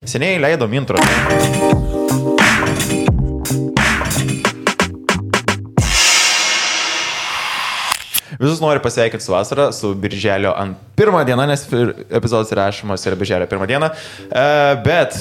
Seniai leidom intro. Visus noriu pasveikinti su vasara, su birželio pirmą dieną, nes epizodas įrašymas yra birželio pirmą dieną. Bet,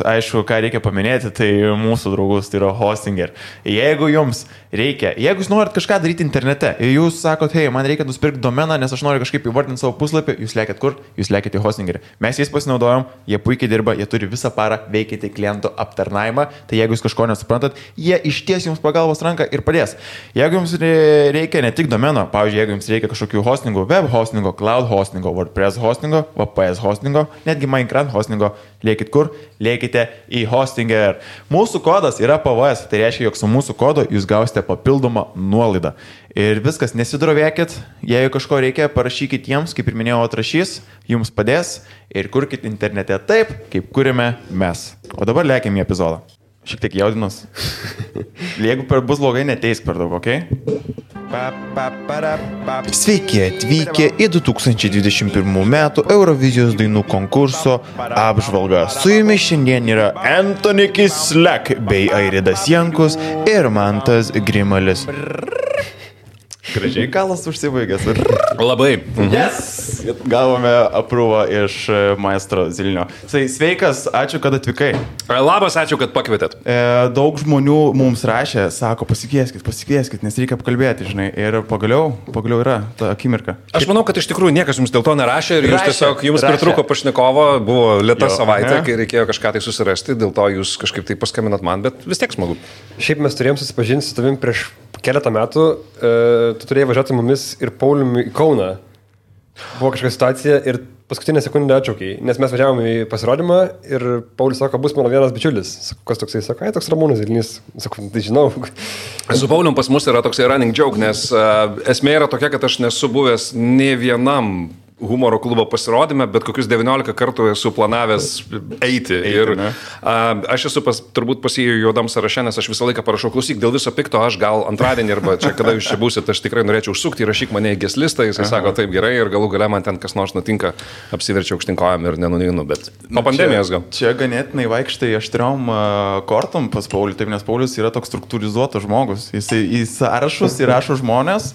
aišku, ką reikia paminėti, tai mūsų draugus, tai yra Hostinger. Jeigu jums reikia, jeigu jūs norit kažką daryti internete ir jūs sakot, hei, man reikia nusipirkti domeną, nes aš noriu kažkaip įvardinti savo puslapį, jūs lėkit kur? Jūs lėkit į Hostingerį. Mes jais pasinaudojom, jie puikiai dirba, jie turi visą parą veikyti klientų aptarnavimą, tai jeigu jūs kažko nesuprantat, jie išties jums pagalbos ranką ir padės. Jeigu jums reikia ne tik domeno, pavyzdžiui, jeigu jums reikia kažkokių hostingų, web hostingo, cloud hostingo, WordPress hostingo, VPS hostingo, netgi Minecraft hostingo, lėkit kur? Lėkite į Hostinger. Mūsų kodas yra PVS, tai reiškia, jog su mūsų kodu jūs gausite papildomą nuolaidą. Ir viskas, nesidrovėkit, jeigu kažko reikia, parašykit jiems, kaip ir minėjau, atrašys, jums padės ir kurkit internete taip, kaip kuriame mes. O dabar lėkime į epizodą. Šiek tiek jaudinus. Jeigu bus blogai, neteisk per daug, okei? Sveiki atvykę į 2021 metų Eurovizijos dainų konkurso apžvalgą. Su jumis šiandien yra Anthony Kislek bei Airidas Jankus ir Mantas Grimalis. Gražiai kalas užsibaigęs. Labai. Yes! Gavome aprūvą iš maestro Zilinio. Sveikas, ačiū, kad atvykai. Labas, ačiū, kad pakvietėt. Daug žmonių mums rašė, sako, pasikvieskit, nes reikia apkalbėti, žinai. Ir pagaliau yra ta akimirka. Aš manau, kad iš tikrųjų niekas jums dėl to nerašė ir jums pritrūko pašnekovo, buvo lėta savaitė, kai reikėjo kažką tai susirasti, dėl to jūs kažkaip tai paskambinat man, bet vis tiek smagu. Šiaip mes turėjom susipažinti su tavim prieš keletą metų, tu turėjai važiuoti mumis ir Pauliumi į Kauną. Buvo kažkokia situacija ir paskutinę sekundę atšaukiai, nes mes važiavom į pasirodymą ir Paulius sako, bus mano vienas bičiulis. Sako, kas toksai? Sako, toks Ramūnas Zilinys. Sako, tai žinau. Su Paulium pas mus yra toksai running joke, nes esmė yra tokia, kad aš nesu buvęs ne vienam humoro klubo pasirodyme, bet kokius 19 kartų esu planavęs eiti. Ir aš esu turbūt pasijų juodam sąraše, nes aš visą laiką parašau, klausyk, dėl viso pikto aš gal antradienį arba čia, kada jūs čia būsit, aš tikrai norėčiau užsukti, rašyk mane į guest listą, jisai sako, taip gerai, ir galų gale man ten kas nors nutinka, apsiverčiau aukštinkojam ir nenuneinu, bet po pandemijos gal. Čia ganėtinai vaikštai aštriom kortom pas Paulių, taip, nes Paulius yra toks struktūrizuotas žmogus, jisai į sąrašus įrašo žmonės.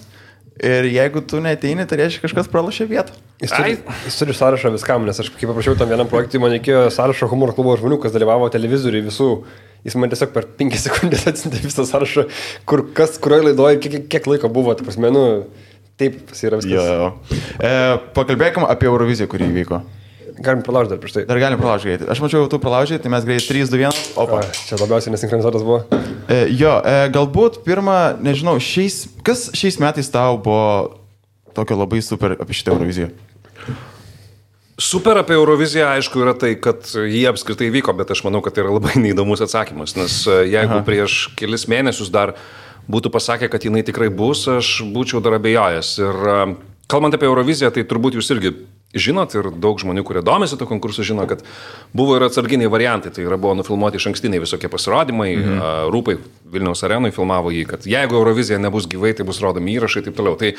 Ir jeigu tu neteini, tai reiškia kažkas pralašė vietą. Jis turi sąrašą viskam, nes aš kaip paprašiau tam vienam projektui, man reikėjo sąrašo humoro klubo žmonių, kas dalyvavo televizoriui visų. Jis man tiesiog per 5 sekundės atsintė visą sąrašą, kurioje laidoje, kiek laiko buvo, tai prasme, taip yra viskas. Pakalbėkime apie Euroviziją, kuri įvyko. Galim pralaužti dar prieš tai. Dar galim pralaužti greitai. Aš mačiau, tu pralaužai, tai mes greitai 3, 2, 1. Opa. Čia labiausiai nesinchronizuotas buvo. Galbūt pirmą, nežinau, kas šiais metais tau buvo tokio labai super apie šitą Euroviziją? Super apie Euroviziją, aišku, yra tai, kad jie apskritai vyko, bet aš manau, kad tai yra labai neįdomus atsakymas, nes jeigu prieš kelis mėnesius dar būtų pasakę, kad jinai tikrai bus, aš būčiau dar abejojęs. Ir kalbant apie Euroviziją, tai turbūt jūs irgi žinot ir daug žmonių, kurie domisi to konkursu, žino, kad buvo ir atsarginiai variantai, tai yra buvo nufilmuoti išankstiniai visokie pasirodymai, Rūpai Vilniaus arenui filmavo jį, kad jeigu Eurovizija nebus gyvai, tai bus rodomi įrašai ir taip toliau. Tai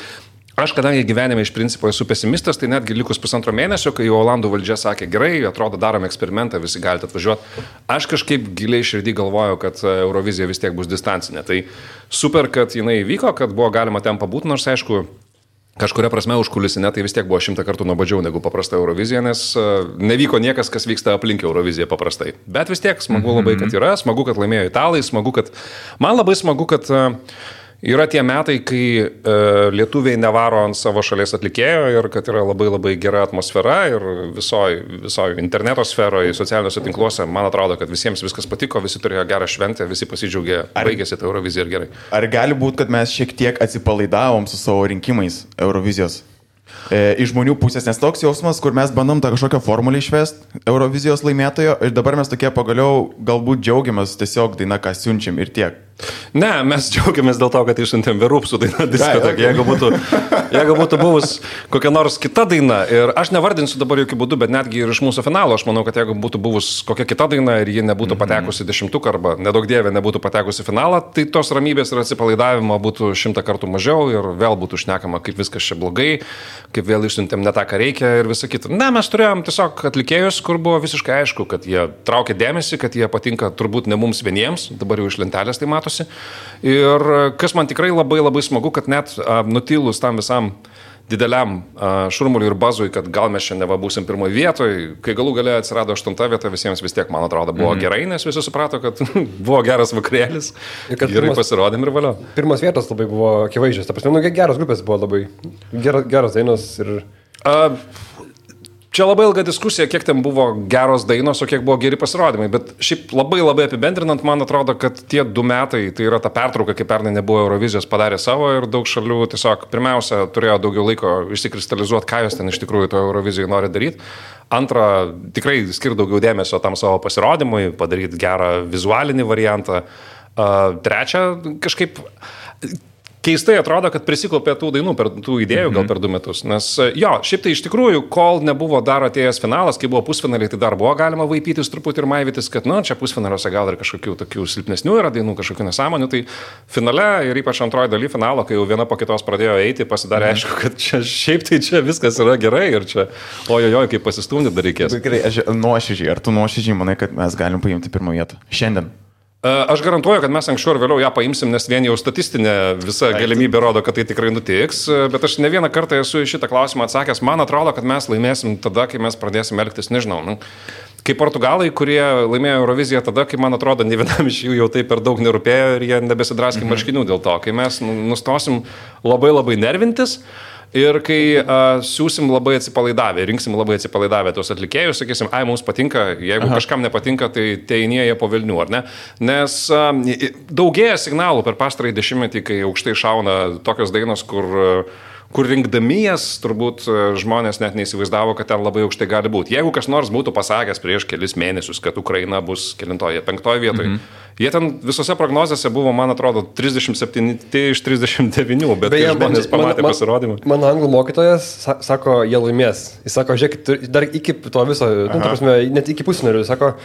aš, kadangi gyvenime iš principo esu pesimistas, tai netgi likus pusantro mėnesio, kai Olandų valdžia sakė, gerai, atrodo, darom eksperimentą, visi galite atvažiuoti, aš kažkaip giliai širdį galvojau, kad Eurovizija vis tiek bus distancinė. Tai super, kad jinai vyko, kad buvo galima ten pabūti, nors aišku, kažkuria prasme užkulisinė, tai vis tiek buvo 100 kartų nuobodžiau negu paprasta Eurovizija, nes nevyko niekas, kas vyksta aplink Euroviziją paprastai. Bet vis tiek smagu labai, kad yra, smagu, kad laimėjo italai, man labai smagu, kad yra tie metai, kai lietuviai nevaro ant savo šalies atlikėjo ir kad yra labai labai gera atmosfera ir visoje interneto sferoje, socialiniuose tinkluose, man atrodo, kad visiems viskas patiko, visi turėjo gerą šventę, visi pasidžiaugė, baigėsi tą Euroviziją ir gerai. Ar gali būti, kad mes šiek tiek atsipalaidavom su savo rinkimais Eurovizijos? Iš žmonių pusės, nes toks jausmas, kur mes bandom tą kažkokią formulę išvesti Eurovizijos laimėtojo ir dabar mes tokie pagaliau galbūt džiaugiamės tiesiog daina, ką siunčiam ir tiek. Ne, mes džiaugiamės dėl to, kad išsiuntėm Verupsų dainą diskoteka. Jeigu būtų buvus kokia nors kita daina, ir aš nevardinsiu dabar jokių būdų, bet netgi ir iš mūsų finalo, aš manau, kad jeigu būtų buvus kokia kita daina ir ji nebūtų patekusi 10 arba nedaug dievė nebūtų patekusi finalą, tai tos ramybės ir atsipalaidavimo būtų 100 kartų mažiau ir vėl būtų šnekama, kaip viskas čia blogai, kaip vėl išsiuntėm ne tą, ką reikia ir visa kita. Ne, mes turėjom tiesiog atlikėjus, kur buvo visiškai aišku, kad jie traukia dėmesį, kad jie patinka turbūt ne mums vieniems, dabar jau iš lentelės tai matosi. Ir kas man tikrai labai labai smagu, kad net nutilus tam visam dideliam šurmuliui ir bazui, kad gal mes šiandien būsim pirmoje vietoje, kai galų gale atsirado 8 vieta, visiems vis tiek, man atrodo, buvo gerai, nes visi suprato, kad buvo geras vakarėlis, gerai pasirodėm ir valio. Pirmas vietos labai buvo akivaizdžios, ta prasme, geros grupės buvo labai, geros dainos ir... Čia labai ilga diskusija, kiek ten buvo geros dainos, o kiek buvo geri pasirodymai, bet šiaip labai labai apibendrinant, man atrodo, kad tie 2 metai, tai yra ta pertrauka, kai pernai nebuvo Eurovizijos, padarė savo ir daug šalių tiesiog pirmiausia turėjo daugiau laiko išsikristalizuoti, ką jos ten iš tikrųjų to Eurovizijoje nori daryti. Antra, tikrai skirti daugiau dėmesio tam savo pasirodymui, padaryti gerą vizualinį variantą. Trečia, kažkaip... Keistai atrodo, kad prisiklaupė tų dainų, tų idėjų gal per 2 metus, nes jo, šiaip tai iš tikrųjų, kol nebuvo dar atėjęs finalas, kai buvo pusfinaliai, tai dar buvo galima vaipytis truputį ir maivytis, kad, čia pusfinaliuose gal ir kažkokių tokių silpnesnių yra dainų, kažkokių nesąmonių, tai finale ir ypač antroji daly finalo, kai jau viena po kitos pradėjo eiti, pasidarė aišku, kad čia šiaip tai čia viskas yra gerai ir čia, ojojoj, kaip pasistumdyti dar reikės. Gerai, nuoširdžiai, ar tu nuoširdžiai manai, kad mes galim paimti pirmą vietą šiandien? Aš garantuoju, kad mes anksčiau ir vėliau ją paimsim, nes vien jau statistinė visa galimybė rodo, kad tai tikrai nutiks, bet aš ne vieną kartą esu į šitą klausimą atsakęs, man atrodo, kad mes laimėsim tada, kai mes pradėsim elgtis, nežinau, kaip portugalai, kurie laimėjo Euroviziją tada, kai man atrodo, ne vienam iš jų jau tai per daug nerūpėjo ir jie nebesidraskė marškinių dėl to, kai mes nustosim labai labai nervintis. Ir kai siūsim labai atsipalaidavę, rinksim labai atsipalaidavę tos atlikėjus, sakysim, mums patinka, jeigu kažkam nepatinka, tai teinieja po velnių, ar ne? Nes daugėja signalų per pastarąjį 10-metį, kai aukštai šauna tokios dainos, kur rinkdami jas, turbūt žmonės net neįsivaizdavo, kad ten labai aukštai gali būti. Jeigu kas nors būtų pasakęs prieš kelis mėnesius, kad Ukraina bus kelintoje, 5 vietoje, jie ten visose prognozėse buvo, man atrodo, 37 iš 39, bet kai žmonės pamatė pasirodymą. Mano anglų mokytojas sako, jie laimės. Jis sako, žiūrėkit, dar iki to viso, net iki pusfinalių, sako,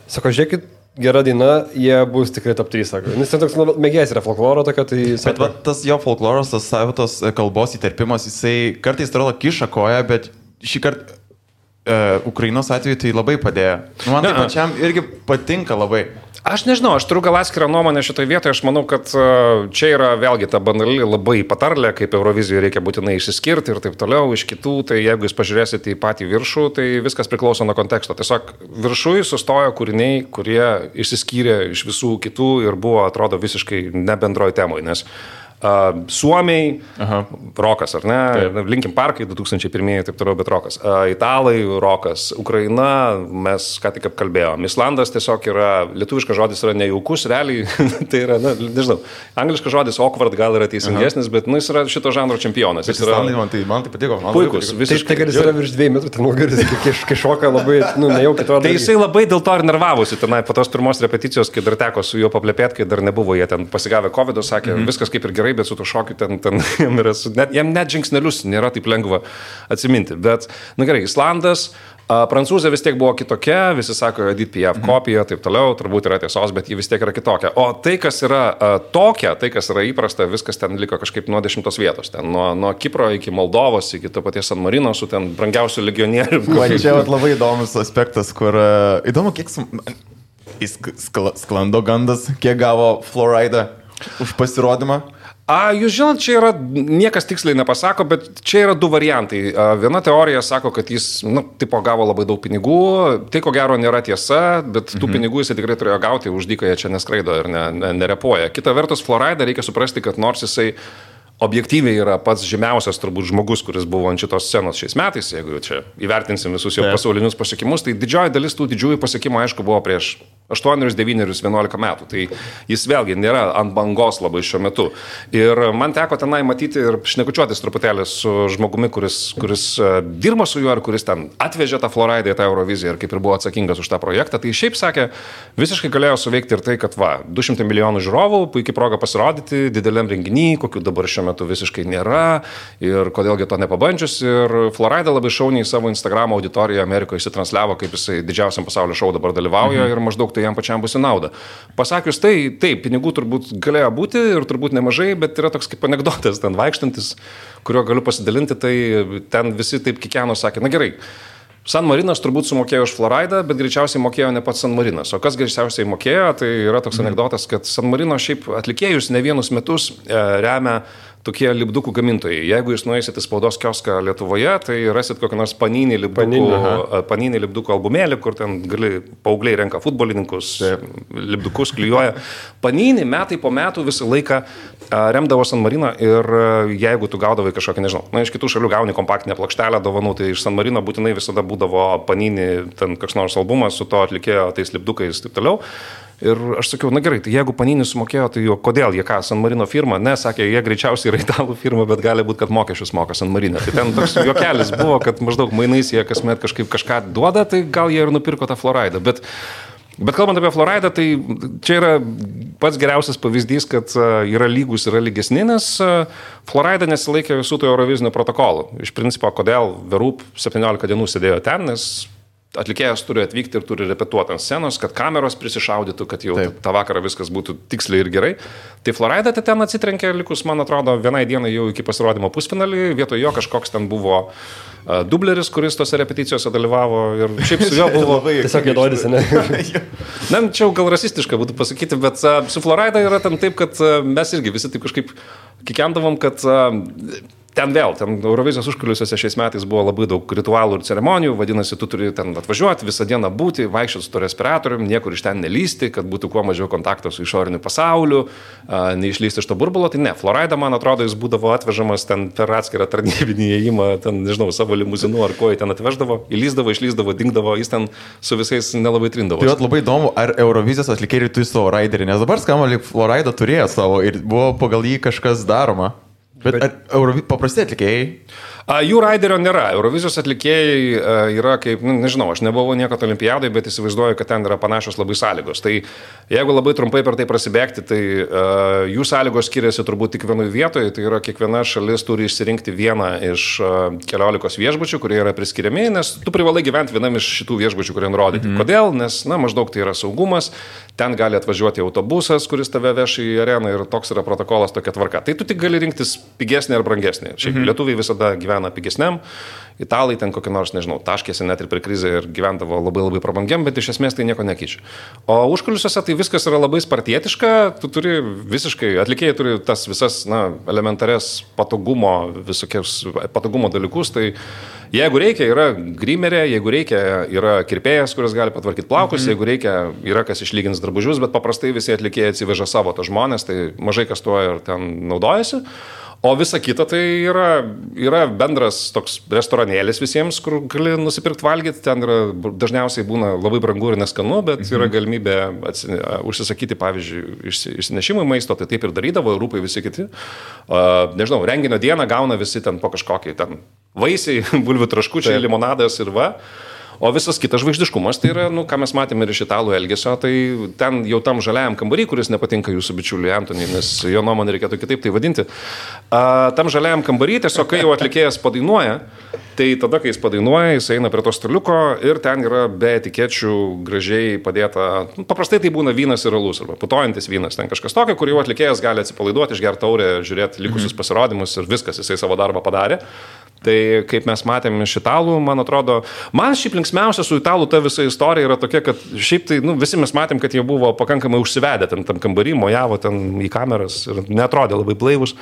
žiūrėkit, gera daina, jie bus tikrai top 3, sako. Nes ten toks mėgėjas yra folkloro tokia, tai... Bet tas jo folkloras, tas savitos kalbos įterpimas, jisai kartais atrodo kiša koją, bet šį kartą Ukrainos atveju tai labai padėjo. Man tai pačiam irgi patinka labai. Aš nežinau, aš turiu gal atskirą nuomonę šitoje vietoje, aš manau, kad čia yra vėlgi ta banali labai patarlė, kaip Eurovizijoje reikia būtinai išsiskirti ir taip toliau iš kitų, tai jeigu jūs pažiūrėsite į patį viršų, tai viskas priklauso nuo konteksto. Tiesiog viršui sustojo kūriniai, kurie išsiskyrė iš visų kitų ir buvo, atrodo, visiškai ne bendroj temoj, nes Suomiai, rokas, ar ne? Taip. Linkin Parkai 2001, taip toliau, bet rokas. Italai, rokas. Ukraina, mes ką tik apkalbėjom. Islandas tiesiog yra, lietuviškas žodis yra nejaukus, realiai, tai yra, nežinau, angliškas žodis awkward gal yra teisingesnis, bet jis yra šito žanro čempionas. Bet Islandai man tai patiko. Puikus, visiškai. Tai, kad jis yra virš 2 metrų, ten nugaris, kai šoka labai, nejaukiai atrodo. Tai jisai labai dėl to ir nervavosi tenai po tos pirmos repeticijos, kai dar teko su juo paplepėti, kai dar nebuvo, jie ten pasigavę COVID, sakė, viskas kaip ir gerai, bet su to šokiu ten jam net žingsnelius nėra taip lengva atsiminti. Bet, gerai, Islandas, Prancūzija vis tiek buvo kitokia, visi sako, Edith Piaf kopija, taip toliau, turbūt yra tiesos, bet ji vis tiek yra kitokia. O tai, kas yra tokia, tai, kas yra įprasta, viskas ten liko kažkaip nuo 10 vietos. Ten nuo Kipro iki Moldovos, iki to paties San Marino, su ten brangiausių legionierių. Čia labai įdomus aspektas, kur įdomu, kiek sklando gandas, kiek gavo Florida už pasirodymą. Jūs žinot, čia yra, niekas tiksliai nepasako, bet čia yra 2 variantai. Viena teorija sako, kad jis, tipo, gavo labai daug pinigų, tai ko gero nėra tiesa, bet tų pinigų jisai tikrai turėjo gauti, už dyką jie čia neskraido ir nerepuoja. Kita vertus, Florida reikia suprasti, kad nors jisai objektyviai yra pats žymiausias turbūt žmogus, kuris buvo ant šitos scenos šiais metais, jeigu čia įvertinsim visus jo pasaulinius pasiekimus, tai didžioji dalis tų didžiųjų pasiekimų, aišku, buvo prieš 8, 9, 11 metų. Tai jis vėlgi nėra ant bangos labai šiuo metu. Ir man teko tenai matyti ir šnekučiuotis truputėlį su žmogumi, kuris dirba su juo ir kuris ten atvežė tą Floridą į tą Euroviziją ir kaip ir buvo atsakingas už tą projektą. Tai šiaip sakė, visiškai galėjo suveikti ir tai, kad 200 milijonų žiūrovų, puikiai proga pasirodyti dideliam renginy, kokių dabar šiuo metu visiškai nėra ir kodėlgi to nepabandžius. Ir Florida labai šauniai savo Instagram auditoriją Amerikoje įsitransliavo, kaip jisai didžiausiam pasaulio šou dabar dalyvauja ir maždaug tai jam pačiam bus į naudą. Pasakius tai, taip, pinigų turbūt galėjo būti ir turbūt nemažai, bet yra toks kaip anekdotas ten vaikštantis, kuriuo galiu pasidalinti, tai ten visi taip kikeno sakė, na gerai, San Marinas turbūt sumokėjo už Floridą, bet greičiausiai mokėjo ne pats San Marinas. O kas greičiausiai mokėjo, tai yra toks anekdotas, kad San Marino šiaip atlikėjus ne vienus metus remia tokie lipdukų gamintojai. Jeigu jūs nueisit į spaudos kioską Lietuvoje, tai rasit kokį nors Panini lipdukų albumėlį, kur ten paaugliai renka futbolininkus, lipdukus klijuoja. Panini metai po metų visą laiką remdavo San Mariną ir jeigu tu gaudavai kažkokią, nežinau, iš kitų šalių gauni kompaktinę plokštelę dovanų, tai iš San Marino būtinai visada būdavo Panini ten koks nors albumas su to atlikėjo tais lipdukais ir taip toliau. Ir aš sakiau, na gerai, tai jeigu Panini sumokėjo, tai jo, kodėl jie ką, San Marino firma? Ne, sakė, jie greičiausiai yra italų firma, bet gali būti, kad mokesčius moka San Marino. Tai ten toks juokelis buvo, kad maždaug mainais jie kasmet kažką duoda, tai gal jie ir nupirko tą Floridą. Bet kalbant apie Floridą, tai čia yra pats geriausias pavyzdys, kad yra lygus, yra lygesni, nes Florida nesilaikė visų tų Eurovizinių protokolų. Iš principo, kodėl Verup 17 dienų sėdėjo ten, nes atlikėjas turi atvykti ir turi repetuoti ant scenos, kad kameros prisišaudytų, kad jau tą vakarą viskas būtų tiksliai ir gerai. Tai Florida ten atsitrenkė likus, man atrodo, vienai dienai jau iki pasirodymo pusfinalį, vietoj jo kažkoks ten buvo dubleris, kuris tose repeticijose dalyvavo ir šiaip su juo buvo... Tiesiog jėdodis, ne? Na, čia jau gal rasistiška būtų pasakyti, bet su Florida yra ten taip, kad mes irgi visi taip kažkaip kikendavom, kad... Ten Eurovizijos užkulisiuose šiais metais buvo labai daug ritualų ir ceremonijų, vadinasi, tu turi ten atvažiuoti, visą dieną būti, vaikščioti su to respiratorium, niekur iš ten nelysti, kad būtų kuo mažiau kontakto su išoriniu pasauliu, neišlysti iš to burbulo. Tai ne, Florida, man atrodo, jis būdavo atvežamas ten per atskirą tarnybinį įėjimą, ten, nežinau, savo limuzinu ar ko jį ten atveždavo, įlysdavo, išlysdavo, dingdavo, jis ten su visais nelabai trindavo. Tai labai įdomu, ar Eurovizijos atlikėjai turi savo raiderį, nes dabar skamba, lyg Florida turėjo savo ir buvo pagal jį kažkas daroma. Bet paprasti atlikėjai? Jų raiderio nėra. Eurovizijos atlikėjai yra kaip, nežinau, aš nebuvau niekad olimpiadai, bet įsivaizduoju, kad ten yra panašios labai sąlygos. Tai jeigu labai trumpai per tai prasibėgti, tai jų sąlygos skiriasi turbūt tik vienoje vietoje. Tai yra kiekviena šalis turi išsirinkti vieną iš 14 viešbučių, kurie yra priskiriami, nes tu privalai gyventi vienam iš šitų viešbučių, kurie nurodyti. Kodėl? Nes, maždaug tai yra saugumas. Ten gali atvažiuoti autobusas, kuris tave veš į areną ir toks yra protokolas, tokia tvarka. Tai tu tik gali rinktis pigesnį ar brangesnį. Šiaip lietuviai visada gyvena pigesniam, italai ten kokį nors, nežinau, taškėsi net ir per krizę ir gyvendavo labai labai prabangiam, bet iš esmės tai nieko nekeičia. O užkulisiuose tai viskas yra labai spartietiška, tu turi visiškai, atlikėjai turi tas visas, elementares visokius patogumo dalykus, tai jeigu reikia, yra grimerė, jeigu reikia, yra kirpėjas, kuris gali patvarkyti plaukus, jeigu reikia, yra kas išlygins drabužius, bet paprastai visi atlikėjai atsiveža savo tą žmonės, tai mažai kas tuo ir ten naudojasi. O visa kita tai yra bendras toks restoranėlis visiems, kur gali nusipirkti valgyti, ten dažniausiai būna labai brangu ir neskanu, bet yra galimybė užsisakyti, pavyzdžiui, išsinešimui maisto, tai taip ir darydavo, rūpai visi kiti. Nežinau, renginio dieną gauna visi ten po kažkokį ten vaisiai, bulvių traškučiai, limonadas ir va. O visas kitas žvaigždiškumas, tai yra, ką mes matėme ir iš italų elgesio, tai ten jau tam žaliajam kambarį, kuris nepatinka jūsų bičiuliui Antoniui, nes jo nuomonė reikėtų kitaip tai vadinti. Tam žaliajam kambarį, tiesiog kai jau atlikėjas padainuoja, tai tada, kai jis padainuoja, jis eina prie to staliuko ir ten yra be etikečių gražiai padėta, paprastai tai būna vynas ir alus, arba putojantis vynas, ten kažkas tokio, kur jau atlikėjas gali atsipalaiduoti, išgerti taurę, žiūrėti likusius pasirodymus ir viskas, jisai savo darbą padarė. Tai kaip mes matėme iš italų, man atrodo, man šiaip linksmiausia su italų ta visa istorija yra tokia, kad šiaip tai, visi mes matėm, kad jie buvo pakankamai užsivedę ten tam kambarį, mojavo ten į kameras ir neatrodė labai blaivus.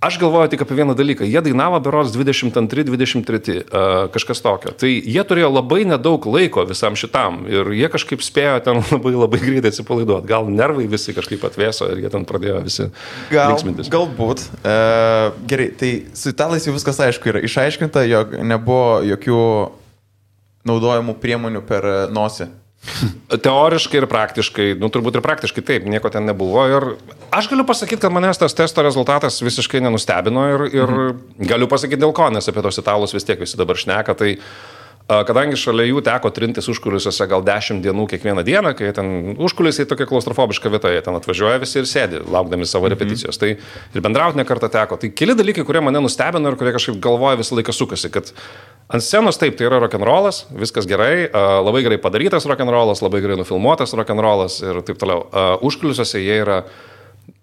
Aš galvoju tik apie vieną dalyką. Jie dainavo berods 22-23, kažkas tokio. Tai jie turėjo labai nedaug laiko visam šitam ir jie kažkaip spėjo ten labai greitai atsipalaiduoti. Gal nervai visi kažkaip atvėso ir jie ten pradėjo visi linksmintis. Galbūt. Gerai, tai su italais jau viskas aišku yra išaiškinta, jog nebuvo jokių naudojimų priemonių per nosį. Teoriškai ir praktiškai, turbūt ir praktiškai taip, nieko ten nebuvo. Ir aš galiu pasakyti, kad manęs tas testo rezultatas visiškai nenustebino ir galiu pasakyti dėl ko, nes apie tos italus vis tiek visi dabar šneka. Tai kadangi šalia jų teko trintis užkulisiuose gal 10 dienų kiekvieną dieną, kai ten užkulisiai tokia klaustrofobiška vieta, jie ten atvažiuoja visi ir sėdi, laukdami savo repeticijos. Tai ir bendrauti ne kartą teko. Tai keli dalykai, kurie mane nustebino ir kurie kažkaip galvoja visą laiką sukasi, kad ant scenos taip, tai yra rock'n'rollas, viskas gerai, labai gerai padarytas rock'n'rollas, labai gerai nufilmuotas rock'n'rollas ir taip toliau. Užkulisiuose jie yra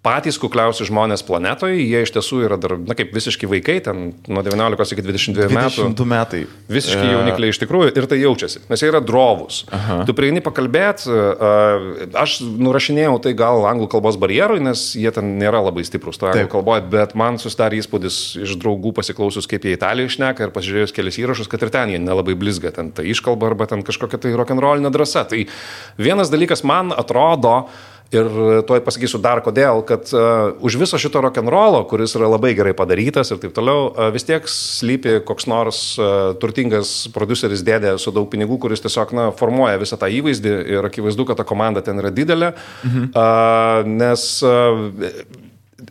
patys kukliausi žmonės planetoje, jie iš tiesų yra dar, kaip visiškai vaikai, ten nuo 19 iki 22 metų. 22 metai. Visiškai jaunikliai iš tikrųjų ir tai jaučiasi, nes jie yra drovūs. Tu prieini pakalbėti, aš nurašinėjau tai gal anglų kalbos barjerui, nes jie ten nėra labai stiprus to anglų kalboje, bet man susidarė įspūdis iš draugų pasiklausus, kaip jie Italijoje šneka ir pasižiūrėjus kelis įrašus, kad ir ten jie nelabai blizga, ten ta iškalba arba ten kažkokia tai rock'n'rollinė drąsa. Tai vienas dalykas man atrodo, ir tuoj pasakysiu dar kodėl, kad už viso šito rock'n'rollo, kuris yra labai gerai padarytas ir taip toliau, vis tiek slypi koks nors turtingas prodiuseris dėdė su daug pinigų, kuris tiesiog formuoja visą tą įvaizdį ir akivaizdu, kad ta komanda ten yra didelė, nes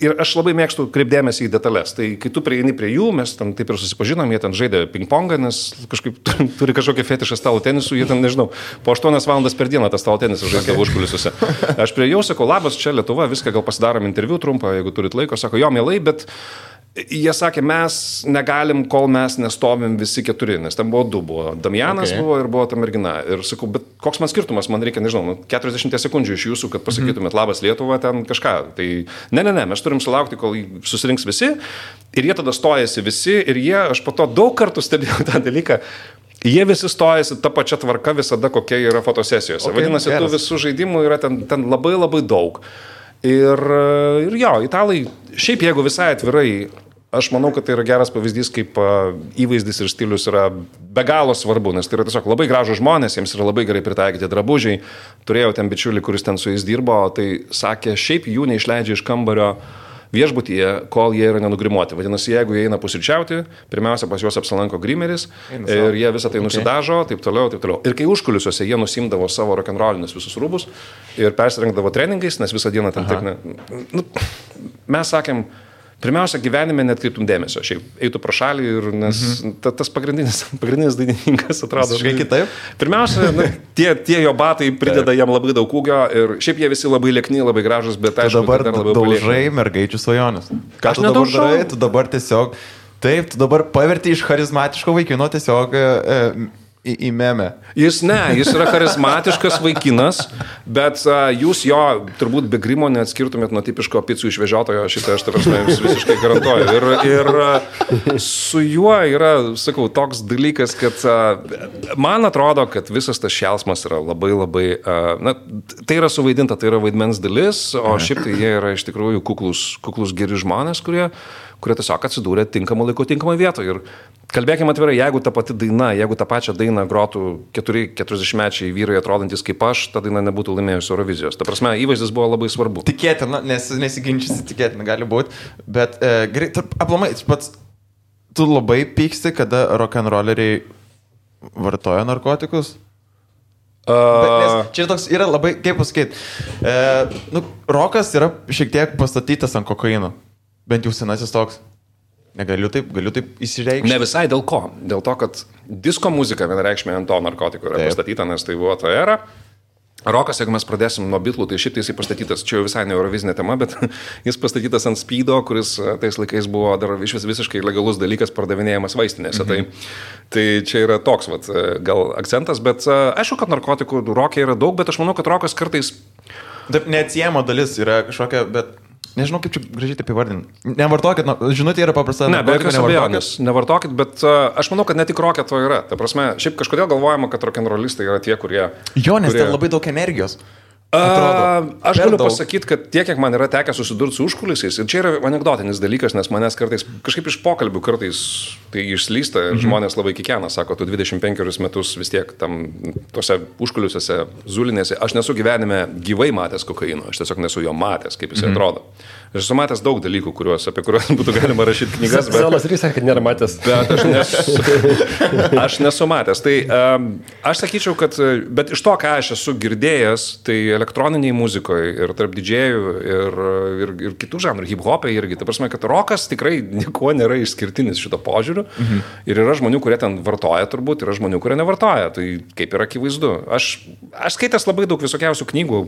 ir aš labai mėgstu kreipdėmėsi į detalės. Tai kai tu prieini prie jų, mes ten taip ir susipažinom, jie ten žaidė ping-pongą, nes kažkaip turi kažkokią fetišą stalo tenisų, jie ten, nežinau, po 8 valandas per dieną tą stalo tenisą žaidė užkulisiuose. Aš prie jau sakau, labas, čia Lietuva, viską gal pasidarom interviu trumpą, jeigu turit laiko, sako, jo, mielai, bet jie sakė, mes negalim, kol mes nestovim visi 4, nes ten buvo 2, buvo Damianas buvo ir buvo ta mergina. Ir sakau, bet koks man skirtumas, man reikia, nežinau, 40 sekundžių iš jūsų, kad pasakytumėt labas Lietuva, ten kažką. Tai ne, mes turim sulaukti, kol susirinks visi ir jie tada stojasi visi ir jie, aš po to daug kartų stebėjau tą dalyką, jie visi stojasi tą pačią tvarką visada, kokia yra fotosesijose. Vadinasi, tų visų žaidimų yra ten labai labai daug. Ir jo, italai, šiaip jeigu visai atvirai, aš manau, kad tai yra geras pavyzdys, kaip įvaizdis ir stilius yra be galo svarbu, nes tai yra tiesiog labai gražų žmonės, jiems yra labai gerai pritaikyti drabužiai. Turėjau ten bičiulį, kuris ten su jais dirbo, tai sakė, šiaip jų neišleidžia iš kambario viešbutyje, kol jie yra nenugrimuoti. Vadinasi, jeigu jie eina pusryčiauti, pirmiausia pas juos apsilanko grimeris ir jie visą tai nusidažo, taip toliau, taip toliau. Ir kai užkulisiuose jie nusimdavo savo rock'n'rollinius visus rūbus ir persirengdavo treningais, nes visą dieną ten taip, mes sakėm, pirmiausia, gyvenime netkreiptum dėmesio, šiaip eitų pro šalį ir nes tas pagrindinis dainininkas atrodo kitaip. Pirmiausia, tie jo batai prideda jam labai daug ūgio ir šiaip jie visi labai liekni, labai gražus, bet aišku, dabar dar labiau daužai mergaičių svajonės. Ką tu dabar darai? Tu dabar tiesiog, taip, tu dabar paverti iš charizmatiško vaikino tiesiog į memę. Jis yra charizmatiškas vaikinas, bet jūs jo turbūt be grimo neatskirtumėt nuo tipiško picų išvežiotojo, šitą aš jums visiškai garantuoju. Ir su juo yra, sakau, toks dalykas, kad man atrodo, kad visas tas šėlsmas yra labai labai, tai yra suvaidinta, tai yra vaidmens dalis, o šiaip tai jie yra iš tikrųjų kuklus geri žmonės, kurie tiesiog atsidūrė tinkamą laiku, tinkamą vietą. Ir kalbėkime atvirai, jeigu ta pati daina, jeigu tą pačią dainą grotų 40-mečiai vyrai atrodantis kaip aš, ta daina nebūtų laimėjusi Eurovizijos. Ta prasme, įvaizdis buvo labai svarbu. Tikėtina, nesiginčysi, tikėtina gali būti, bet aplamai, pats tu labai pyksti, kada rock'n'rolleriai vartoja narkotikus? Bet čia toks yra labai, kaip pasakyti, rokas yra šiek tiek pastatytas ant kokaino. Bent jau senasis toks. Galiu taip įsireikšti. Ne visai dėl ko. Dėl to, kad disko muzika vienareikšmiai ant to narkotikų yra pastatyta, nes tai buvo ta era. Rokas, jeigu mes pradėsim nuo Beatlų, tai šiaip jisai pastatytas, čia jau visai ne eurovizinė tema, bet jis pastatytas ant speedo, kuris tais laikais buvo dar visiškai legalus dalykas pardavinėjamas vaistinėse. Tai čia yra toks gal akcentas, bet aišku, kad narkotikų roke yra daug, bet aš manau, kad rokas kartais... Taip, neatsiejama dalis yra kažkokia, bet... Nežinau, kaip čia gražiai taip įvardinti. Nevartokit, žinutė yra paprasta. Ne, be jokios abejonės, nevartokit, bet aš manau, kad ne tik rokė to yra. Ta prasme, šiaip kažkodėl galvojama, kad rock'n'rollistai yra tie, kurie... Jo, nes ten labai daug energijos. Aš galiu pasakyti, kad tiek, kiek man yra tekę susidurti su užkulisiais, ir čia yra anekdotinis dalykas, nes manęs kartais, kažkaip iš pokalbių kartais tai išslysta ir žmonės labai kikena, sako, tu 25 metus vis tiek tam tose užkulisiuose, zulinėse, aš nesu gyvenime gyvai matęs kokaino, aš tiesiog nesu jo matęs, kaip jis atrodo. Aš esu matęs daug dalykų, apie kuriuos būtų galima rašyti knygas, bet... Selas Rys, kad nėra matęs. Bet aš nesu matęs. Tai aš sakyčiau, kad, bet iš to, ką aš esu girdėjęs, tai elektroniniai muzikoje ir tarp didžėjų ir kitų žanrų, hip-hopai irgi. Tai prasme, kad rokas tikrai nieko nėra išskirtinis šito požiūriu. Ir yra žmonių, kurie ten vartoja turbūt, yra žmonių, kurie nevartoja. Tai kaip yra akivaizdu. Aš skaitęs labai daug visokiausių knygų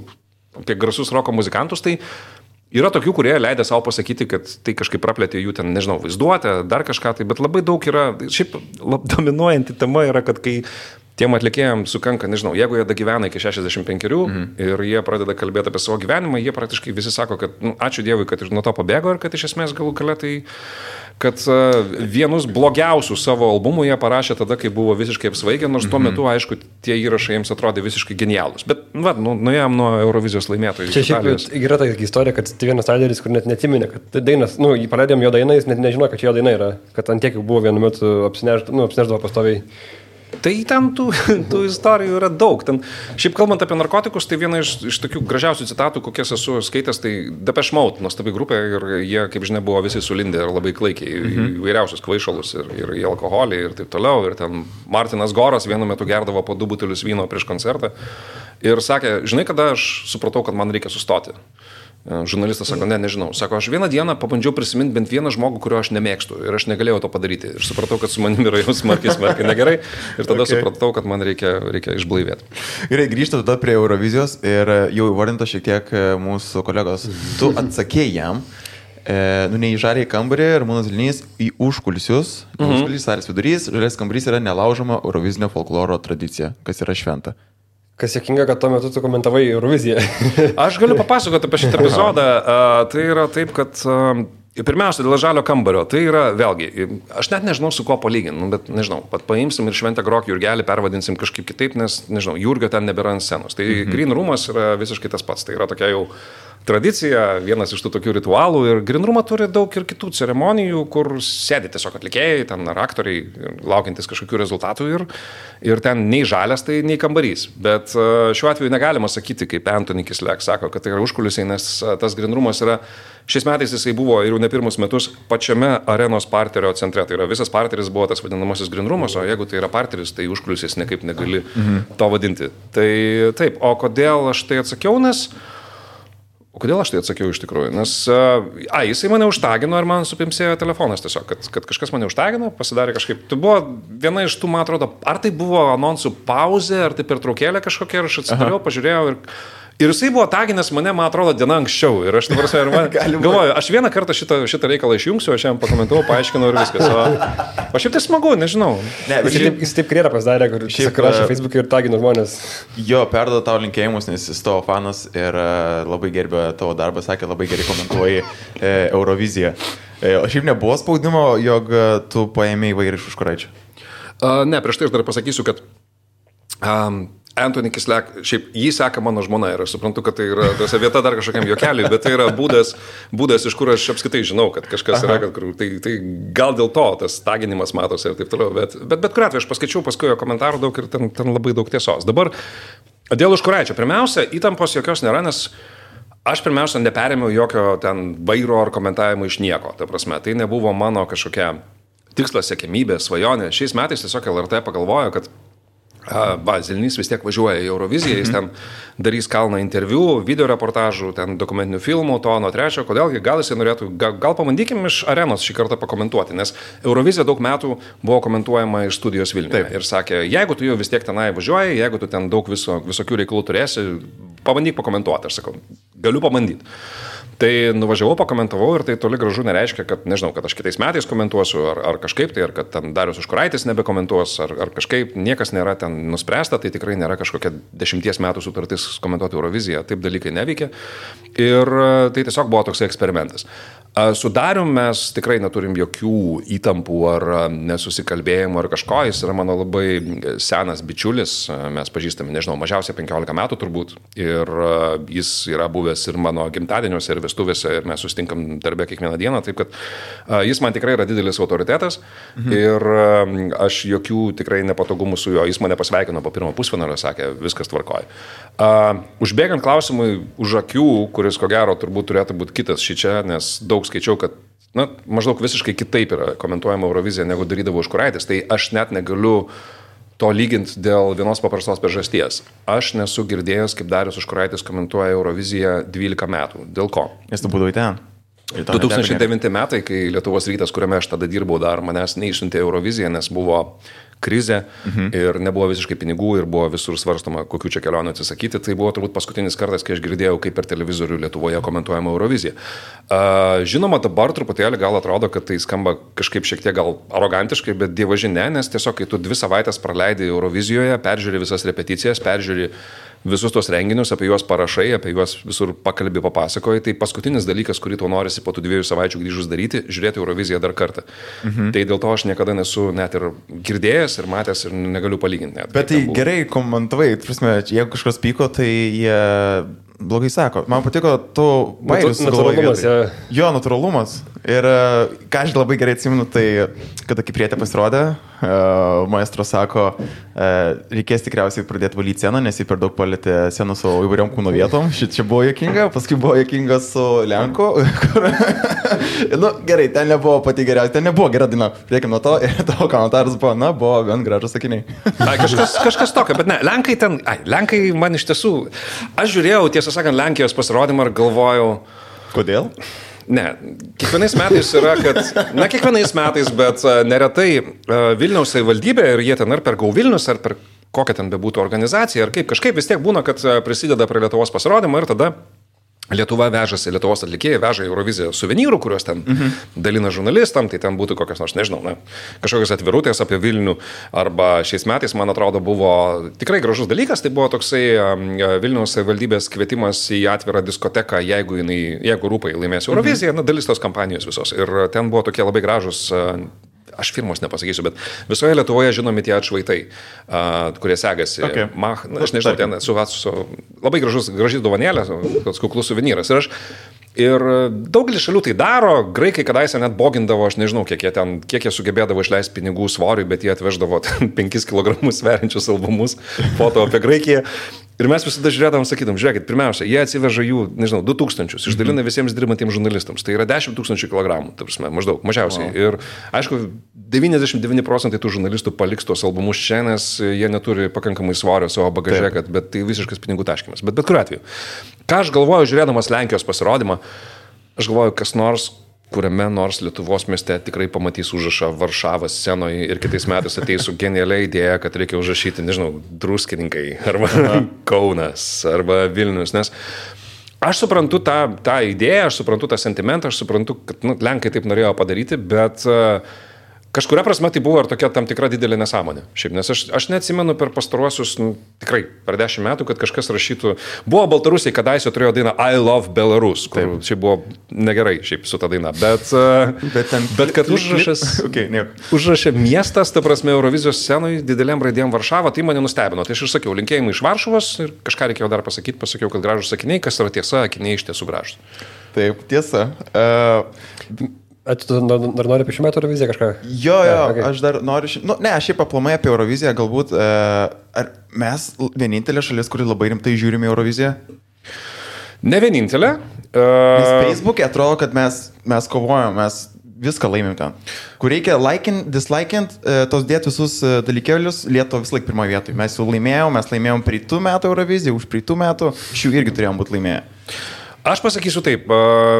apie garsus roko muzikantus, tai yra tokių, kurie leidė savo pasakyti, kad tai kažkaip praplėtė jų ten, nežinau, vaizduotę, dar kažką tai, bet labai daug yra, šiaip dominuojanti tema yra, kad kai tiem atlikėjams sukanka, nežinau, jeigu jie dagyvena iki 65 ir jie pradeda kalbėti apie savo gyvenimą, jie praktiškai visi sako, kad ačiū Dievui, kad nuo to pabėgo ir kad iš esmės galų gale tai, kad vienus blogiausių savo albumų jie parašė tada, kai buvo visiškai apsvaigę, nors tuo metu, aišku, tie įrašai jiems atrodė visiškai genialūs. Bet, nuėjom nuo Eurovizijos laimėtojų. Čia šiaip yra ta istorija, kad Stevenas Tyleris, kur net netiminė, kad dainas, jį paleidėm jo dainą, jis net nežino, kad čia jo daina yra, kad ant tiek buvo vienu metu apsineždavo pastoviai. Tai ten tų istorijų yra daug. Ten, šiaip kalbant apie narkotikus, tai viena iš tokių gražiausių citatų, kokias esu skaitęs, tai Depeche Mode, nuostabi grupė ir jie, kaip žinia, buvo visi sulindę ir labai klaikiai įvairiausius kvaišalus ir į alkoholį ir taip toliau. Ir ten Martinas Goras vienu metu gerdavo po 2 butelius vyno prieš koncertą ir sakė, žinai, kada aš supratau, kad man reikia sustoti. Žurnalistas sako, nežinau. Sako, aš vieną dieną pabandžiau prisiminti bent vieną žmogų, kurio aš nemėgstu ir aš negalėjau to padaryti. Ir supratau, kad su manimi yra jau smarkiai negerai ir tada supratau, kad man reikia išblaivėti. Gerai, grįžtu tada prie Eurovizijos ir jau įvardinto šiek tiek mūsų kolegos. Tu atsakėjai jam, neįžarė į kambarį ir Ramūnas Zilnys į užkulisius. Užkulisius salės vidurys, žalės kambarys yra nelaužoma eurovizinio folkloro tradicija, kas yra šventa. Kas sėkinga, kad tuo metu tu komentavai Euroviziją. Aš galiu papasakoti apie šitą epizodą. Tai yra taip, kad pirmiausia, dėl žalio kambario. Tai yra, vėlgi, aš net nežinau, su kuo palyginti, bet nežinau, pat paimsim ir Šventę Grok Jurgelį pervadinsim kažkaip kitaip, nes, nežinau, Jurgio ten nebėra ant scenos. Tai Green Roomas yra visiškai tas pats. Tai yra tokia jau tradicija, vienas iš tų tokių ritualų ir Green Roomą turi daug ir kitų ceremonijų, kur sėdi tiesiog atlikėjai, ten ar aktoriai, laukiantis kažkokių rezultatų ir ten nei žalias, tai nei kambarys. Bet šiuo atveju negalima sakyti, kaip Anthony Kislek sako, kad tai yra užkulisiai, nes tas Green Roomas yra, šiais metais jisai buvo ir jau ne pirmus metus pačiame arenos parterio centre. Tai yra visas parteris buvo tas vadinamasis Green Roomas, o jeigu tai yra parteris, tai užkulisiais nekaip negali to vadinti. Tai taip, o kodėl aš tai atsakiau, kodėl aš tai atsakiau iš tikrųjų? Nes, jisai mane užtagino ir man supimsėjo telefonas tiesiog, kad kažkas mane užtagino, pasidarė kažkaip. Tai buvo viena iš tų, man atrodo, ar tai buvo anonsų pauzė, ar tai pertraukėlė kažkokia, ir aš atsidariau, pažiūrėjau ir jisai buvo taginęs mane, man atrodo, diena anksčiau. Ir aš dabar galvoju, aš vieną kartą šitą reikalą išjungsiu, aš jam pakomentavau, paaiškinau ir viskas. O šiaip tai smagu, nežinau. Jis taip karjerą pasidarė, kur rašė Facebook'e ir tagino žmonės. Jo, perduoda tau linkėjimus, nes jis tavo fanas ir labai gerbė tavo darbą, sakė, labai gerai komentuoji Euroviziją. O šiaip nebuvo spaudimo, jog tu paėmėjai vairį iš Užkuraičio? Ne, prieš tai aš dar pasakysiu, kad Anthony Kislek, šiaip jį seka mano žmona ir aš suprantu, kad tai yra vieta dar kažkokiam juokeliui, bet tai yra būdas, iš kur aš apskritai žinau, kad kažkas yra, tai gal dėl to tas taginimas matosi ir taip toliau, bet kuriuo atveju aš paskaičiau paskui jo komentarų daug ir ten labai daug tiesos. Dabar dėl Užkuraičio, pirmiausia, įtampos jokios nėra, nes aš pirmiausia neperėmiau jokio ten vairo ar komentavimo iš nieko, ta prasme, tai nebuvo mano kažkokia tikslas, siekiamybė, svajonė. Šiais metais tiesiog LRT pagalvojo, kad Zilnys vis tiek važiuoja į Euroviziją, jis ten darys kalną interviu, video reportažų, ten dokumentinių filmų, to, nuo trečio, kodėlgi, gal jisai norėtų, gal pabandykim iš arenos šį kartą pakomentuoti, nes Eurovizija daug metų buvo komentuojama iš studijos Vilniuje. Ir sakė, jeigu tu jau vis tiek tenai važiuoji, jeigu tu ten daug visokių reikalų turėsi, pabandyk pakomentuoti. Aš sakau, galiu pabandyti. Tai nuvažiavau, pakomentavau ir tai toli gražu nereiškia, kad, nežinau, kad aš kitais metais komentuosiu ar kažkaip tai, ar kad ten Darius Užkuraitis nebekomentuos, ar kažkaip niekas nėra ten nuspręsta, tai tikrai nėra kažkokia 10 metų sutartis komentuoti Euroviziją, taip dalykai neveikia. Ir tai tiesiog buvo toksai eksperimentas. Su Darium mes tikrai neturim jokių įtampų ar nesusikalbėjimų ar kažko, jis yra mano labai senas bičiulis, mes pažįstame, nežinau, mažiausiai 15 metų turbūt ir jis yra buvęs ir mano gimtadieniuose ir vestuvėse ir mes susitinkam darbę kiekvieną dieną, taip kad jis man tikrai yra didelis autoritetas ir aš jokių tikrai nepatogumų su juo, jis mane pasveikino po pirmo pusfinalio, sakė, viskas tvarkoja. Užbėgant klausimui už akių, kuris ko gero turbūt turėtų būti kitas šičia, nes daug skaičiau, kad maždaug visiškai kitaip yra komentuojama Eurovizija, negu darydavo Užkuraitis, tai aš net negaliu to lyginti dėl vienos paprastos priežasties. Aš nesu girdėjęs, kaip Darius Užkuraitis komentuoja Euroviziją 12 metų. Dėl ko? Nes tu būdavai ten. 2009 metai, kai Lietuvos rytas, kuriame aš tada dirbau, dar manęs neišsiuntė Euroviziją, nes buvo krizė ir nebuvo visiškai pinigų ir buvo visur svarstoma, kokių čia kelionių atsisakyti. Tai buvo turbūt paskutinis kartas, kai aš girdėjau, kaip per televizorių Lietuvoje komentuojama Eurovizija. Žinoma, dabar truputėlį gal atrodo, kad tai skamba kažkaip šiek tiek gal arogantiškai, bet dievaži ne, nes tiesiog, kai tu 2 savaitės praleidai Eurovizijoje, peržiūri visas repeticijas, peržiūri visus tos renginius, apie juos parašai, apie juos visur pakalbį papasakoji, tai paskutinis dalykas, kurį tau norisi po tų 2 savaičių grįžus daryti, žiūrėti Euroviziją dar kartą. Tai dėl to aš niekada nesu net ir girdėjęs ir matęs ir negaliu palyginti net. Bet tai gerai komentavai, prasme, jeigu kažkas pyko, tai jie blogai sako. Man patiko tu bairius natūralumas. Jo, natūralumas. Ir ką aš labai gerai atsimenu, tai kada Kiprietė pasirodė, maestro sako, reikės tikriausiai pradėti valyti sceną, nes jį per daug palėtė sceną su įvairiom kūno vietom. Čia buvo juokinga, paskui buvo juokinga su Lenku. Gerai, ten nebuvo pati geriausia, ten nebuvo gera daina. Priekim nuo to ir tavo komentaras buvo, buvo gan gražus sakiniai. Kažkas tokio, bet ne, Lenkai man iš tiesų, aš žiūrėjau, tiesą sakant, Lenkijos pasirodymą ir galvojau. Kodėl? Ne, kiekvienais metais yra, kad, kiekvienais metais, bet neretai Vilniaus savivaldybė ir jie ten ar per Go Vilnius, ar per kokią ten bebūtų organizaciją, ar kažkaip vis tiek būna, kad prisideda prie Lietuvos pasirodymą ir tada Lietuva vežasi, Lietuvos atlikėjai veža Euroviziją suvenyrų, kuriuos ten dalina žurnalistam, tai ten būtų kokios nors, nežinau, kažkokios atvirutės apie Vilnių, arba šiais metais, man atrodo, buvo tikrai gražus dalykas, tai buvo toksai Vilniaus savivaldybės kvietimas į atvirą diskoteką, jeigu Rūpai laimės Euroviziją, dalis tos kampanijos visos. Ir ten buvo tokie labai gražus, aš firmos nepasakysiu, bet visoje Lietuvoje žinomi tie atšvaitai, kurie segasi. Okay. Aš nežinau, ten su labai graži dovanėlė, toks kuklus suvenyras. Ir daugelis šalių tai daro, graikai kadaise net bogindavo, aš nežinau, kiek jie sugebėdavo išleisti pinigų svoriui, bet jie atveždavo 5 kg sveriančius albumus, foto apie Graikiją. Ir mes visada žiūrėdavom, sakydom, žiūrėkit, pirmiausia, jie atsiveža jų, nežinau, 2000, išdalina visiems dirbantiems žurnalistams. Tai yra 10 000 kilogramų, ta prasme, maždaug, mažiausiai. Wow. Ir aišku, 99% tų žurnalistų paliks tuos albumus čia, nes jie neturi pakankamai svorio savo bagaže, bet tai visiškas pinigų taškymas. Bet kuriuo atveju. Ką aš galvoju, žiūrėdamas Lenkijos pasirodymą, aš galvoju, kas nors, kuriame nors Lietuvos mieste tikrai pamatys užrašą Varšavos scenoje ir kitais metais ateis su genialia idėja, kad reikia užrašyti, nežinau, Druskininkai, arba Kaunas, arba Vilnius, nes aš suprantu tą idėją, aš suprantu tą sentimentą, aš suprantu, kad Lenkai taip norėjo padaryti, bet kažkuria prasme tai buvo ir tokia tam tikra didelė nesąmonė. Šiaip, nes aš neatsimenu per pastaruosius, tikrai per 10 metų, kad kažkas rašytų. Buvo Baltarusiai, kadaise turėjo dainą I Love Belarus, kur šiaip buvo negerai šiaip su ta daina. Bet kad užrašė miestas, ta prasme, Eurovizijos scenoje didelėm raidėm Varšava, tai mane nustebino. Tai aš ir sakiau, linkėjimai iš Varšuvos ir kažką reikėjo dar pasakyti, pasakiau, kad gražus sakiniai, kas yra tiesa, akiniai iš tiesų gražus. Taip, tiesa. Tu dar nori apie šių metų Euroviziją kažką? Jo, okay. Aš dar noriu... aš šiaip aplamai apie Euroviziją, galbūt... Ar mes vienintelė šalis, kuri labai rimtai žiūrime Euroviziją? Ne vienintelė. Nes Facebook'e atrodo, kad mes kovojam, mes viską laimim ten. Kur reikia dislikint, tos dėti visus dalykėlius, Lietuva vis laik pirmoje vietoje. Mes jau laimėjom praeitų metų Euroviziją, už praeitų metų, šių irgi turėjom būti laimėję. Aš pasakysiu taip,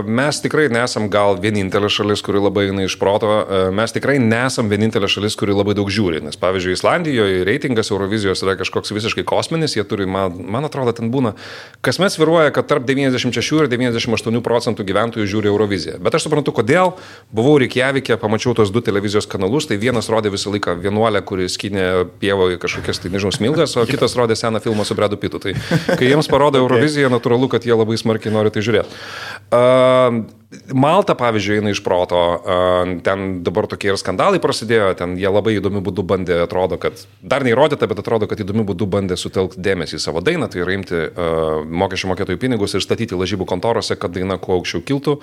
mes tikrai nesam gal vienintelė šalis, kuri labai eina iš proto, mes tikrai nesam vienintelė šalis, kuri labai daug žiūri, nes pavyzdžiui, Islandijoje reitingas Eurovizijos yra kažkoks visiškai kosminis, jie turi, man atrodo, ten būna, kasmet sviruoja, kad tarp 96 ir 98% gyventojų žiūri Euroviziją. Bet aš suprantu, kodėl, buvau Reikjavike, pamačiau tos 2 televizijos kanalus, tai vienas rodė visą laiką vienuolę, kuri skynė pievoje kažkokias, tai nežinau, smilgas, o kitas rodė seną filmą su Bredu Pitu. Tai kai jiems parodo Euroviziją, natūralu, kad jie labai smarkiai nori tai žiūrėti. Malta, pavyzdžiui, eina iš proto, ten dabar tokie ir skandalai prasidėjo, ten jie labai įdomių būdų bandė, atrodo, kad, dar neįrodyta, bet atrodo, kad įdomių būdų bandė sutelkti dėmesį į savo dainą, tai yra imti mokesčių mokėtojų pinigus ir statyti lažybų kontorose, kad daina kuo aukščiau kiltų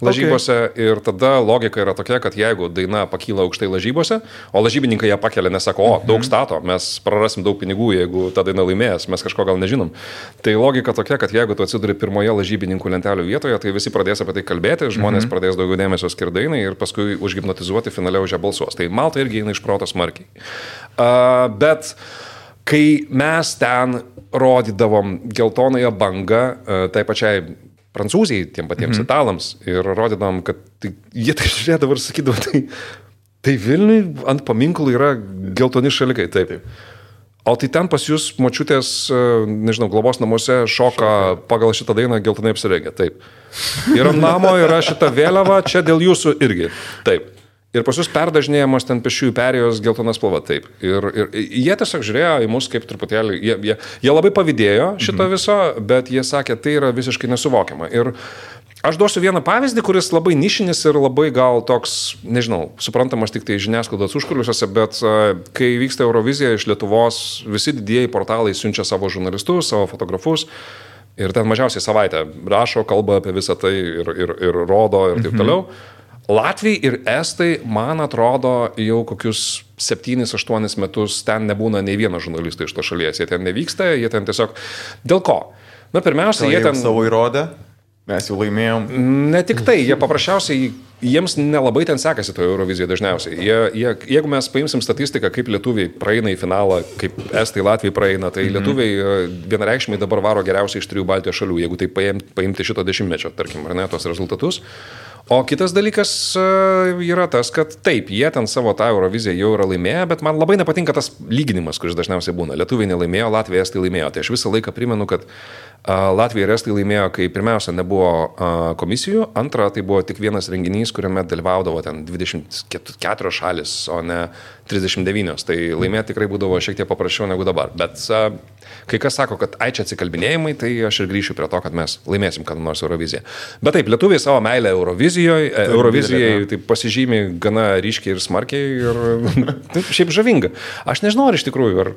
lažybose. Okay. Ir tada logika yra tokia, kad jeigu daina pakyla aukštai lažybose, o lažybininkai ją pakelia, nesako, daug stato, mes prarasim daug pinigų, jeigu ta daina laimės, mes kažko gal nežinom. Tai logika tokia, kad jeigu tu atsiduri pirmoje lažybininkų lentelių vietoje, tai visi pradės apie tai kalbėti. Žmonės pradės daugiau dėmesio skirdainai ir paskui užhipnotizuoti finale už ją balsuos. Tai Malta irgi eina iš proto smarkiai. Bet kai mes ten rodydavom geltonąją bangą tai pačiai Prancūzijai, tiem patiems italams ir rodydavom, kad jie tai žiūrėdavo ir sakydavo, tai Vilniui ant paminklų yra geltoni šalikai. Taip. O tai ten pas jūs močiutės, nežinau, globos namuose šoka pagal šitą dainą geltonai apsirengę. Taip. Ir ant namo yra šita vėliava, čia dėl jūsų irgi. Taip. Ir pas jūs perdažinėjamos ten pėsčiųjų perėjos geltona spalva. Taip. Ir jie tiesiog žiūrėjo į mus kaip truputėlį, jie labai pavydėjo šito viso, bet jie sakė, tai yra visiškai nesuvokiama. Ir aš duosiu vieną pavyzdį, kuris labai nišinis ir labai gal toks, nežinau, suprantamas tik tai žiniasklaidos užkuliuose, bet kai vyksta Eurovizija iš Lietuvos, visi didieji portalai siunčia savo žurnalistus, savo fotografus ir ten mažiausiai savaitę rašo, kalba apie visą tai ir rodo ir taip toliau. Latviai ir Estai, man atrodo, jau kokius 7-8 metus ten nebūna nei vieno žurnalisto iš to šalies. Jie ten nevyksta, jie ten tiesiog... Dėl ko? Na, pirmiausia, jie ten... savo įrodė. Mes jau laimėjom. Ne tik tai, jie paprasčiausiai, jiems nelabai ten sekasi toje Eurovizijoje dažniausiai. Jeigu mes paimsim statistiką, kaip lietuviai praeina į finalą, kaip Estai, Latviai praeina, tai lietuviai vienareikšmiai dabar varo geriausiai iš 3 Baltijos šalių, jeigu tai paimti šito dešimtmečio, tarkim, ar ne, tos rezultatus. O kitas dalykas yra tas, kad taip, jie ten savo tą Euroviziją jau yra laimėję, bet man labai nepatinka tas lyginimas, kuris dažniausiai būna. Lietuviai nelaimėjo, Latvija, Estai laimėjo. Tai aš visą laiką primenu, kad Latvija ir Estai laimėjo, kai pirmiausia nebuvo komisijų, antra tai buvo tik vienas renginys, kuriame dalyvaudavo ten 24 šalis, o ne 39. Tai laimėti tikrai būdavo šiek tiek paprasčiau negu dabar. Bet kai kas sako, kad čia atsikalbinėjimai, tai aš ir grįšiu prie to, kad mes laimėsim kada nors Euroviziją. Bet taip, lietuviai savo meilę Eurovizijai tai pasižymi gana ryškiai ir smarkiai ir šiaip žavinga. Aš nežinau, ar iš tikrųjų, ar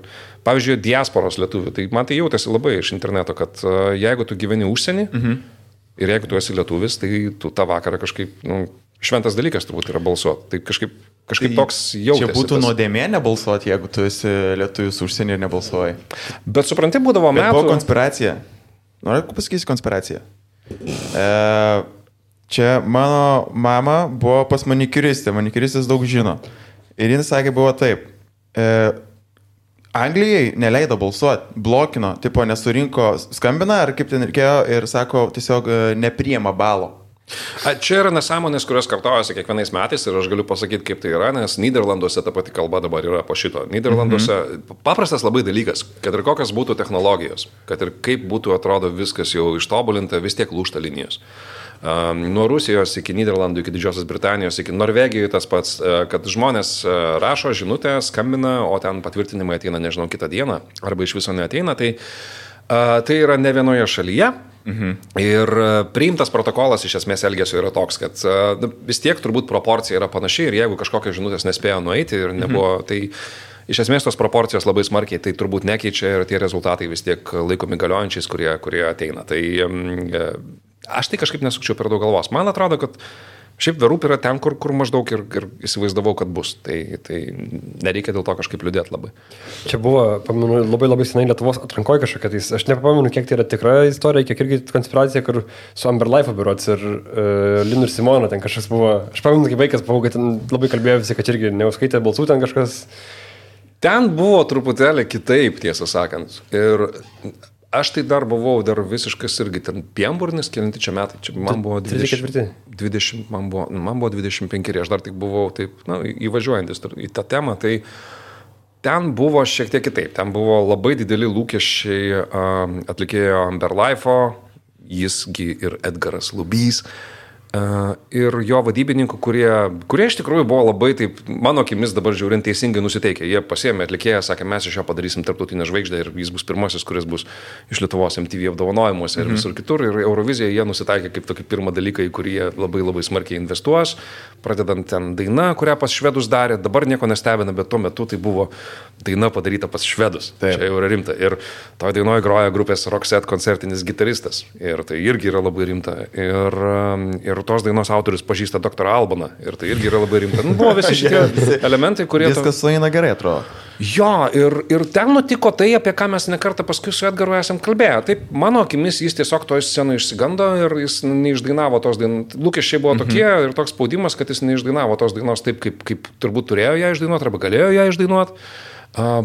pavyzdžiui, diasporos lietuvių, tai man tai jautėsi labai iš interneto, kad jeigu tu gyveni užsienį ir jeigu tu esi lietuvis, tai tu tą vakarą kažkaip, šventas dalykas turbūt yra balsuoti. Tai kažkaip tai toks jautėsi. Čia būtų nuodėmė nebalsuoti, jeigu tu esi lietuvis užsienį ir nebalsuoji. Bet supranti, būdavo metų... Buvo konspiracija. Noriu pasakysi konspiraciją. Čia mano mama buvo pas manikiristę. Manikiristas daug žino. Ir jis sakė, buvo taip. Anglijai neleido balsuoti, blokino, tipo nesurinko, skambina ar kaip ten reikėjo ir sako, tiesiog nepriima balo. Čia yra nesąmonės, kurios kartojasi kiekvienais metais ir aš galiu pasakyti, kaip tai yra, nes Nyderlanduose ta pati kalba dabar yra po šito. Nyderlanduose paprastas labai dalykas, kad ir kokios būtų technologijos, kad ir kaip būtų atrodo viskas jau ištobulinta, vis tiek lūžta linijos. Nuo Rusijos iki Nyderlandų, iki Didžiosios Britanijos, iki Norvegijos tas pats, kad žmonės rašo žinutę, skambina, o ten patvirtinimai ateina, nežinau, kitą dieną, arba iš viso neateina, tai yra ne vienoje šalyje. Ir priimtas protokolas iš esmės elgesio yra toks, kad vis tiek turbūt proporcija yra panaši ir jeigu kažkokios žinutės nespėjo nueiti ir nebuvo, tai iš esmės tos proporcijos labai smarkiai tai turbūt nekeičia ir tie rezultatai vis tiek laikomi galiojančiais, kurie ateina. Tai aš tai kažkaip nesukčiau per daug galvos. Man atrodo, kad šiaip verūp yra ten, kur maždaug ir įsivaizdavau, kad bus. Tai nereikia dėl to kažkaip liūdėti labai. Čia buvo, pamenu, labai senai Lietuvos atrankoje kažkokia. Tai aš nepamenu, kiek tai yra tikra istorija, kiek irgi konspiracija, kur su Amber Life berods ir Linu ir Simona ten kažkas buvo. Aš pamenu, kaip vaikas buvau, kad ten labai kalbėjo visi, kad irgi neuskaitė balsų ten kažkas. Ten buvo truputėlį kitaip, tiesą sakant. Ir aš tai dar buvau visiškas irgi ten pienburnis, kelinti čia metai, čia man buvo 20, man buvo 25, aš dar tik buvau taip, įvažiuojantis į tą temą, tai ten buvo šiek tiek kitaip, ten buvo labai dideli lūkesčiai atlikėjo Amber Life'o, jisgi ir Edgaras Lubys, ir jo vadybininkų, kurie iš tikrųjų buvo labai, taip, mano akimis dabar žiūrint teisingai nusiteikę. Jie pasiėmė atlikėją, sakė, mes iš jo padarysim tarptautinę žvaigždę ir jis bus pirmasis, kuris bus iš Lietuvos MTV apdovanojimuose ir visur kitur. Ir Euroviziją jie nusitaikė kaip tokį pirmą dalyką, į kurį jie labai labai smarkiai investuos, pradedant ten daina, kurią pas švedus darė. Dabar nieko nestebina, bet tuo metu tai buvo daina padaryta pas švedus. Taip. Čia jau yra rimta. Ir toje dainoje groja grupės Roxette koncertinis gitaristas. Ir tai irgi yra labai rimta. Ir tos dainos autorius pažįsta Dr. Albaną. Ir tai irgi yra labai rimta. Buvo visi šitie elementai, kurie... Viskas sueina gerai, atrodo. Jo, ir ten nutiko tai, apie ką mes nekartą paskui su Edgaru esam kalbėję. Taip, mano akimis jis tiesiog toje scenoje išsigando ir jis neišdainavo tos dainos. Lūkesčiai buvo tokie ir toks spaudimas, kad jis neišdainavo tos dainos taip, kaip turbūt turėjo ją išdainuoti arba galėjo ją išdainuoti.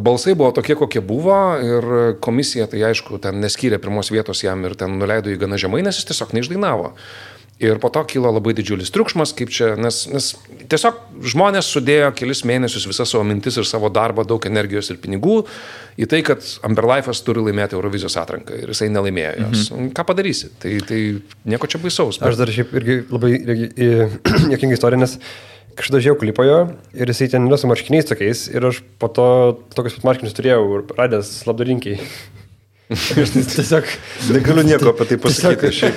Balsai buvo tokie, kokie buvo ir komisija, tai aišku, ten neskyrė pirmos vietos jam ir ten nuleido jį gana žemai, nes jis tiesiog neišdainavo. Ir po to kilo labai didžiulis triukšmas, kaip čia, nes tiesiog žmonės sudėjo kelis mėnesius visą savo mintis ir savo darbą, daug energijos ir pinigų į tai, kad Amberlife'as turi laimėti Eurovizijos atranką ir jisai nelaimėjo jos. Ką padarysi? Tai nieko čia baisaus. Aš dar šiaip irgi labai juokinga istorija, nes kažkada žiūrėjau klipojo ir jisai ten yra su marškiniais tokiais ir aš po to tokius pat marškinius turėjau ir radęs labdarinkiai. Aš tiesiog negaliu nieko apie tai pasakyti.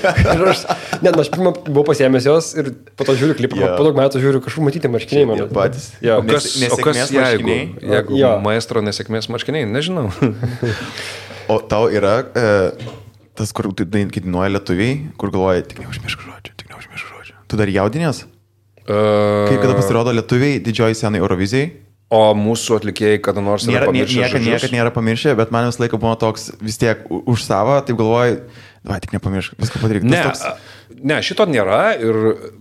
Aš pirmą buvau pasiėmęs jos ir po to žiūriu klipą, po daug metų žiūriu kažkur matyti marškiniai mano. Patys. O kas jeigu maestro nesėkmės marškiniai? Nežinau. O tau yra tas, kur dainuoja lietuviai, kur galvoja, tik neužmiršk žodžio. Tu dar jaudinės? Kaip kada pasirodo lietuviai didžioji scenai Eurovizijai? O mūsų atlikėjai kada nors yra pamiršę žodžius? Niekad nėra pamiršę, bet man visą laiką buvo toks vis tiek už savo, taip galvoju, tik nepamiršk, viską padaryk. Ne, šito nėra ir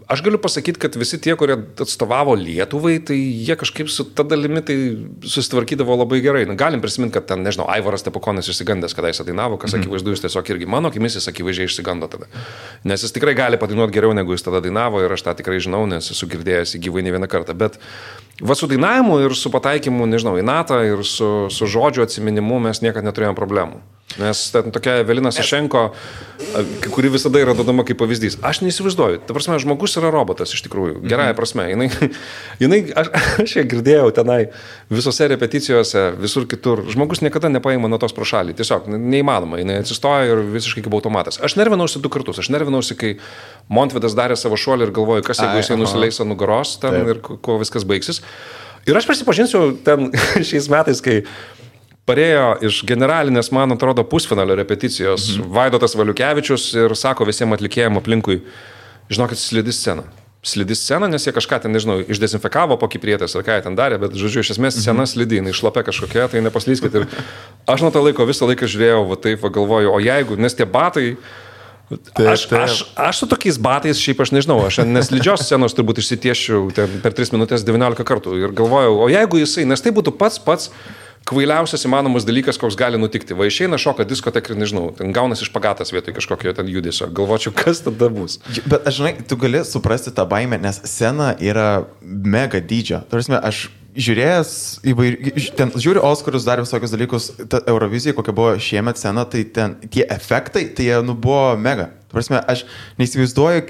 aš galiu pasakyti, kad visi tie, kurie atstovavo Lietuvai, tai jie kažkaip su ta dalimi tai susitvarkydavo labai gerai. Galim prisiminti, kad ten, nežinau, Aivaras Stepukonis išsigandęs, kada jis dainavo, kas akivaizdu, jis tiesiog irgi mano akimis jis akivaizdžiai išsigando tada. Nes jis tikrai gali padainuoti geriau, negu jis tada dainavo ir aš tą tikrai žinau, nes esu girdėjęs į gyvai ne vieną kartą. Bet va su dainavimu ir su pataikymu, nežinau, į natą ir su žodžio atsiminimu mes niekada neturėjom problemų. Nes ten tokia Evelina Sašenko, kuri visada yra duodama kaip pavyzdys. Aš neįsivaizduoju. Ta prasme, žmogus yra robotas iš tikrųjų. Gerąją prasme. Aš ją girdėjau tenai visose repeticijose, visur kitur. Žmogus niekada nepaima nuo tos pro šalį. Tiesiog neįmanoma. Jis atsistoja ir visiškai kaip automatas. Aš nervinausi 2 kartus. Aš nervinausi, kai Montvydas darė savo šuolį ir galvoju, kas jeigu jisai nusileis ant nugaros ten ir kuo viskas baigsis. Ir aš prisipažinsiu ten šiais metais, kai parėjo iš generalinės, man atrodo, pusfinalio repeticijos Vaidotas Valiukevičius ir sako visiems atlikėjim aplinkui, žinokit, slidi scena, nes jie kažką ten, nežinau, išdezinfekavo po kiprietės ar ką jie ten darė, bet, žodžiu, iš esmės scena slidi, jinai šlapia kažkokia, tai nepaslyskit. Ir aš nuo to laiko visą laiką žiūrėjau, va taip, va galvoju, o jeigu, nes tie batai, aš su tokiais batais, šiaip aš nežinau, aš neslidžios scenos turbūt išsitiešiu per 3 minutės 19 kartų ir galvojau, o jeigu jisai, nes tai būtų pats kvailiausias įmanomas dalykas, koks gali nutikti. Va išeina šoka diskotek ir nežinau, ten gaunasi špagatas vietoj kažkokio ten judesio. Galvočiau, kas tada bus. Bet aš žinai, tu gali suprasti tą baimę, nes scena yra mega dydžio. Tarsi, aš žiūrėjęs ten žiūriu Oskarus, dar visokius dalykus, ta Eurovizija, kokia buvo šiemet scena, tai ten tie efektai, tai jie buvo mega. Tarsi, aš neįsivaizduoju,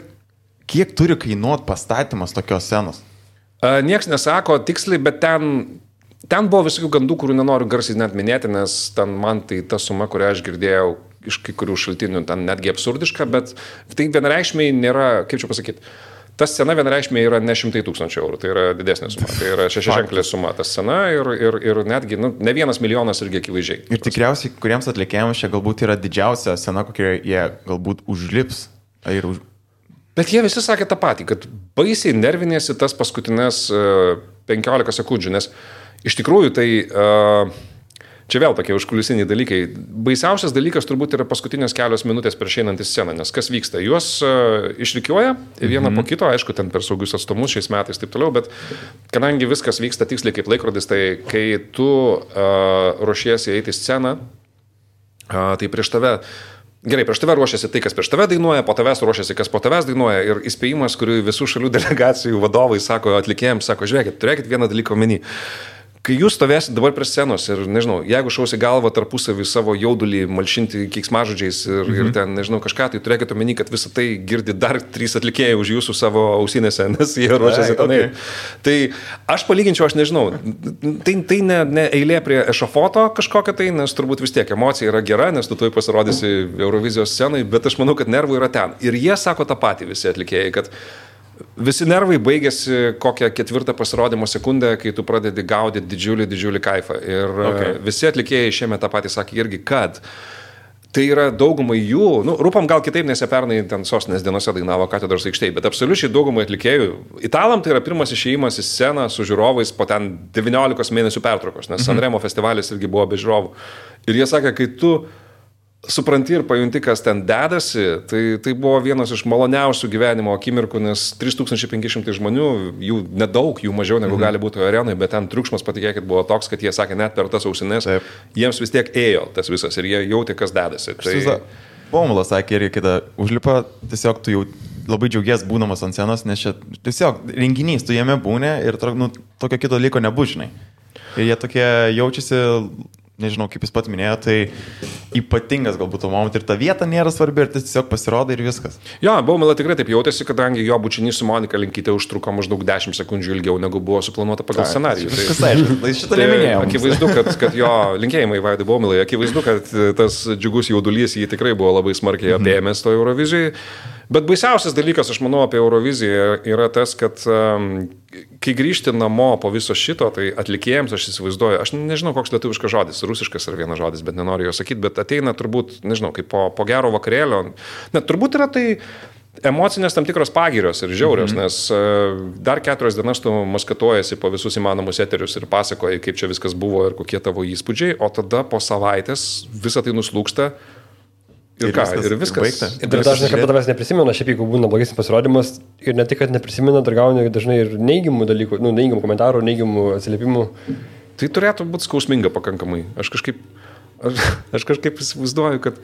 kiek turi kainuoti pastatymas tokios scenos. Niekas nesako tiksliai, bet ten buvo visokių gandų, kurių nenoriu garsiai net minėti, nes ten man tai ta suma, kurią aš girdėjau iš kai kurių šaltinių, ten netgi absurdiška, bet tai vienareikšmiai nėra, kaip čia pasakyti, ta scena vienareikšmiai yra ne 100 000 eurų, tai yra didesnė suma, tai yra 6-ženklė suma ta scena ir netgi ne 1 milijonas irgi akivaizdžiai. Ir tikriausiai, kuriems atlikėjams čia galbūt yra didžiausia scena, kokie jie galbūt užlips. Bet jie visi sakė tą patį, kad baisiai nervinėsi tas paskutinės 15 sekundžių, nes iš tikrųjų tai čia vėl tokie užkulisiniai dalykai. Baisiausias dalykas turbūt yra paskutinės kelios minutės prieš einant į sceną, nes kas vyksta? Juos išrikiuoja vieną po kito, aišku, ten per saugius atstumus šiais metais taip toliau, bet kadangi viskas vyksta tiksliai kaip laikrodis, tai kai tu ruošiesi eiti į sceną, tai prieš tave ruošiasi tai, kas prieš tave dainuoja, po tavęs ruošiasi, kas po tavęs dainuoja ir įspėjimas, kurį visų šalių delegacijų vadovai sako, atlikėjams sako, žiūrėkit, turėkit vieną dalyką omeny. Kai jūs stovėsit dabar prie scenos ir, nežinau, jeigu šausi galvą tarpusavį savo jaudulį, malšinti keiksmažodžiais ir ten, nežinau, kažką, tai turėkite omeny, kad visą tai girdi dar 3 atlikėjai už jūsų savo ausinėse, nes jie ruošiasi tenai. Tai aš palyginčiau, aš nežinau, tai ne eilė prie ešafoto kažkokia tai, nes turbūt vis tiek emocija yra gera, nes tu tuoj pasirodysi Eurovizijos scenai, bet aš manau, kad nervų yra ten. Ir jie sako tą patį visi atlikėjai, kad visi nervai baigėsi kokią 4 pasirodymo sekundę, kai tu pradedi gaudyti didžiulį kaifą. Ir visi atlikėjai šiemet tą patį sakė irgi, kad tai yra daugumai jų, Rūpam gal kitaip, nes jie pernai ten Sostinės dienose dainavo Katedros aikštėje, bet absoliučiai daugumai atlikėjų. Italam tai yra pirmas išėjimas į sceną su žiūrovais po ten 19 mėnesių pertraukos, nes Sanremo festivalis irgi buvo be žiūrovų. Ir jie sakė, kai tu supranti ir pajunti, kas ten dedasi, tai buvo vienas iš maloniausių gyvenimo akimirkų, nes 3500 žmonių, jų nedaug, jų mažiau negu gali būti arenai, bet ten triukšmas, patikėkit, buvo toks, kad jie sakė, net per tas ausinės, jiems vis tiek ėjo tas visas ir jie jautė, kas dedasi. Bomulas sakė irgi, kada užlipa, tiesiog tu jau labai džiaugies būdamas ant scenos, nes čia tiesiog renginys, tu jame būni ir tokio kito dalyko nebūžinai. Ir jie tokie jaučiasi, nežinau, kaip jis pat minėjo, tai ypatingas galbūt moment ir ta vieta nėra svarbi ir tiesiog pasirodo ir viskas. Jo, Baumila tikrai taip jautėsi, kadangi jo bučinys su Monika Linkyte užtruko maždaug 10 sekundžių ilgiau, negu buvo suplanuota pagal scenarijų. Viskas aišku, šitą neminėjau. Akivaizdu, kad jo linkėjimai Vaidui Baumilai, akivaizdu, kad tas džiugus jaudulys jį tikrai buvo labai smarkiai apėmęs to Eurovizijai. Bet baisiausias dalykas, aš manau, apie Euroviziją yra tas, kad kai grįžti namo po viso šito, tai atlikėjams, aš įsivaizduoju, aš nežinau, koks lietuviškas žodis, rusiškas ar vienas žodis, bet nenoriu jo sakyti, bet ateina turbūt, nežinau, kaip po gero vakarėlio, net turbūt yra tai emocinės tam tikros pagirios ir žiaurios, nes dar 4 dienas tu maskatuojasi po visus įmanomus eterius ir pasakoji, kaip čia viskas buvo ir kokie tavo įspūdžiai, o tada po savaitės visą tai nuslūksta. Ir viskas baigta. Ir dar dažnai, kad tavęs neprisimena, šiaip jeigu būna blogesnis pasirodymas ir ne tik, kad neprisimena, dar gauni dažnai ir neigiamų dalykų, neigiamų komentarų, neigiamų atsiliepimų. Tai turėtų būti skausminga pakankamai. Aš kažkaip įsivaizduoju, kad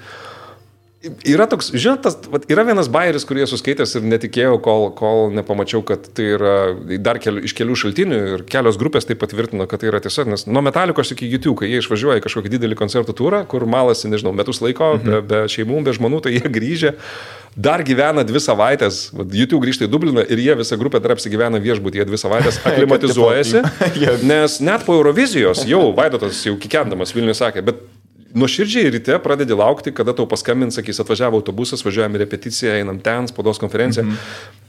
yra toks, žinot, yra vienas bajeris, kurį esu skaitęs ir netikėjau, kol nepamačiau, kad tai yra dar iš kelių šaltinių ir kelios grupės tai patvirtino, kad tai yra tiesa, nes nuo Metalikos iki YouTube, kai jie išvažiuoja į kažkokį didelį koncertų turą, kur malasi, nežinau, metus laiko, be šeimų, be žmonų, tai jie grįžę, dar gyvena 2 savaitės, YouTube grįžta į Dubliną ir jie visą grupę dar apsigyvena viešbutyje 2 savaitės, aklimatizuojasi, nes net po Eurovizijos jau Vaidotas jau kikendamas Vilniuje sakė, bet nuoširdžiai ryte pradedi laukti, kada tau paskambins, sakys, atvažiavo autobusas, važiuojame repeticiją, einam ten, spaudos konferenciją.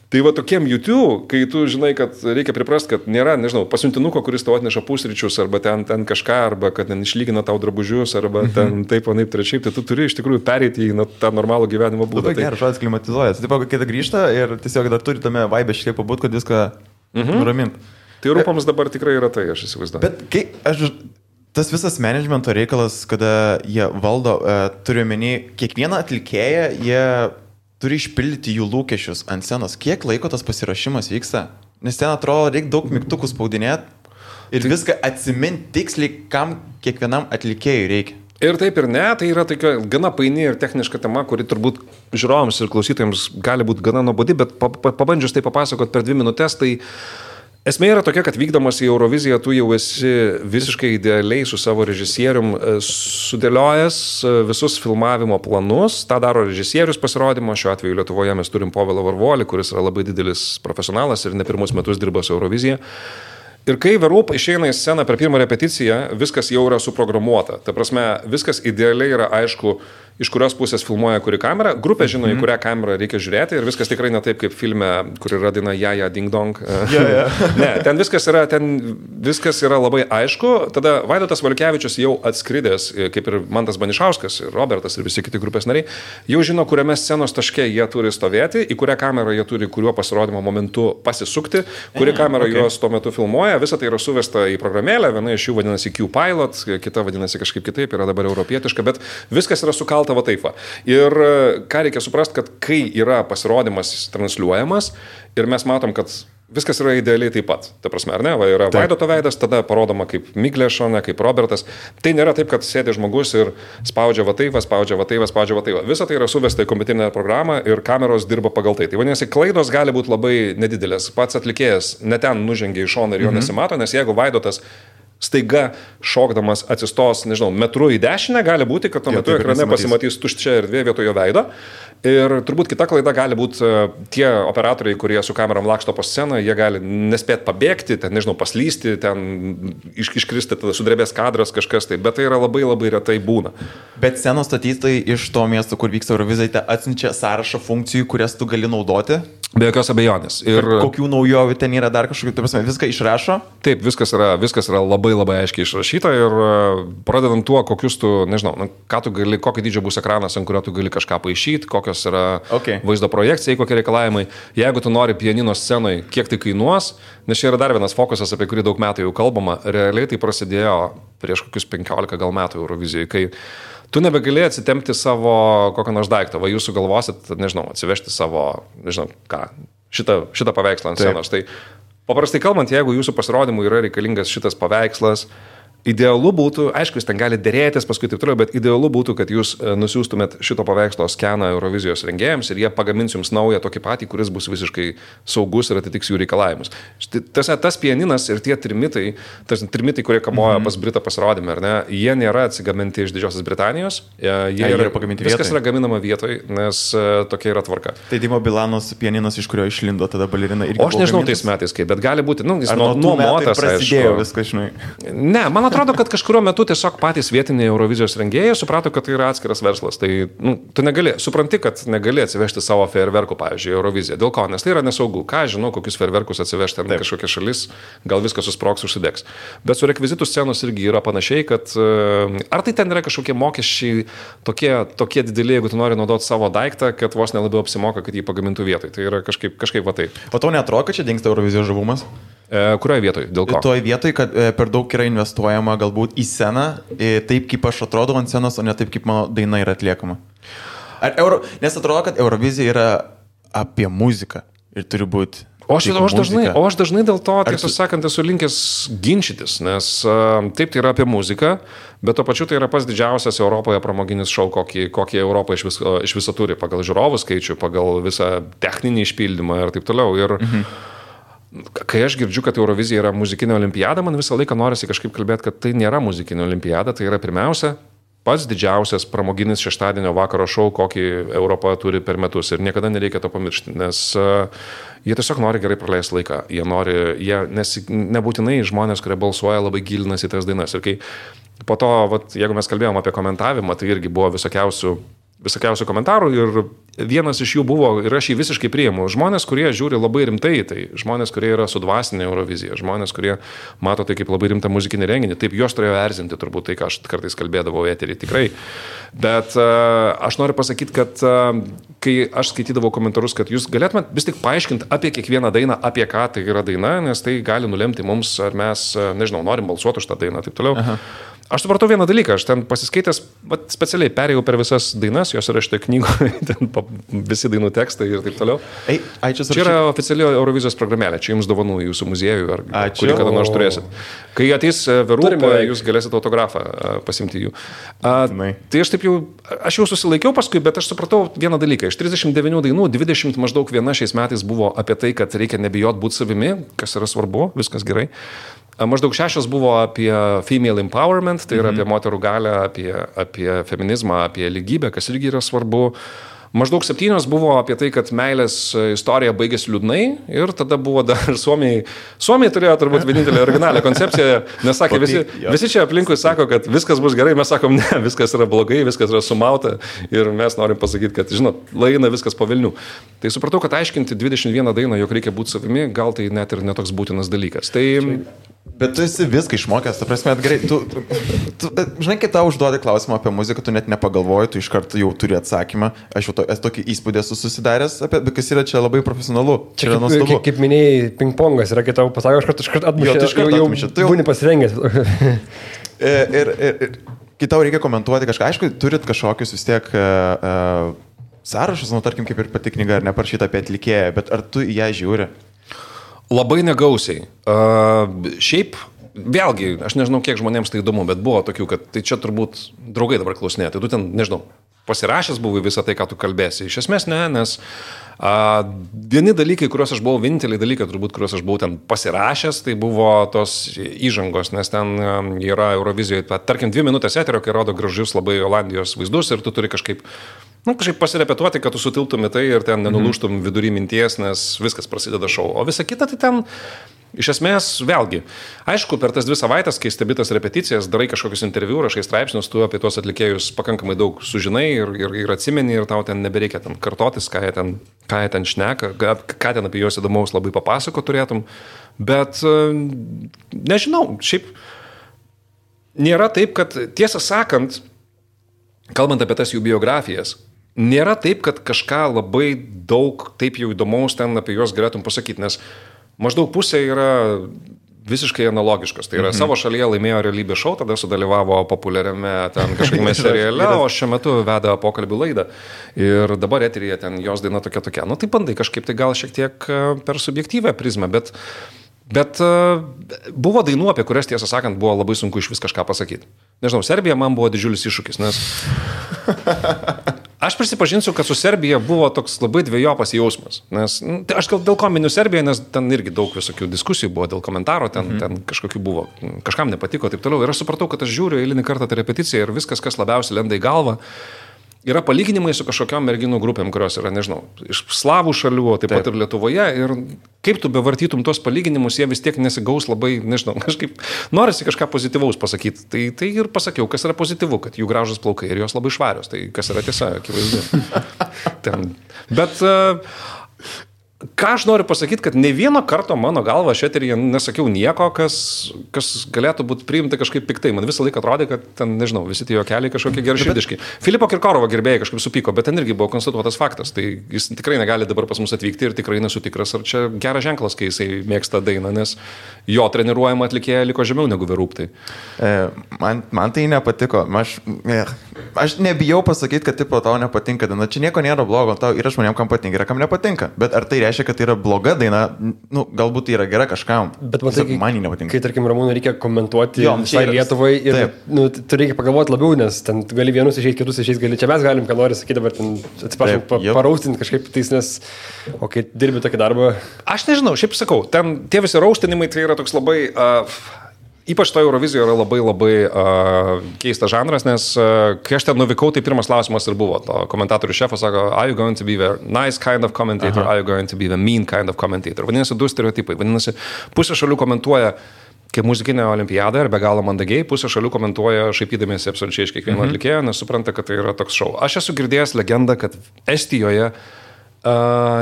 Tai va tokiem YouTube, kai tu žinai, kad reikia priprasti, kad nėra, nežinau, pasiuntinuko, kuris tau atneša pusryčius, arba ten kažką, arba kad ten išlygina tau drabužius, arba ten taip, anaip, trečiaip, tai tu turi iš tikrųjų pereiti į tą normalų gyvenimo būdą. Labai geras žodis klimatizuojas. Taip, kai tai grįžta ir tiesiog dar turi tame vibe šiek tiek pabūt, kad viską nuraminti. Tai Rūpams dabar tikrai yra tai, aš įsivaizduoju. Bet kai tas visas managemento reikalas, kada jie valdo, turiu omeny, kiekvieną atlikėją, jie turi išpildyti jų lūkesčius ant scenos. Kiek laiko tas pasiruošimas vyksta? Nes ten atrodo, reikia daug mygtukų spaudinėti ir viską atsiminti tiksliai, kam kiekvienam atlikėjui reikia. Ir taip ir ne, tai yra tokia gana paini ir techniška tema, kuri turbūt žiūrovams ir klausytojams gali būti gana nuobodi, bet pabandžius tai papasakot per 2 minutės, tai esmė yra tokia, kad vykdamas į Euroviziją tu jau esi visiškai idealiai su savo režisierium sudėliojęs visus filmavimo planus. Ta daro režisierius pasirodymo. Šiuo atveju Lietuvoje mes turim Povilą Varvolį, kuris yra labai didelis profesionalas ir ne pirmus metus dirba su Eurovizija. Ir kai Verup išeina į sceną per pirmą repeticiją, viskas jau yra suprogramuota. Ta prasme, viskas idealiai yra aišku, iš kurios pusės filmuoja kuri kamera. Grupė žino, į kurią kamerą reikia žiūrėti ir viskas tikrai ne taip kaip filme, kur yra daina Jaja Ding Dong. Ne, ten viskas yra labai aišku. Tada Vaidotas Valiukevičius jau atskridęs, kaip ir Mantas Banišauskas, ir Robertas ir visi kiti grupės nariai, jau žino, kuriame scenos taške jie turi stovėti, į kurią kamerą jie turi kuriuo pasirodymo momentu pasisukti, kuri kamera juos tuo metu filmuoja. Visa tai yra suvesta į programėlę, viena iš jų vadinasi Q-Pilot, kita vadinasi kažkaip kitaip, yra dabar europietiška, bet viskas yra sukalta va taip va. Ir ką reikia suprasti, kad kai yra pasirodymas transliuojamas ir mes matom, kad viskas yra idealiai taip pat. Ta prasme, ar ne? Va, yra Vaidoto veidas, tada parodoma kaip Miglė šone, kaip Robertas. Tai nėra taip, kad sėdi žmogus ir spaudžia va taip, spaudžia va taip, spaudžia va taip. Visa tai yra suvesta į kompiuterinę programą ir kameros dirba pagal tai. Tai vadinasi, klaidos gali būti labai nedidelės. Pats atlikėjas ne ten nužengia į šoną ir jo nesimato, nes jeigu Vaidotas staiga šokdamas atsistos, nežinau, metru į dešinę, gali būti, kad tuo metu ekrane pasimatys tuščia erdvė vietojo veido. Ir turbūt kita klaida gali būti tie operatoriai, kurie su kamerom laksto po sceną, jie gali nespėti pabėgti, ten, nežinau, paslysti, ten iškristi, tada sudrebės kadras kažkas tai, bet tai yra labai labai retai būna. Bet scenos statytojai iš to miesto, kur vyksta Eurovizija, atsiunčia sąrašą funkcijų, kurias tu gali naudoti. Be jokios abejonės. Ir kokių naujovių ten yra dar kažkokių, tai prasme, viską išrašo? Taip, viskas yra labai labai aiškiai išrašyta ir pradedant tuo, kokius tu, nežinau, ką tu gali, kokio dydžio bus ekranas, ant kurio tu gali kažką paišyti, kokios yra vaizdo projekcijai, kokie reikalavimai. Jeigu tu nori pianino scenoje, kiek tai kainuos, nes čia yra dar vienas fokusas, apie kurį daug metų jau kalbama, realiai tai prasidėjo prieš kokius 15 gal metų Eurovizijai, kai tu nebegalėjai atsitempti savo kokio nors daikto, va jūs sugalvosit, nežinau, atsivežti savo, nežinau, ką, šitą paveikslą ant scenos. Tai paprastai kalbant, jeigu jūsų pasirodymui yra reikalingas šitas paveikslas, idealu būtų, aišku, jūs ten gali dėrėtis paskui taip toliau, bet idealu būtų, kad jūs nusiųstumėt šito paveikslo skeną Eurovizijos rengėjams ir jie pagamins jums naują tokį patį, kuris bus visiškai saugus ir atitiks jų reikalavimus. Tas pianinas ir tie trimitai, kurie kamoja pas Britą pasirodymą, ar ne, jie nėra atsigaminti iš Didžiosios Britanijos, jie yra pagaminti vietoje. Viskas yra gaminama vietoje, nes tokia yra tvarka. Tai Dimo Bilanos pianinas, iš kurio išlindo tada balerina irgi. O aš nežinau tais metais kaip, bet gali būti, jis nuomotas, prasidėjo viskas, žinai. Ne, man atrodo, kad kažkurio metu tiesiog patys vietiniai Eurovizijos rengėjai suprato, kad tai yra atskiras verslas. Tai tu supranti, kad negali atsivežti savo fejerverkų, pavyzdžiui, Euroviziją. Dėl ko? Nes tai yra nesaugu. Ką žinau, kokius fejerverkus atsivežti ant kažkokia šalis, gal viskas susprogs, užsidegs. Bet su rekvizitų scenos irgi yra panašiai, kad ar tai ten yra kažkokie mokesčiai tokie dideli, jeigu tu nori naudoti savo daiktą, kad vos nelabiau apsimoka, kad jį pagamintų vietoj. Tai yra kažkaip va taip. O tau neatrodo, kad čia dingsta Eurovizijos žavumas? Kurioje vietoje? Dėl ko? Toje vietoje, kad per daug yra investuojama galbūt į sceną, taip kaip aš atrodau ant scenos, o ne taip kaip mano daina yra atliekama. Nes atrodo, kad Eurovizija yra apie muziką ir turi būti. O aš dažnai dėl to, tiesą sakant, esu linkęs ginčytis, nes taip tai yra apie muziką, bet to pačiu tai yra pats didžiausias Europoje pramoginis šou, kokį Europą iš viso turi, pagal žiūrovų skaičių, pagal visą techninį išpildymą ir taip toliau. Ir kai aš girdžiu, kad Eurovizija yra muzikinė olimpiada, man visą laiką norisi kažkaip kalbėti, kad tai nėra muzikinė olimpiada, tai yra pirmiausia pats didžiausias pramoginis šeštadienio vakaro šou, kokį Europa turi per metus ir niekada nereikia to pamiršti, nes jie tiesiog nori gerai praleisti laiką, nes nebūtinai žmonės, kurie balsuoja, labai gilinasi į tas dainas ir kai po to, jeigu mes kalbėjom apie komentavimą, tai irgi buvo visokiausių komentarų ir vienas iš jų buvo, ir aš jį visiškai priimu, žmonės, kurie žiūri labai rimtai, tai žmonės, kurie yra sudvasinę Euroviziją, žmonės, kurie mato tai kaip labai rimtą muzikinį renginį, taip juos turėjo erzinti turbūt tai, ką aš kartais kalbėdavau eterį, tikrai. Bet aš noriu pasakyti, kad kai aš skaitydavau komentarus, kad jūs galėtumėt vis tik paaiškinti apie kiekvieną dainą, apie ką tai yra daina, nes tai gali nulemti mums, ar mes, nežinau, norim balsuoti už tą dainą, taip toliau. Aha. Aš supratau vieną dalyką, aš ten pasiskaitęs, specialiai perėjau per visas dainas, jos yra šitoje knygoje, ten visi dainų tekstai ir taip toliau. Čia yra oficiali Eurovizijos programėlė, čia jums dovanų jūsų muziejui, kurį kada nors turėsit. Kai ateis Verūpa, jūs galėsit autografą pasimti jų. Tai aš jau susilaikiau paskui, bet aš supratau vieną dalyką. Iš 39 dainų, 20 maždaug viena šiais metais buvo apie tai, kad reikia nebijot būti savimi, kas yra svarbu, viskas gerai. Maždaug 6 buvo apie female empowerment, tai yra apie moterų galią, apie feminizmą, apie lygybę, kas irgi yra svarbu. Maždaug 7 buvo apie tai, kad meilės istorija baigėsi liūdnai ir tada buvo dar Suomiai turėjo turbūt vienintelę originalią koncepciją, nes sakė, visi čia aplinkui sako, kad viskas bus gerai, mes sakom, ne, viskas yra blogai, viskas yra sumauta ir mes norim pasakyti, kad, žinot, laina viskas po velnių. Tai supratau, kad aiškinti 21 dainą, jog reikia būti savimi, gal tai net ir netoks būtinas dalykas. Bet tu esi viską išmokęs, ta prasme, gerai, tu žinai, kai tau užduodi klausimą apie muziką, tu net nepagalvoji, tu iš karto jau turi atsakymą. Aš jau esu tokį įspūdį esu susidaręs, kas yra čia labai profesionalu. Čia yra nuostabu. Kaip minėjai, pingpongas yra, kai tau pasako, aš kart atmušė, jau būni pasirengęs. Ir kai tau reikia komentuoti kažką, aišku, turit kažkokius vis tiek sąrašus, tarkim, kaip ir pati knyga, ar neparašyta apie atlikėją, bet ar tu į ją žiūri? Labai negausiai. Šiaip, vėlgi, aš nežinau, kiek žmonėms tai įdomu, bet buvo tokių, kad tai čia turbūt draugai dabar klausinė, tai tu ten, nežinau, pasirašęs buvai visą tai, ką tu kalbėsi. Iš esmės ne, nes vieni dalykai, kuriuos aš buvau, vieninteliai dalykai, turbūt, kuriuos aš buvau ten pasirašęs, tai buvo tos įžangos, nes ten yra Eurovizijoje, tarkim, 2 minutės eterio, kai rodo gražius labai Olandijos vaizdus ir tu turi kažkaip pasirepetuoti, kad tu sutiltum į tai ir ten nenulūštum vidury minties, nes viskas prasideda šou. O visa kita tai ten iš esmės, vėlgi, aišku, per tas 2 savaitės, kai stebi tas repeticijas, darai kažkokius interviu, rašai straipsnius, tu apie tuos atlikėjus pakankamai daug sužinai ir atsimeni ir tau ten nebereikia ten kartotis, ką jie ten šneka, ką ten apie juos įdomaus labai papasako turėtum. Bet nežinau, šiaip nėra taip, kad tiesą sakant, kalbant apie tas jų biografijas, nėra taip, kad kažką labai daug taip jau įdomaus ten apie juos galėtum pasakyti, nes maždaug pusė yra visiškai analogiškos. Tai yra savo šalyje laimėjo realybės šou, tada sudalyvavo populiariame ten kažkokiame seriale, o šiuo metu veda pokalbių laidą. Ir dabar eteryje ten jos daina tokia. Nu tai bandai kažkaip tai gal šiek tiek per subjektyvę prizmę, bet buvo dainų, apie kurias, tiesą sakant, buvo labai sunku iš vis kažką pasakyti. Nežinau, Serbija man buvo didžiulis iššūkis, nes aš prisipažinsiu, kad su Serbija buvo toks labai dvejopas jausmas, nes aš gal dėl ko miniu Serbiją, nes ten irgi daug visokių diskusijų buvo dėl komentaro, ten kažkokių buvo, kažkam nepatiko, taip toliau. Ir aš supratau, kad aš žiūriu eilinį kartą tą repeticiją ir viskas, kas labiausiai lenda į galvą, yra palyginimai su kažkokiom merginų grupėm, kurios yra, nežinau, iš slavų šalių, o taip pat ir Lietuvoje. Ir kaip tu bevartytum tos palyginimus, jie vis tiek nesigaus labai, nežinau, kažkaip norisi kažką pozityvaus pasakyti. Tai ir pasakiau, kas yra pozityvu, kad jų gražus plaukai ir jos labai švarios. Tai kas yra tiesa, akivaizdu. Bet ką aš noriu pasakyti, kad ne vieno karto mano galva aš eteryje nesakiau nieko, kas galėtų būti priimta kažkaip piktai. Man visą laiką atrodė, kad ten, nežinau, visi tie juokeliai kažkokie geraširdiški. Filipo Kirkorovo gerbėjai kažkaip supyko, bet ten irgi buvo konstatuotas faktas. Tai jis tikrai negali dabar pas mus atvykti ir tikrai nesu tikras, ar čia geras ženklas, kai jisai mėgsta dainą, nes jo treniruojama atlikėja liko žemiau negu Verūptai. Man tai nepatiko. Aš nebijau pasakyti, kad tipo tau nepatinka daina. Čia nieko nėra blogo, tau yra žmonėm, kam patinka, yra kam nepatinka. Bet ar tai reiškia, kad tai yra bloga daina? Galbūt tai yra gera kažkam. Bet man nepatinka. Kai, tarkim, Ramūnui reikia komentuoti visai Lietuvai ir tu reikia pagalvoti labiau, nes ten gali vienus išeiti, kitus išeiti, gali čia mes galim, ką nori sakyti, dabar ten atsiprašau, paraustinti kažkaip tais, nes o kai dirbi tokį darbą. Aš nežinau, šiaip sakau, ten tie visi raustinimai tai yra toks labai ypač to Eurovizijoje yra labai keistas žanras, nes kai aš ten nuvykau, tai pirmas klausimas ir buvo. To komentatorių šefas sako, are you going to be the nice kind of commentator, are you going to be the mean kind of commentator. Vadinasi, 2 stereotipai. Vadinasi, pusė šalių komentuoja kaip muzikinė olimpiada ir be galo mandagiai, pusė šalių komentuoja šaipydamiesi absoliučiai iš kiekvieno atlikėjo, nes supranta, kad tai yra toks šou. Aš esu girdėjęs legendą, kad Estijoje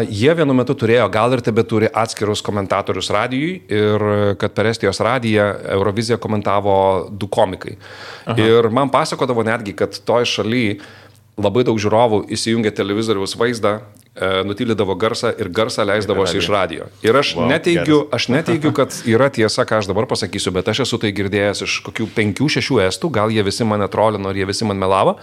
jie vienu metu turėjo, gal ir tebeturi atskirus komentatorius radijui ir kad per Estijos radiją Euroviziją komentavo 2 komikai. Ir man pasakodavo netgi, kad toj šaly labai daug žiūrovų įsijungė televizoriaus vaizdą, nutylydavo garsą ir garsą leisdavosi iš radijo. Ir aš neteigiu, kad yra tiesa, ką aš dabar pasakysiu, bet aš esu tai girdėjęs iš kokių 5-6 estų, gal jie visi mane trolino ir jie visi man melavo,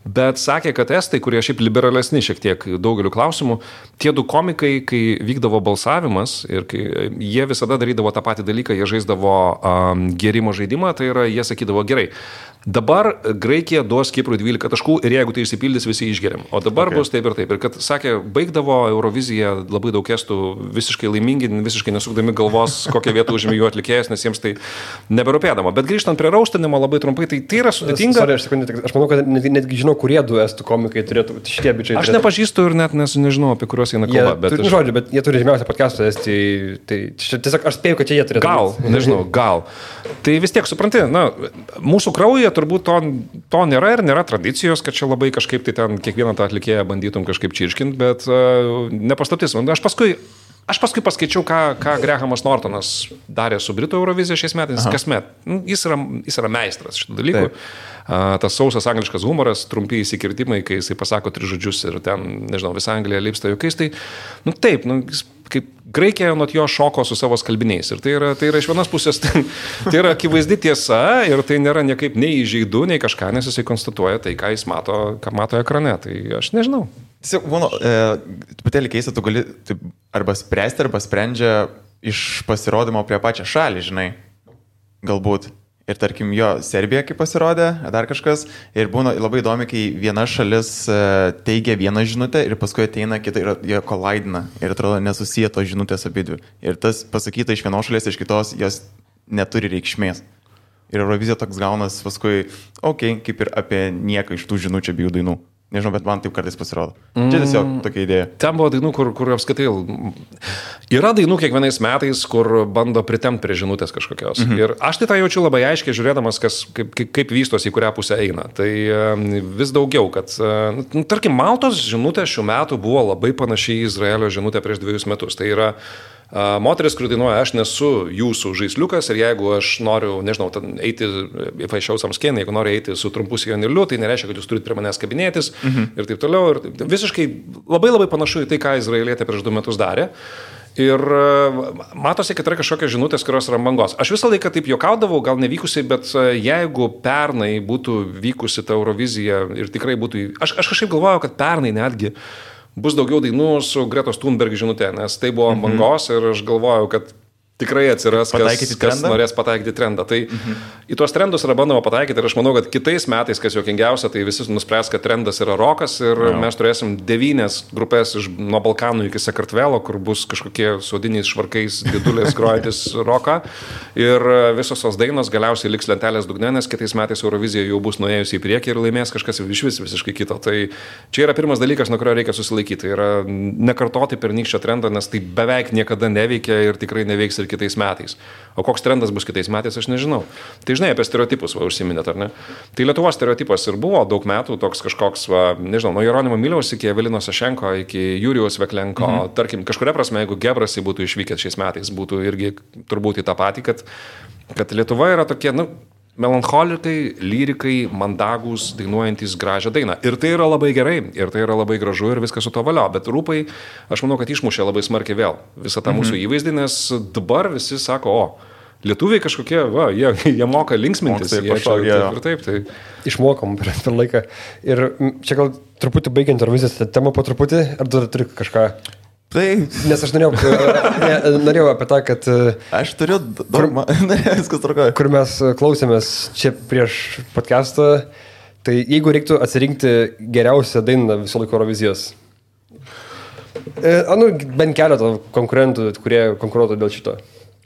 bet sakė, kad estai, kurie šiaip liberalesni šiek tiek daugeliu klausimų, tie 2 komikai, kai vykdavo balsavimas ir kai jie visada darydavo tą patį dalyką, jie žaisdavo gėrimo žaidimą, tai yra, jie sakydavo, gerai, dabar Graikija duos Kiprui 12 taškų ir jeigu tai išsipildys, visi išgeriam. O dabar bus taip ir taip. Ir kad, sakė, baigdavo Euroviziją labai daug estų visiškai laimingi, visiškai nesukdami galvos, kokią vietą užėmė jų atlikėjas, nes jiems tai neberūpėdama. Bet grįžtant prie raustinimo labai trumpai, tai yra sudėtinga. Aš manau, kad netgi žinau, kurie 2 estų komikai turėtų šitie bičiai. Aš nepažįstu ir net nežinau, apie kuriuos eina kalba. Bet jie turi žymiausią podcastą Estijai. Tai tiesiog aš spėjau, kad čia jie turėtų. Gal, nežinau, gal. Tai vis tiek, supranti, mūsų kraujyje turbūt to nėra ir nėra tradicijos, kad čia labai kažkaip tai ten kiekvieną tą atlikėją bandytum kažkaip čirškinti, bet nepaslaptis. Aš paskui paskaičiau, ką Grahamas Nortonas darė su Britų Eurovizija šiais metais, kasmet. Jis yra meistras šitų dalykų. Tas sausas angliškas humoras, trumpi įsikirtimai, kai jisai pasako 3 žodžius ir ten, nežinau, visa Anglija lipsta juokais, tai, taip, kaip Graikija nuo jo šoko su savo skalbiniais. Ir tai yra iš vienos pusės, tai yra akivaizdi tiesa ir tai nėra niekaip nei įžeidu, nei kažką, nes jisai konstatuoja tai, ką jis mato, ką mato ekrane. Tai aš nežinau. Tiesiog, truputėlį keista, tu gali arba spręsti, arba sprendžia iš pasirodymo prie pačią šalį, žinai, galbūt. Ir tarkim, jo Serbija kaip pasirodė, dar kažkas. Ir būna labai įdomi, kai viena šalis teigia vieną žinutę ir paskui ateina kita ir jie kolaidina. Ir atrodo nesusiję tos žinutės abidvi. Ir tas pasakyta iš vienos šalies, iš kitos, jos neturi reikšmės. Ir Eurovizija toks gaunas paskui, kaip ir apie nieką iš tų žinučių abiejų dainų. Nežinau, bet man taip kartais pasirodo. Čia tiesiog tokia idėja. Ten buvo dainų, kur apskaitai... Yra dainų kiekvienais metais, kur bando pritemti prie žinutės kažkokios. Ir aš tai tą jaučiu labai aiškiai, žiūrėdamas, kaip vystosi, į kurią pusę eina. Tai vis daugiau, kad... tarkim, Maltos žinutė šių metų buvo labai panašiai į Izraelio žinutę prieš 2 metus. Tai yra... moteris, kuri dainuoja, aš nesu jūsų žaisliukas ir jeigu aš noriu, nežinau, eiti, if I show some skin, jeigu noriu eiti su trumpu sijonėliu, tai nereiškia, kad jūs turite prie manęs kabinėtis ir taip toliau. Ir visiškai labai labai panašu į tai, ką Izraelietė prieš 2 metus darė. Ir matosi, kad yra kažkokios žinutės, kurios yra bangos. Aš visą laiką taip juokaudavau, gal nevykusiai, bet jeigu pernai būtų vykusi ta Eurovizija ir tikrai būtų... Aš kažkaip galvojau, kad pernai netgi bus daugiau dainų su Gretos Thunberg žinutė, nes tai buvo bangos ir aš galvojau, kad tikrai atsiras, kas norės pataikyti trendą. Tai į tuos trendus yra bandoma pataikyti ir aš manau, kad kitais metais, kas juokingiausia, tai visi nuspręs, kad trendas yra rokas ir mes turėsim 9 grupės nuo Balkanų iki Sakartvelo, kur bus kažkokie sodiniais švarkais didulės grojantis roką ir visos tos dainos galiausiai liks lentelės dugne, nes kitais metais Eurovizija jau bus nuėjusi į priekį ir laimės kažkas visiškai kito. Tai čia yra pirmas dalykas, nuo kurio reikia susilaikyti. Tai yra nekartoti pernykščio trendą, nes tai beveik niekada neveikia ir tikrai neveiks ir kitais metais. O koks trendas bus kitais metais, aš nežinau. Tai žinai, apie stereotipus užsiminėt, ar ne? Tai Lietuvos stereotipas ir buvo daug metų toks kažkoks, nežinau, nuo Jeronimo Miliaus iki Evelino Sašenko, iki Jurijaus Veklenko. Tarkim, kažkuria prasme, jeigu Gebrasi būtų išvykęs šiais metais, būtų irgi turbūt į tą patį, kad Lietuva yra tokie, melancholikai, lyrikai, mandagus, dainuojantis gražią dainą. Ir tai yra labai gerai, ir tai yra labai gražu ir viskas su to valio. Bet rūpai, aš manau, kad išmušė labai smarkiai vėl visą tą mūsų įvaizdį, nes dabar visi sako, lietuviai kažkokie, jie moka linksmintis. Taip. Išmokom per laiką. Ir čia gal truputį baigiant Eurovizijos temą po truputį, ar dar turi kažką... Nes aš norėjau apie tą, kad... Aš turiu... Viskas tvarkoja. Kur mes klausėmės čia prieš podcastą, tai jeigu reiktų atsirinkti geriausią dainą viso laiko Eurovizijos, bent keletą konkurentų, kurie konkuruotų dėl šito.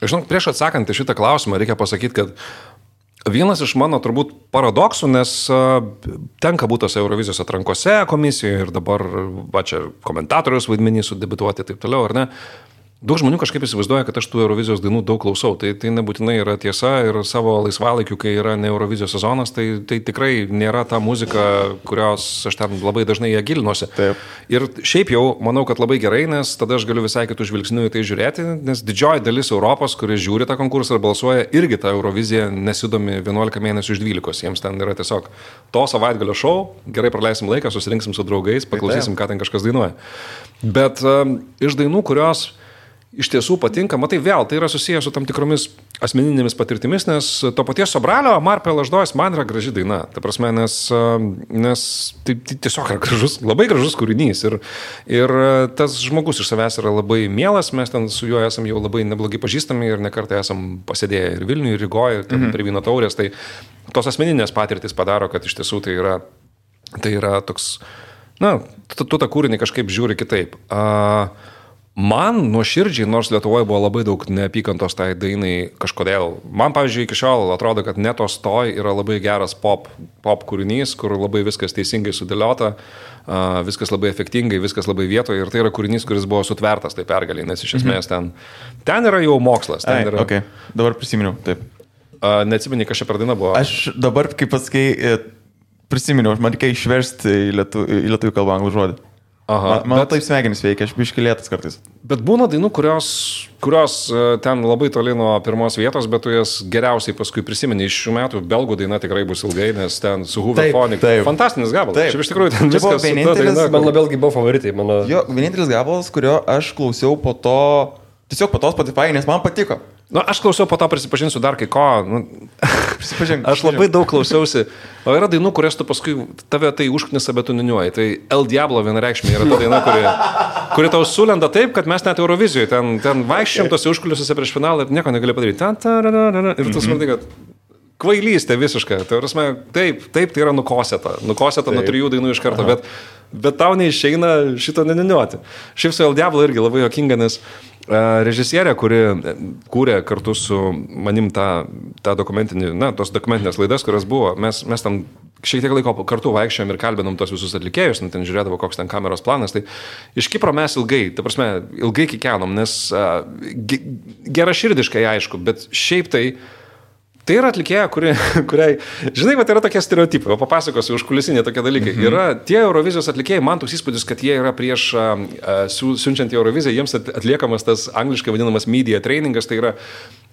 Žinok, prieš atsakant į šitą klausimą reikia pasakyti, kad vienas iš mano turbūt paradoksų, nes tenka būti tose Eurovizijos atrankose komisijoje ir dabar čia komentatorius vaidmenį sudebituoti ir taip toliau, ar ne? Daug žmonių kažkaip įsivaizduoja, kad aš tų Eurovizijos dainų daug klausau. Tai nebūtinai yra tiesa ir savo laisvalaikiu, kai yra ne Eurovizijos sezonas, tai tikrai nėra ta muzika, kurios aš ten labai dažnai ją gilinuosi. Taip. Ir šiaip jau manau, kad labai gerai, nes tada aš galiu visai kitų žvilgsnių į tai žiūrėti, nes didžioji dalis Europos, kurie žiūri tą konkursą ir balsuoja, irgi tą Euroviziją nesidomi 11 mėnesių iš 12. Jiems ten yra tiesiog to savaitgalio šou, gerai praleisim laiką, susirinksim su draugais, paklausysim, ką ten kažkas dainuoja. Bet iš dainų, kurios iš tiesų patinka, matai vėl, tai yra susijęs su tam tikromis asmeninėmis patirtimis, nes to paties Sobralio Marpė Laždojas man yra graži daina. Ta prasme, nes tai tiesiog yra gražus, labai gražus kūrinys ir tas žmogus iš savęs yra labai mielas, mes ten su juo esam jau labai neblogai pažįstami ir nekartą esam pasėdėję ir Vilniuje, ir Rygoje, ir prie vyno taurės, tai tos asmeninės patirtis padaro, kad iš tiesų tai yra toks, tu tą kūrinį kažkaip žiūri kitaip. Man nuoširdžiai, nors Lietuvoje buvo labai daug neapykantos tai dainai kažkodėl. Man, pavyzdžiui, iki šiol atrodo, kad Netos Toj yra labai geras pop kūrinys, kur labai viskas teisingai sudėliota, viskas labai efektingai, viskas labai vietoje ir tai yra kūrinys, kuris buvo sutvertas tai pergaliai, nes iš esmės ten yra jau mokslas. Okay. Dabar prisiminiau, taip. Neatsimeni, kas čia per daina buvo? Aš dabar, kaip pasakai, prisiminiau, man reikia išversti į lietuvių kalbą anglų žodį. Man taip smegenys veikia, aš biškilėtas kartais. Bet būna dainų, kurios ten labai toli nuo pirmos vietos, bet tu jas geriausiai paskui prisimeni. Iš šių metų belgų daina tikrai bus ilgai, nes ten su Hooverphonic. Fantastinis gabalas. Šiaip iš tikrųjų ten viskas su ta daina. Man belgai buvo favoritai. Jo, vienintelis gabalas, kurio aš klausiau po to, tiesiog po to Spotify, nes man patiko. Aš klausiau, po to prisipažinsiu dar kai ko. Prisipažink. Aš labai daug klausiausi. O yra dainų, kurias tu paskui tave tai užknisa, bet tu niuniuoji. Tai El Diablo vienareikšmiai yra ta daina, kuri tau sulenda taip, kad mes net Eurovizijoje ten vaikščiam tose užkulisiuose prieš finalą ir nieko negali padaryti. Ir tu supranti, kad kvailystė visiška. Tai prasme, taip, tai yra nukosėta nuo 3 dainų iš karto, bet tau neišeina šito neniniuoti. Šiaip su El Diablo irgi labai jokinga, nes režisierė, kuri kūrė kartu su manim tą dokumentinį, tos dokumentinės laidas, kurios buvo, mes tam šiek tiek laiko kartu vaikščiojom ir kalbinom tos visus atlikėjus, ten žiūrėdavo, koks ten kameros planas, tai iš Kipro mes ilgai kikenom, nes geraširdiškai aišku, bet šiaip tai yra atlikėja, kuriai, žinai, bet yra tokie stereotipai, o papasakosiu užkulisinė tokie dalykai. Yra tie Eurovizijos atlikėjai, man toks įspūdis, kad jie yra prieš siunčiant į Euroviziją, jiems atliekamas tas angliškai vadinamas media trainingas, tai yra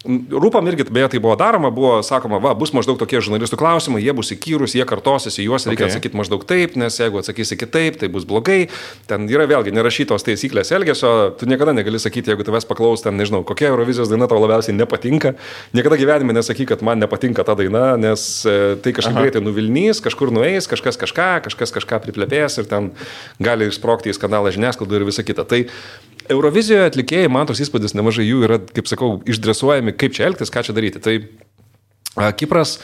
Rūpam irgi, beje, tai buvo daroma, buvo sakoma, bus maždaug tokie žurnalistų klausimai, jie bus įkyrus, jie kartosis, į juos reikia atsakyti maždaug taip, nes jeigu atsakysi kitaip, tai bus blogai. Ten yra vėlgi nerašytos taisyklės elgesio, tu niekada negali sakyti, jeigu tavęs paklaus, ten nežinau, kokia Eurovizijos daina tau labiausiai nepatinka. Niekada gyvenime nesakyk, kad man nepatinka ta daina, nes tai kažkaip greitai nuvilnys, kažkur nueis, kažkas kažką priplepės ir ten gali išsprogti į skandalą žiniasklaidų ir visa kita. Tai Eurovizijoje atlikėjai, man toks įspūdis, nemažai jų yra, kaip sakau, išdresuojami, kaip čia elgtis, ką čia daryti. Tai Kipras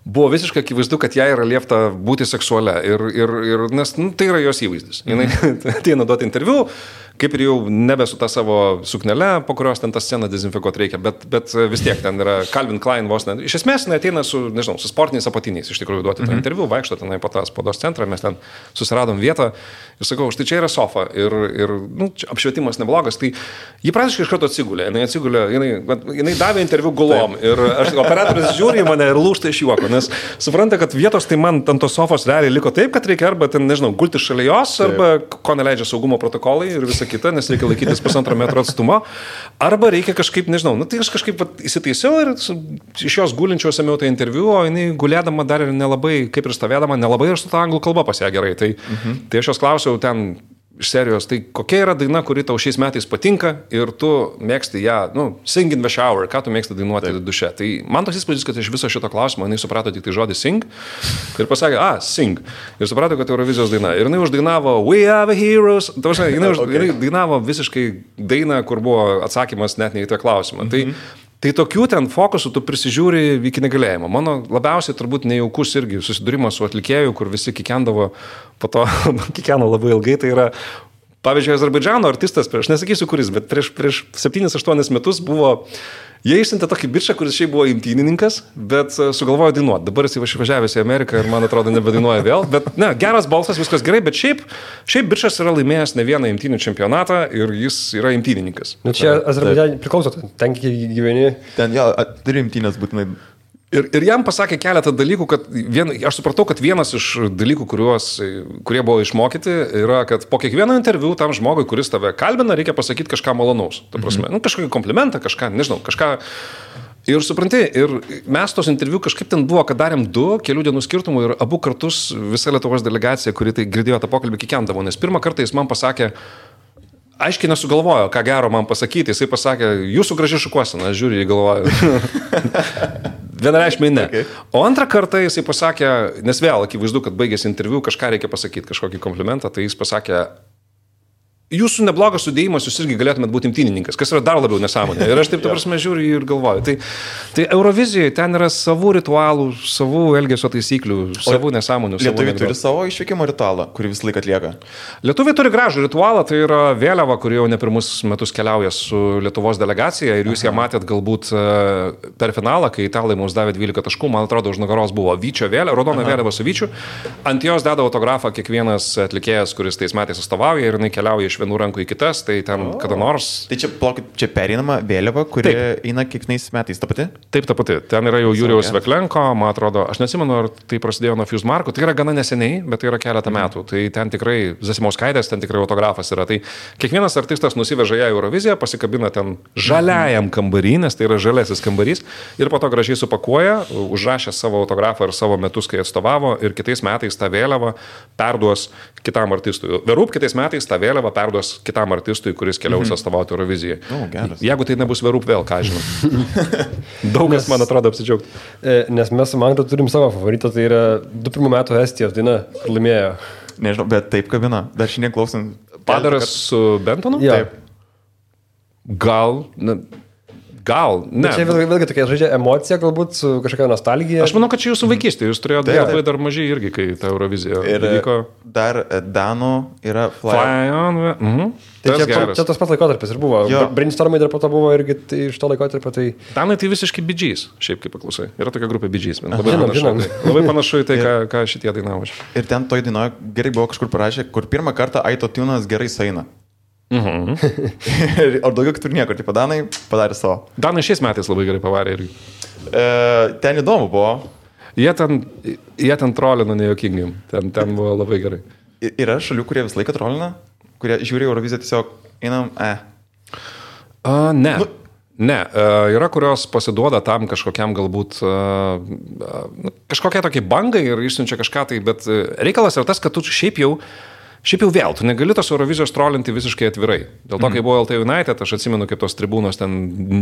buvo visiškai akivaizdu, kad jai yra liepta būti seksualia ir nes tai yra jos įvaizdis. Jis ateina duoti interviu, kaip ir jau nebe su ta savo suknele, po kurios ten tą sceną dezinfekuoti reikia, bet vis tiek ten yra Calvin Klein vos ne. Iš esmės, ateina su sportiniais apatiniais, iš tikrųjų duoti tą interviu, vaikšto tenai po tą spaudos centrą, mes ten susiradom vietą ir sakau, štai čia yra sofa ir apšvietimas neblogas, tai ji praktiškai iš karto atsigulė, jinai davė interviu gulom ir operatorius žiūri į mane ir lūžta iš juoko, nes supranta, kad vietos tai man ant tos sofos realiai liko taip, kad reikia arba ten, gulti šalia jos, arba ko neleidžia saugumo protokolai ir visa kita, nes reikia laikytis 1,5 metro atstumo, arba reikia kažkaip, tai aš kažkaip įsitaisiau ir iš jos gulinčiau ėmiau tą interviu, o jinai gulėdama dar ir nelabai, kaip ir stovėdama, nelabai ir su ta anglų kalba pas ją gerai. Tai aš jos klausiau ten iš serijos, tai kokia yra daina, kuri tau šiais metais patinka ir tu mėgsti ją, sing in the shower, ką tu mėgsti dainuoti duše. Tai man toks įspūdis, kad iš viso šito klausimo jinai suprato tik tai žodį sing ir pasakė, sing. Ir suprato, kad Eurovizijos daina. Ir jinai uždainavo We are the heroes. Jinai dainavo visiškai dainą, kur buvo atsakymas net ne į tą klausimą. Tai tokių ten fokusų tu prisižiūri iki negalėjimo. Mano labiausiai turbūt nejaukus irgi susidūrimas su atlikėju, kur visi kikendavo, po to kikeno labai ilgai, tai yra, pavyzdžiui, Azerbaidžano artistas, aš nesakysiu kuris, bet prieš 7-8 metus buvo, jie išsiuntė tokį bičą, kuris šiaip buvo imtynininkas, bet sugalvojo dainuoti. Dabar jis išvažiavęs į Ameriką ir man atrodo nebedainuoja vėl, bet geras balsas, viskas gerai, bet šiaip bičas yra laimėjęs ne vieną imtynių čempionatą ir jis yra imtynininkas. Čia Azerbaidžane priklauso, ten gyveni. Ten turi imtynės būtinai. Ir jam pasakė keletą dalykų, kad aš supratau, kad vienas iš dalykų, kurie buvo išmokyti, yra, kad po kiekvieno interviu tam žmogui, kuris tave kalbina, reikia pasakyti kažką malonaus. Ta prasme, kažkokį komplimentą, kažką. Ir supranti, ir mes tos interviu kažkaip ten buvo, kad darėm 2 kelių dienų skirtumų ir abu kartus visa Lietuvos delegacija, kuri tai girdėjo tą pokalbį, kikendavo, nes pirmą kartą jis man pasakė, aiškiai nesugalvojo, ką gero man pasakyti, jisai pasakė, jūsų graži šukuosena, aš žiūriu, jį galvoju. Vienareikšmiai ne. Okay. O antrą kartą jisai pasakė, nes vėl akivaizdu, kad baigėsi interviu, kažką reikia pasakyti, kažkokį komplimentą, tai jis pasakė, jūsų neblogas sudėjimas, jūs irgi galėtumėt būti imtynininkas, kas yra dar labiau nesąmonė. Ir aš taip, ta prasme, žiūriu ir galvoju. Tai Eurovizijoje ten yra savų ritualų, savų elgesio taisyklių, savų nesąmonių. Lietuviai turi savo išvykimo ritualą, kurį visą laiką atlieka? Lietuviai turi gražų ritualą, tai yra vėliava, kuri jau ne pirmus metus keliauja su Lietuvos delegacija ir jūs ją matėt galbūt per finalą, kai italai mums davė 12 taškų, man atrodo, už nugaros buvo Vyčio vėliava, raudona vėliava su Vyčiu. Ant jos deda autografą kiekvienas atlikėjas, kuris tais metais atstovauja ir jinai keliauja iš vienų rankų į kitas, tai ten kada nors. Tai čia pereinama vėliava, kuri eina kiekvienais metais, ta pati? Taip, ta pati. Ten yra jau Jurijaus Veklenko, man atrodo, aš nesimenu, ar tai prasidėjo nuo Fuse Marko, tai yra gana neseniai, bet tai yra keletą metų. Tai ten tikrai Zasimauskaitės, ten tikrai autografas yra. Tai kiekvienas artistas nusiveža ją į Euroviziją, pasikabina ten žaliajam kambarį, nes tai yra žaliasis kambarys, ir po to gražiai supakuoja, užrašė savo autografą ir savo metus, kai atstovavo, ir kitais metais tą vėliavą perduos kitam artistui. Verūp kitais metais tą vėliavą perduos kitam artistui, kuris keliaus atstovauti Eurovizijai. Jeigu tai nebus Verūp vėl, ką žinau. Daug kas, man atrodo, apsidžiaugti. Nes mes su Magda turim savo favoritą, tai yra 21 metų Estijos daina, kur laimėjo. Nežinau, bet taip kabina. Dar šiandien klausant. Padaras su Bentonu? Ja. Taip. Gal, ne. Čia vėlgi tokia žaidžia emocija, galbūt su kažkokia nostalgija. Aš manau, kad čia jūsų vaikystė, jūs turėjote labai dar mažai irgi, kai ta Eurovizija vyko. Dar Danų yra Fly on. Tai čia tas pats laikotarpis ir buvo. Brainstormai dar po to buvo irgi iš to laikotarpio. Tai... Danai tai visiškai Bee Gees, šiaip kaip paklausai. Yra tokia grupė Bee Gees. Labai panašu į tai, ką šitie dainavo. Ir ten toj dainoje gerai buvo kažkur parašę, kur pirmą kartą autotunas gerai saina. Ar daugiau kitur niekur, tai Danai padarė savo. Danai šiais metais labai gerai pavarė irgi. Ten įdomu buvo. Jie ten trolino nejuokingai. Ten buvo labai gerai. Yra šalių, kurie visą laiką trolina, kurie žiūri Euroviziją tiesiog einam, Ne. Ne, yra, kurios pasiduoda tam kažkokiam galbūt kažkokia tokia bangai ir išsiunčia kažką tai, bet reikalas yra tas, kad tu šiaip jau vėl, tu negali tos Eurovizijos trolinti visiškai atvirai. Dėl to, kai buvo LT United, aš atsimenu, kaip tos tribūnos ten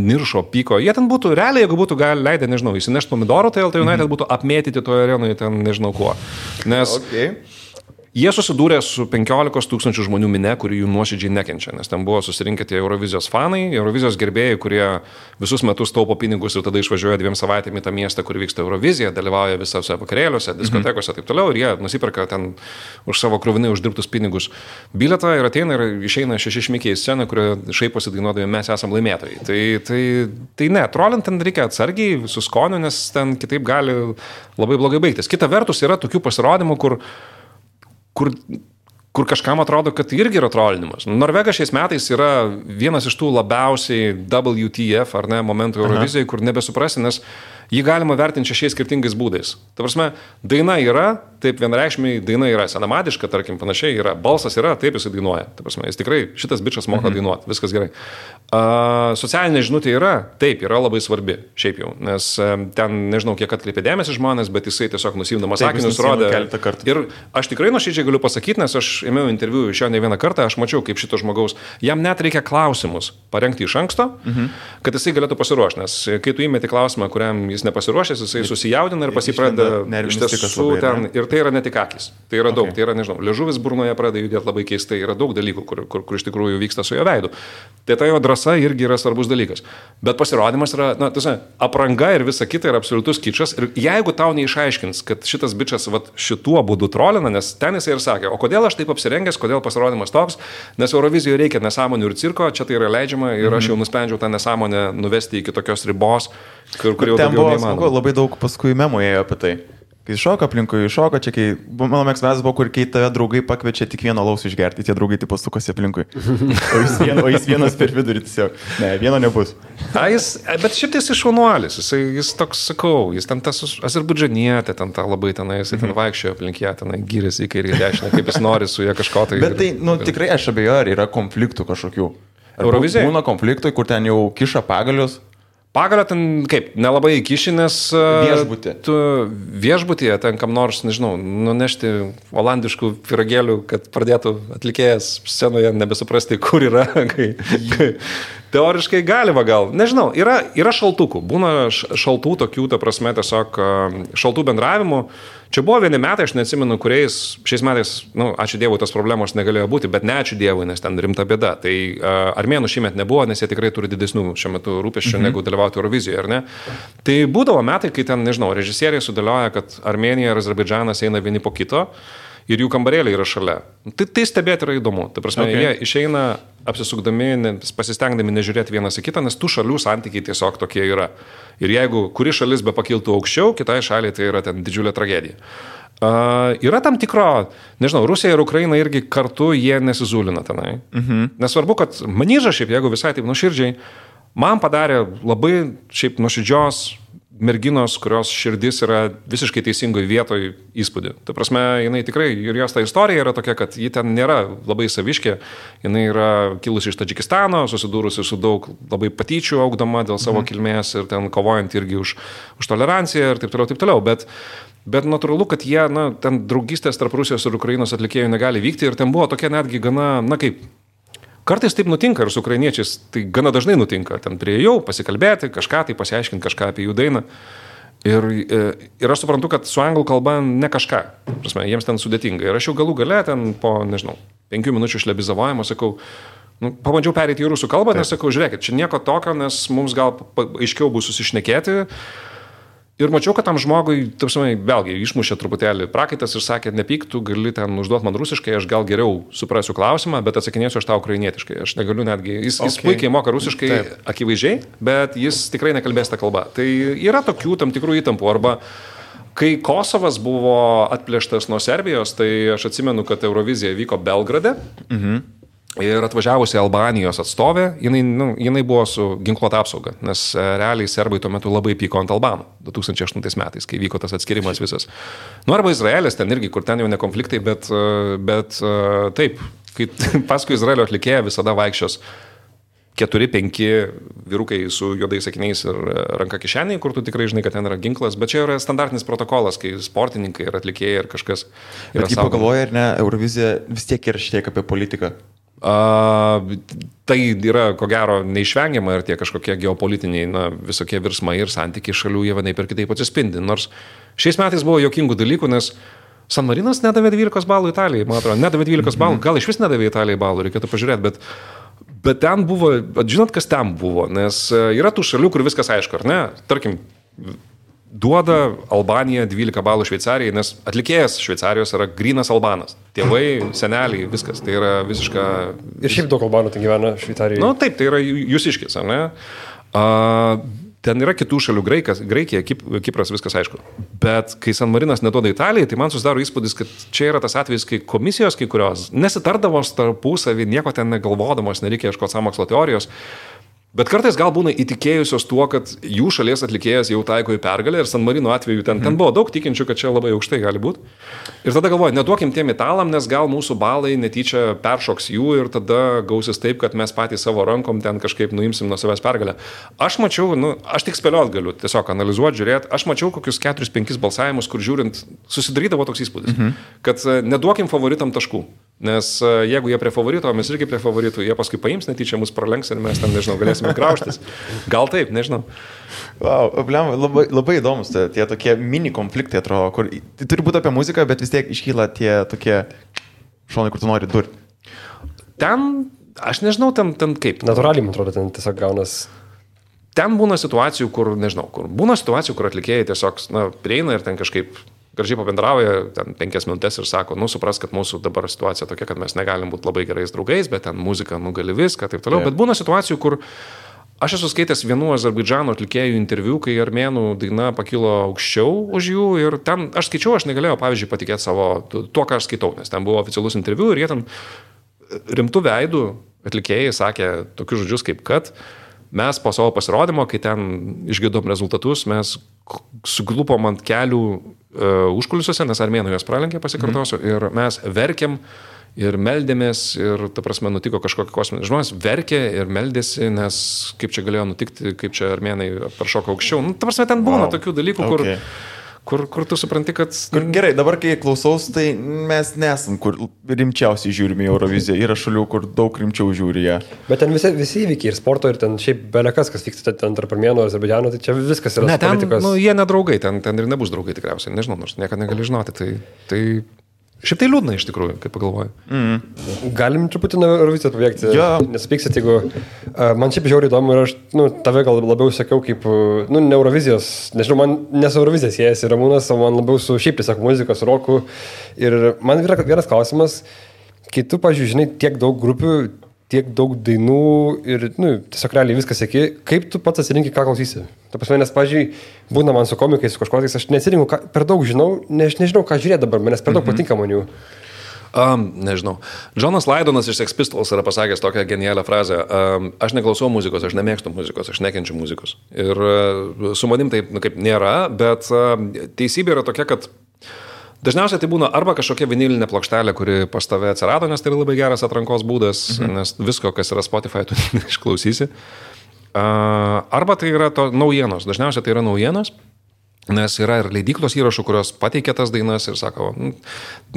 niršo, pyko. Jie ten būtų, realiai, jeigu būtų leidę, nežinau, įsinešti pomidorų, tai LT United būtų apmėtyti toje arenoje ten nežinau kuo. Nes... Jie susidūrė su 15 000 žmonių mine, kuri jų nuoširdžiai nekenčia, nes ten buvo susirinkę tie Eurovizijos fanai, Eurovizijos gerbėjai, kurie visus metus taupo pinigus ir tada išvažiuoja 2 savaitėmis į tą miestą, kur vyksta Eurovizija, dalyvauja visose vakarėliuose, diskotekose ir taip toliau, ir jie nusiperka ten už savo kruvinai uždirbtus pinigus bilietą ir ateina ir išeina 6 šmikiai į sceną, kurie šaiposi dainuodami, mes esam laimėtojai. Tai ne, trolint ten reikia atsargiai, su skoniu, nes ten kitaip gali labai blogai baigtis. Kita vertus yra tokių pasirodymų, kur kažkam atrodo, kad irgi yra trolinimas. Norvegas šiais metais yra vienas iš tų labiausiai WTF, ar ne, momentų Eurovizijai, kur nebesuprasi, nes jį galima vertinti 6 skirtingais būdais. Ta prasme, daina yra, taip vienareikšmiai daina yra senamadiška, tarkim, panašiai yra, balsas yra, taip jis dainuoja. Ta prasme, jis tikrai, šitas bičas moka dainuoti, viskas gerai. Socialinė žinutė yra, taip, yra labai svarbi, šiaip jau, nes ten, nežinau, kiek atkreipė dėmesį žmonės, bet jisai tiesiog nusimdamas sakinius rodė. Ir aš tikrai nuoširdžiai galiu pasakyti, nes aš ėmiau interviu iš jo ne vieną kartą, aš mačiau, kaip šito žmogaus, jam net reikia klausimus parengti iš anksto, kad jisai galėtų pasiruošti, nes kai tu įmeti klausimą, kuriam jis nepasiruošęs, jisai susijaudina ir pasipradeda iš tiesų ten, ir tai yra ne tik akis, tai yra daug, tai yra, nežinau, liežuvis burnoje pradeda judėti labai keistai, yra daug dalykų, kur iš tikrųjų vyksta su jo veidu. Tai ta jo drąsa irgi yra svarbus dalykas. Bet pasirodymas yra, na, tiesa, apranga ir visa kita yra absoliutus kičas. Ir jeigu tau neišaiškins, kad šitas bičas šituo būdu trolina, nes ten jisai ir sakė, o kodėl aš taip apsirengęs, kodėl pasirodymas toks, nes Eurovizijoje reikia nesąmonių ir cirko, čia tai yra leidžiama ir aš jau nusprendžiau tą nesąmonę nuvesti iki tokios ribos, kur jau ten buvo smagu, labai daug paskui memų ėjo apie tai. Kai šoka aplinkui, šoka, čia kai, mano mėgstamiausias buvo, kur kai tave draugai pakviečia tik vieną alaus išgerti, tie draugai taip pasukosi aplinkui. O jis vienas per vidurį tiesiog. Ne, vieno nebus. Bet šiaip jis išvanuolis, jis toks, sakau, jis ten tas azerbaidžanietė, ten tą labai tenai, jis ten vaikščiojo aplink ją, tenai gyrėsi į kairį ir dešinę, kaip jis nori su ją kažko tai. Bet tai, tikrai aš abejoju, ar yra konfliktų kažkokių. Eurovizijai? Būna konfliktai, kur ten jau kiša pagalius. Pagalio ten, kaip, nelabai įkiši, nes tu viešbutyje ten kam nors, nežinau, nunešti olandiškų piragėlių, kad pradėtų atlikėjas scenoje nebesuprasti, kur yra. Teoriškai galima gal. Nežinau, yra šaltukų. Būna šaltų tokių, ta prasme, tiesiog šaltų bendravimų. Čia buvo vieni metai, aš neatsimenu, kuriais šiais metais, ačiū Dievui, tos problemos negalėjo būti, bet ne ačiū Dievui, nes ten rimta bėda. Tai armėnų šiemet nebuvo, nes jie tikrai turi didesnių šiuo metu rūpesčių negu dalyvauti Eurovizijoje, ar ne? Tai būdavo metai, kai ten, nežinau, režisieriai sudėlioja, kad Armėnija ir Azerbaidžanas eina vieni po kito ir jų kambarėliai yra šalia. Tai stebėti yra įdomu. Ta prasme, jie išeina apsisukdami, pasistengdami nežiūrėti vienas į kitą, nes tų šalių santykiai tiesiog tokie yra. Ir jeigu kuri šalis be pakiltų aukščiau, kitai šaliai tai yra ten didžiulė tragedija. Yra tam tikro, nežinau, Rusija ir Ukraina irgi kartu jie nesizūlina tenai. Nesvarbu, kad Manyža šiaip, jeigu visai taip nuoširdžiai, man padarė labai šiaip nuoširdžios merginos, kurios širdis yra visiškai teisingoje vietoje įspūdį. Ta prasme, jinai tikrai, ir jos ta istorija yra tokia, kad ji ten nėra labai saviškė, jinai yra kilusi iš Tadžikistano, susidūrusi su daug labai patyčių augdama dėl savo kilmės ir ten kovojant irgi už toleranciją ir taip toliau. Bet natūralu, kad jie, ten draugystės tarp Rusijos ir Ukrainos atlikėjų negali vykti ir ten buvo tokia netgi gana, kaip kartais taip nutinka ir su ukrainiečiais, tai gana dažnai nutinka. Ten prieėjau pasikalbėti, kažką tai pasiaiškinti, kažką apie jų dainą. Ir aš suprantu, kad su anglų kalba ne kažką. Prasme, jiems ten sudėtinga. Ir aš jau galų gale ten po, 5 minučių šlebizavojimo sakau, Pabandžiau perėti į rusų kalbą, nes sakau, žiūrėkit, čia nieko tokio, nes mums gal aiškiau bus susišnekėti. Ir mačiau, kad tam žmogui, vėlgi, išmušė truputėlį prakaitas ir sakė, nepyk, tu gali ten užduoti man rusiškai, aš gal geriau suprasiu klausimą, bet atsakinėsiu aš tau ukrainietiškai. Aš negaliu netgi, jis puikiai moka rusiškai, akivaizdžiai, bet jis tikrai nekalbės tą kalbą. Tai yra tokių tam tikrų įtampų. Arba kai Kosovas buvo atplėštas nuo Serbijos, tai aš atsimenu, kad Eurovizija vyko Belgrade. Ir atvažiavusi Albanijos atstovė, jinai buvo su ginkluota apsauga, nes realiai serbai tuo metu labai pyko ant albanų 2008 metais, kai vyko tas atskirimas visas. Arba Izraelis ten irgi, kur ten jau ne konfliktai, bet taip, kai paskui Izraelio atlikėja visada vaikščios 4-5 vyrukai su juodais akiniais ir ranka kišeniai, kur tu tikrai žinai, kad ten yra ginklas, bet čia yra standartinis protokolas, kai sportininkai ir atlikėjai ir kažkas yra. Bet kaip pagalvoja, ar ne, Eurovizija vis tiek yra šiek tiek apie politiką. Tai yra, ko gero, neišvengiama ir tie kažkokie geopolitiniai, visokie virsmai ir santykiai šalių jie vienaip ir kitaip atsispindi. Nors šiais metais buvo jokingų dalykų, nes San Marinas nedavė 12 balų Italijai, man atrodo, nedavė 12 balų, gal iš vis nedavė Italijai balų, reikėtų pažiūrėti, bet ten buvo, žinot, kas ten buvo, nes yra tų šalių, kur viskas aišku, ar ne? Tarkim, duoda Albanija 12 balų Šveicarijai, nes atlikėjas Šveicarijos yra grynas albanas. Tėvai, seneliai, viskas. Tai yra visiška... Ir šiaip daug albanų ten gyvena Šveicarijoje. Taip, tai yra jūsiškis, ar ne? Ten yra kitų šalių, Graikija, Kipras, viskas aišku. Bet kai San Marinas neduoda Italijai, tai man susidaro įspūdis, kad čia yra tas atvejis, kai komisijos kai kurios nesitardamos tarpusavį, nieko ten negalvodamos, nereikia ieškoti sąmokslo teorijos. Bet kartais gal būna įtikėjusios tuo, kad jų šalies atlikėjas jau taiko į pergalę ir San Marino atveju ten buvo daug tikinčių, kad čia labai aukštai gali būti. Ir tada galvoju, neduokim tiem italam, nes gal mūsų balai netyčia peršoks jų ir tada gausis taip, kad mes patys savo rankom ten kažkaip nuimsim nuo savęs pergalę. Aš mačiau, aš tik spėliot galiu, tiesiog analizuoti, žiūrėti, aš mačiau kokius 4-5 balsavimus, kur žiūrint susidarydavo toks įspūdis, kad neduokim favoritam taškų. Nes jeigu jie prie favorito, mes irgi prie favoritų, jie paskui paims netyčia, mus pralenks ir mes ten, nežinau, galėsime graužtis. Gal taip, nežinau. Wow, labai įdomus tie tokie mini konfliktai, atrodo, kur tai turi būti apie muziką, bet vis tiek iškyla tie tokie šonai, kur tu nori durti. Ten, aš nežinau, ten kaip. Natūraliai, man atrodo, ten tiesiog gaunas. Ten būna situacijų, kur, nežinau, būna situacijų, kur atlikėjai tiesiog, prieina ir ten kažkaip gražiai pabendrauja, ten 5 minutės ir sako, supras, kad mūsų dabar situacija tokia, kad mes negalim būti labai gerais draugais, bet ten muzika gali viską, taip toliau. Bet būna situacijų, kur aš esu skaitęs vienų Azerbaidžano atlikėjų interviu, kai armėnų daina pakilo aukščiau už jų ir ten, aš skaičiau, aš negalėjau, pavyzdžiui, patikėti savo, tuo, ką aš skaitau, nes ten buvo oficialus interviu ir jie ten rimtų veidų atlikėjai sakė tokius žodžius kaip kad mes po savo pasirodymo, kai ten išgirdom rezultatus, mes suglupom ant kelių užkulisiuose, nes armėnų jos pralenkė, pasikartosiu, ir mes verkėm ir meldėmės ir, ta prasme, nutiko kažkokia kosminė. Žmonės verkė ir meldėsi, nes kaip čia galėjo nutikti, kaip čia armėnai peršoko aukščiau. Ta prasme, ten būna tokių dalykų, kur tu supranti, kad... Gerai, dabar kai klausaus, tai mes nesam, kur rimčiausiai žiūrime į Euroviziją. Yra šalių, kur daug rimčiau žiūri ją. Bet ten visi įvykiai ir sporto, ir ten šiaip belekas, kas vyksta ten tarp armėnų ir Azerbaidžano, tai čia viskas yra politikos. Jie nedraugai, ten ir nebus draugai tikriausiai. Nežinau, nors niekada negali žinoti. Tai šiaip tai liūdna iš tikrųjų, kaip pagalvoju. Galim truputį nuo Eurovizijos pabėgti. Nesupyksit, jeigu... Man šiaip žiauriai įdomu ir aš tave gal labiau sakiau kaip... ne Eurovizijos, nežinau, man nes Eurovizija siejasi Ramūnas, o man labiau su šiaip tiesiog muzikos, roku. Ir man yra vienas klausimas, kai tu, pavyzdžiui, žinai tiek daug grupių, tiek daug dainų ir tiesiog realiai viskas seki, kaip tu pats atsirinki, ką klausysi? Ta prasme, nes, pavyzdžiui, būna man su komikais, su kažkokiais, aš neatsirinku, per daug žinau, nežinau, ką žiūrėti dabar, manęs per daug patinka man jų. Nežinau. Jonas Laidonas iš Sex Pistols yra pasakęs tokią genialią frazę. Aš neklausau muzikos, aš nemėgstu muzikos, aš nekenčiu muzikos. Ir su manim taip kaip nėra, bet teisybė yra tokia, kad dažniausiai tai būna arba kažkokia vinilinė plokštelė, kuri pas tave atsirado, nes tai yra labai geras atrankos būdas, nes visko, kas yra Spotify, tu išklausysi. Arba tai yra naujienos. Dažniausiai tai yra naujienos, nes yra ir leidyklos įrašų, kurios pateikia tas dainas ir sako,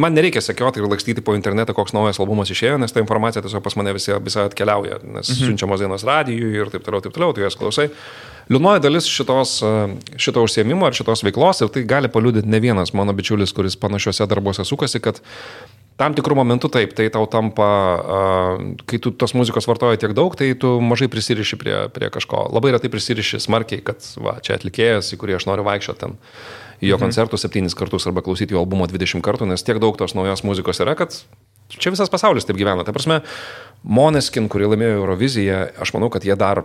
man nereikia sekioti ir lakstyti po internetą, koks naujas albumas išėjo, nes ta informacija tiesiog pas mane visai atkeliauja, nes siunčiamos dainos radijui ir taip toliau, tu jas klausai. Liūdnoji dalis šito užsiėmimo ar šitos veiklos, ir tai gali paliudyti ne vienas mano bičiulis, kuris panašiuose darbuose sukasi, kad tam tikrų momentų taip, tai tau tampa, kai tu tos muzikos vartoji tiek daug, tai tu mažai prisiriši prie kažko. Labai retai prisiriši smarkiai, kad va, čia atlikėjas, į kurį aš noriu vaikščioti ten į jo koncertų 7 kartus arba klausyti jo albumo 20 kartų, nes tiek daug tos naujos muzikos yra, kad čia visas pasaulis taip gyvena. Tai prasme, Måneskin, kurie laimėjo Euroviziją, aš manau, kad jie dar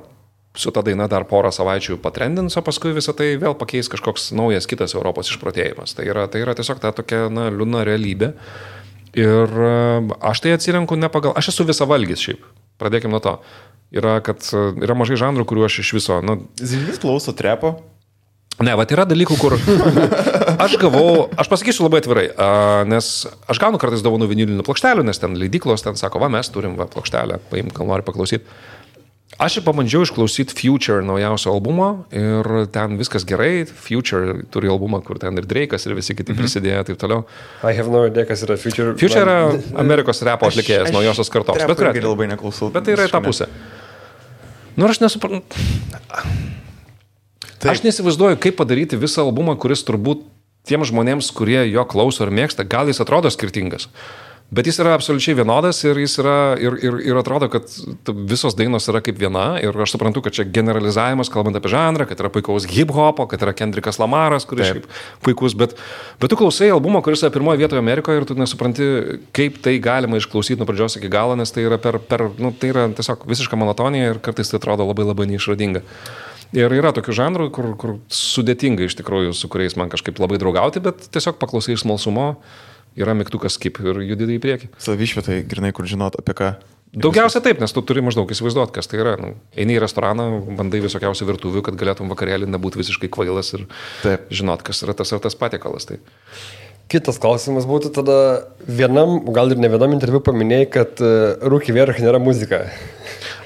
su ta daina dar porą savaičių patrendins, o paskui visą tai vėl pakeis kažkoks naujas kitas Europos išprotėjimas. Tai yra tiesiog ta tokia liūdna realybė. Ir aš tai atsirenku ne pagal... Aš esu visavalgis šiaip. Pradėkim nuo to. Yra mažai žanrų, kuriuo aš iš viso... Zilvis klauso trepo? Ne, va, yra dalykų, kur aš pasakysiu labai atvirai, nes aš gaunu kartais dovanų vinilinių plokštelių, nes ten leidyklos ten sako, va, mes turim plokštelę, paimk, gal nori paklausyti. Aš pabandžiau išklausyti Future naujausio albumo ir ten viskas gerai. Future turi albumą, kur ten ir Drake'as ir visi kiti prisidėjo, taip toliau. I have no idea, kas yra Future. Future yra Amerikos repo atlikėjas, naujosios kartos. Bet labai neklausau. Bet tai yra ta pusė. Aš nesuprantu. Aš nesivaizduoju, kaip padaryti visą albumą, kuris turbūt tiem žmonėms, kurie jo klauso ir mėgsta, gal jis atrodo skirtingas. Bet jis yra absoliučiai vienodas ir jis yra ir atrodo, kad visos dainos yra kaip viena ir aš suprantu, kad čia generalizavimas, kalbant apie žanrą, kad yra puikaus hip-hopo, kad yra Kendrickas Lamaras, kuris šiaip puikus, bet tu klausai albumą, kuris yra pirmoje vietoje Amerikoje ir tu nesupranti, kaip tai galima išklausyti nuo pradžios iki galo, nes tai yra tai yra tiesiog visiška monotonija ir kartais tai atrodo labai labai neišradinga. Ir yra tokių žanrų, kur sudėtinga iš tikrųjų, su kuriais man kažkaip labai draugauti, bet tiesiog paklausai iš smalsumo. Yra mygtukas skip ir judėti į priekį. Savišvietai, grinai, kur žinot apie ką. Daugiausia taip, nes tu turi maždaug įsivaizduoti, kas tai yra. Eini į restoraną, bandai visokiausių virtuvių, kad galėtum vakarėlį nebūti visiškai kvailas ir žinot, kas yra tas patiekalas. Tai. Kitas klausimas būtų tada vienam, gal ir ne vienam interviu paminėjai, kad Rūki Vierch nėra muzika.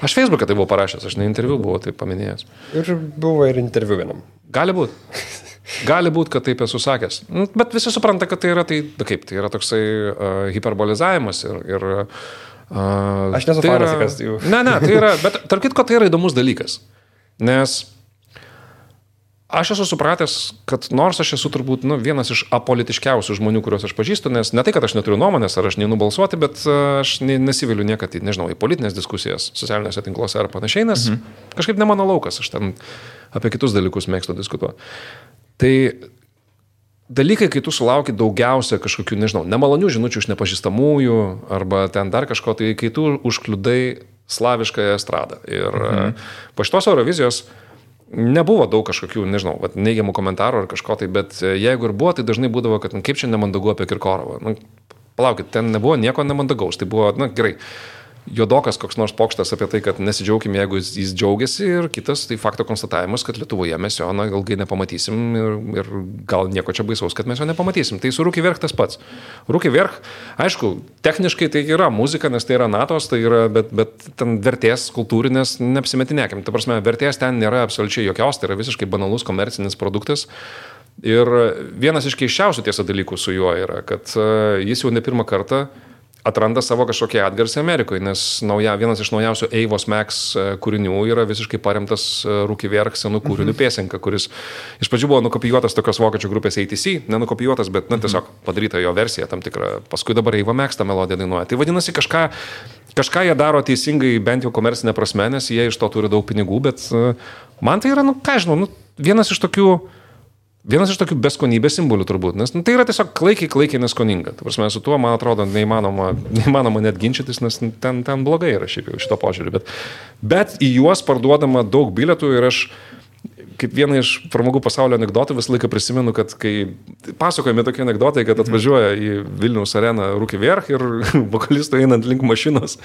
Aš Facebook'e tai buvau parašęs, aš ne interviu buvau tai paminėjęs. Ir buvo ir interviu vienam. Gali būt, kad taip esu sakęs. Bet visi supranta, kad tai yra, tai yra toksai hiperbolizavimas ir aš nesu fanas, kas jų. Ne, tai yra, bet tarp kitko tai yra įdomus dalykas. Nes aš esu supratęs, kad nors aš esu turbūt vienas iš apolitiškiausių žmonių, kuriuos aš pažįstu, nes ne tai, kad aš neturiu nuomonės ar aš neinu balsuoti, bet aš nesiviliu niekad į politinės diskusijas socialiniuose tinkluose ar panašiai, nes kažkaip ne mano laukas, aš ten apie kitus dalykus mėgstu diskutuoti. Tai dalykai, kai tu sulauki daugiausia kažkokių, nemalonių žinučių iš nepažįstamųjų arba ten dar kažko, tai kai tu užkliudai slaviškąją estradą. Ir po šitos Eurovizijos nebuvo daug kažkokių, neigiamų komentarų ar kažko tai, bet jeigu ir buvo, tai dažnai būdavo, kad kaip čia nemandagu apie Kirkorovą. Palaukit, ten nebuvo nieko nemandagaus, tai buvo, gerai. Juodokas koks nors pokštas apie tai, kad nesidžiaugim, jeigu jis džiaugiasi ir kitas, tai fakto konstatavimas, kad Lietuvoje mes jo ilgai nepamatysim ir gal nieko čia baisaus, kad mes jo nepamatysim. Tai su Rūki Vierch tas pats. Rūki Vierch, aišku, techniškai tai yra muzika, nes tai yra natos, tai yra, bet ten vertės kultūrinės neapsimetinėkim. Ta prasme, vertės ten nėra absoliučiai jokios, tai yra visiškai banalus komercinis produktas. Ir vienas iš keisčiausių tiesa dalykų su juo yra, kad jis jau ne pirmą kartą atranda savo kažkokią atgarsį Amerikoje, nes vienas iš naujausių Eivos Max kūrinių yra visiškai paremtas Rūki Vierch senų kūrinių pėsenka, kuris iš pradžių buvo nukopijuotas tokios vokiečių grupės ATC, nenukopijuotas, bet tiesiog padaryta jo versija tam tikra. Paskui dabar Eiva Max tą melodiją dainuoja. Tai vadinasi, kažką jie daro teisingai, bent jau komercinė prasme, nes jie iš to turi daug pinigų, bet man tai yra, vienas iš tokių beskonybės simbolių turbūt, nes tai yra tiesiog klaikiai neskoninga. Ta prasme, su tuo, man atrodo, neįmanoma net ginčytis, nes ten blogai yra šiaip jau šito požiūrį. Bet į juos parduodama daug bilietų ir aš kaip vieną iš pramogų pasaulio anekdotų visą laiką prisimenu, kad kai pasakojami tokie anekdotai, kad atvažiuoja į Vilniaus areną Rūki Vierch ir vokalistų einant link mašinos,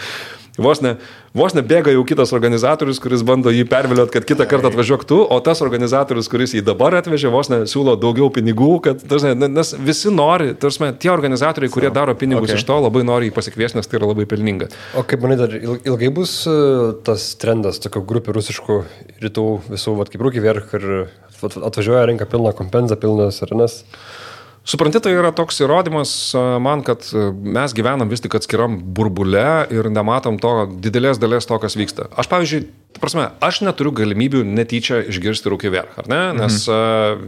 vos ne bėga jau kitas organizatorius, kuris bando jį perviliot, kad kitą kartą atvažiuok tu, o tas organizatorius, kuris jį dabar atvežė, vos ne siūlo daugiau pinigų, kad, nes visi nori, tie organizatoriai, kurie daro pinigus iš to, labai nori jį pasikviesti, nes tai yra labai pelninga. O kaip manai, dar ilgai bus tas trendas, tokio grupių rusiškų rytų visų, kaip Rūki Vierch ir atvažiuoja, renka pilną kompenzą, pilnas arenas? Supranti, tai yra toks įrodymas man, kad mes gyvenam vis tik atskiram burbule ir nematom to didelės dalies to, kas vyksta. Aš, pavyzdžiui, aš neturiu galimybių netyčia išgirsti Rūkį Vverch, ar ne? Nes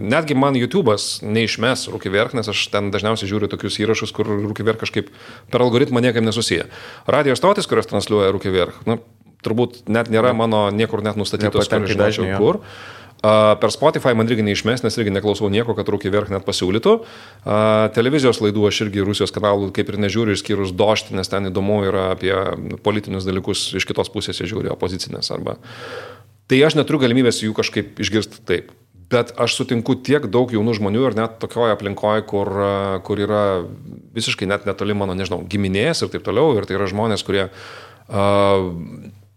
netgi man YouTube'as neišmes Rūkį Vverch, nes aš ten dažniausiai žiūriu tokius įrašus, kur Rūkį Vverch kažkaip per algoritmą niekaip nesusiję. Radio stotis, kurios transliuoja Rūkį Vverch, turbūt net nėra mano niekur net nustatytos, kur žinočiau kur. Per Spotify man irgi neišmes, nes irgi neklausau nieko, kad Rūkį Vverch net pasiūlytų. Televizijos laidų aš irgi Rusijos kanalų kaip ir nežiūriu, išskyrus Dožtį, nes ten įdomu yra apie politinius dalykus iš kitos pusės žiūri, opozicinės arba. Tai aš neturiu galimybės jų kažkaip išgirsti taip. Bet aš sutinku tiek daug jaunų žmonių ir net tokioje aplinkoje, kur yra visiškai net netoli mano, nežinau, giminės ir taip toliau. Ir tai yra žmonės, kurie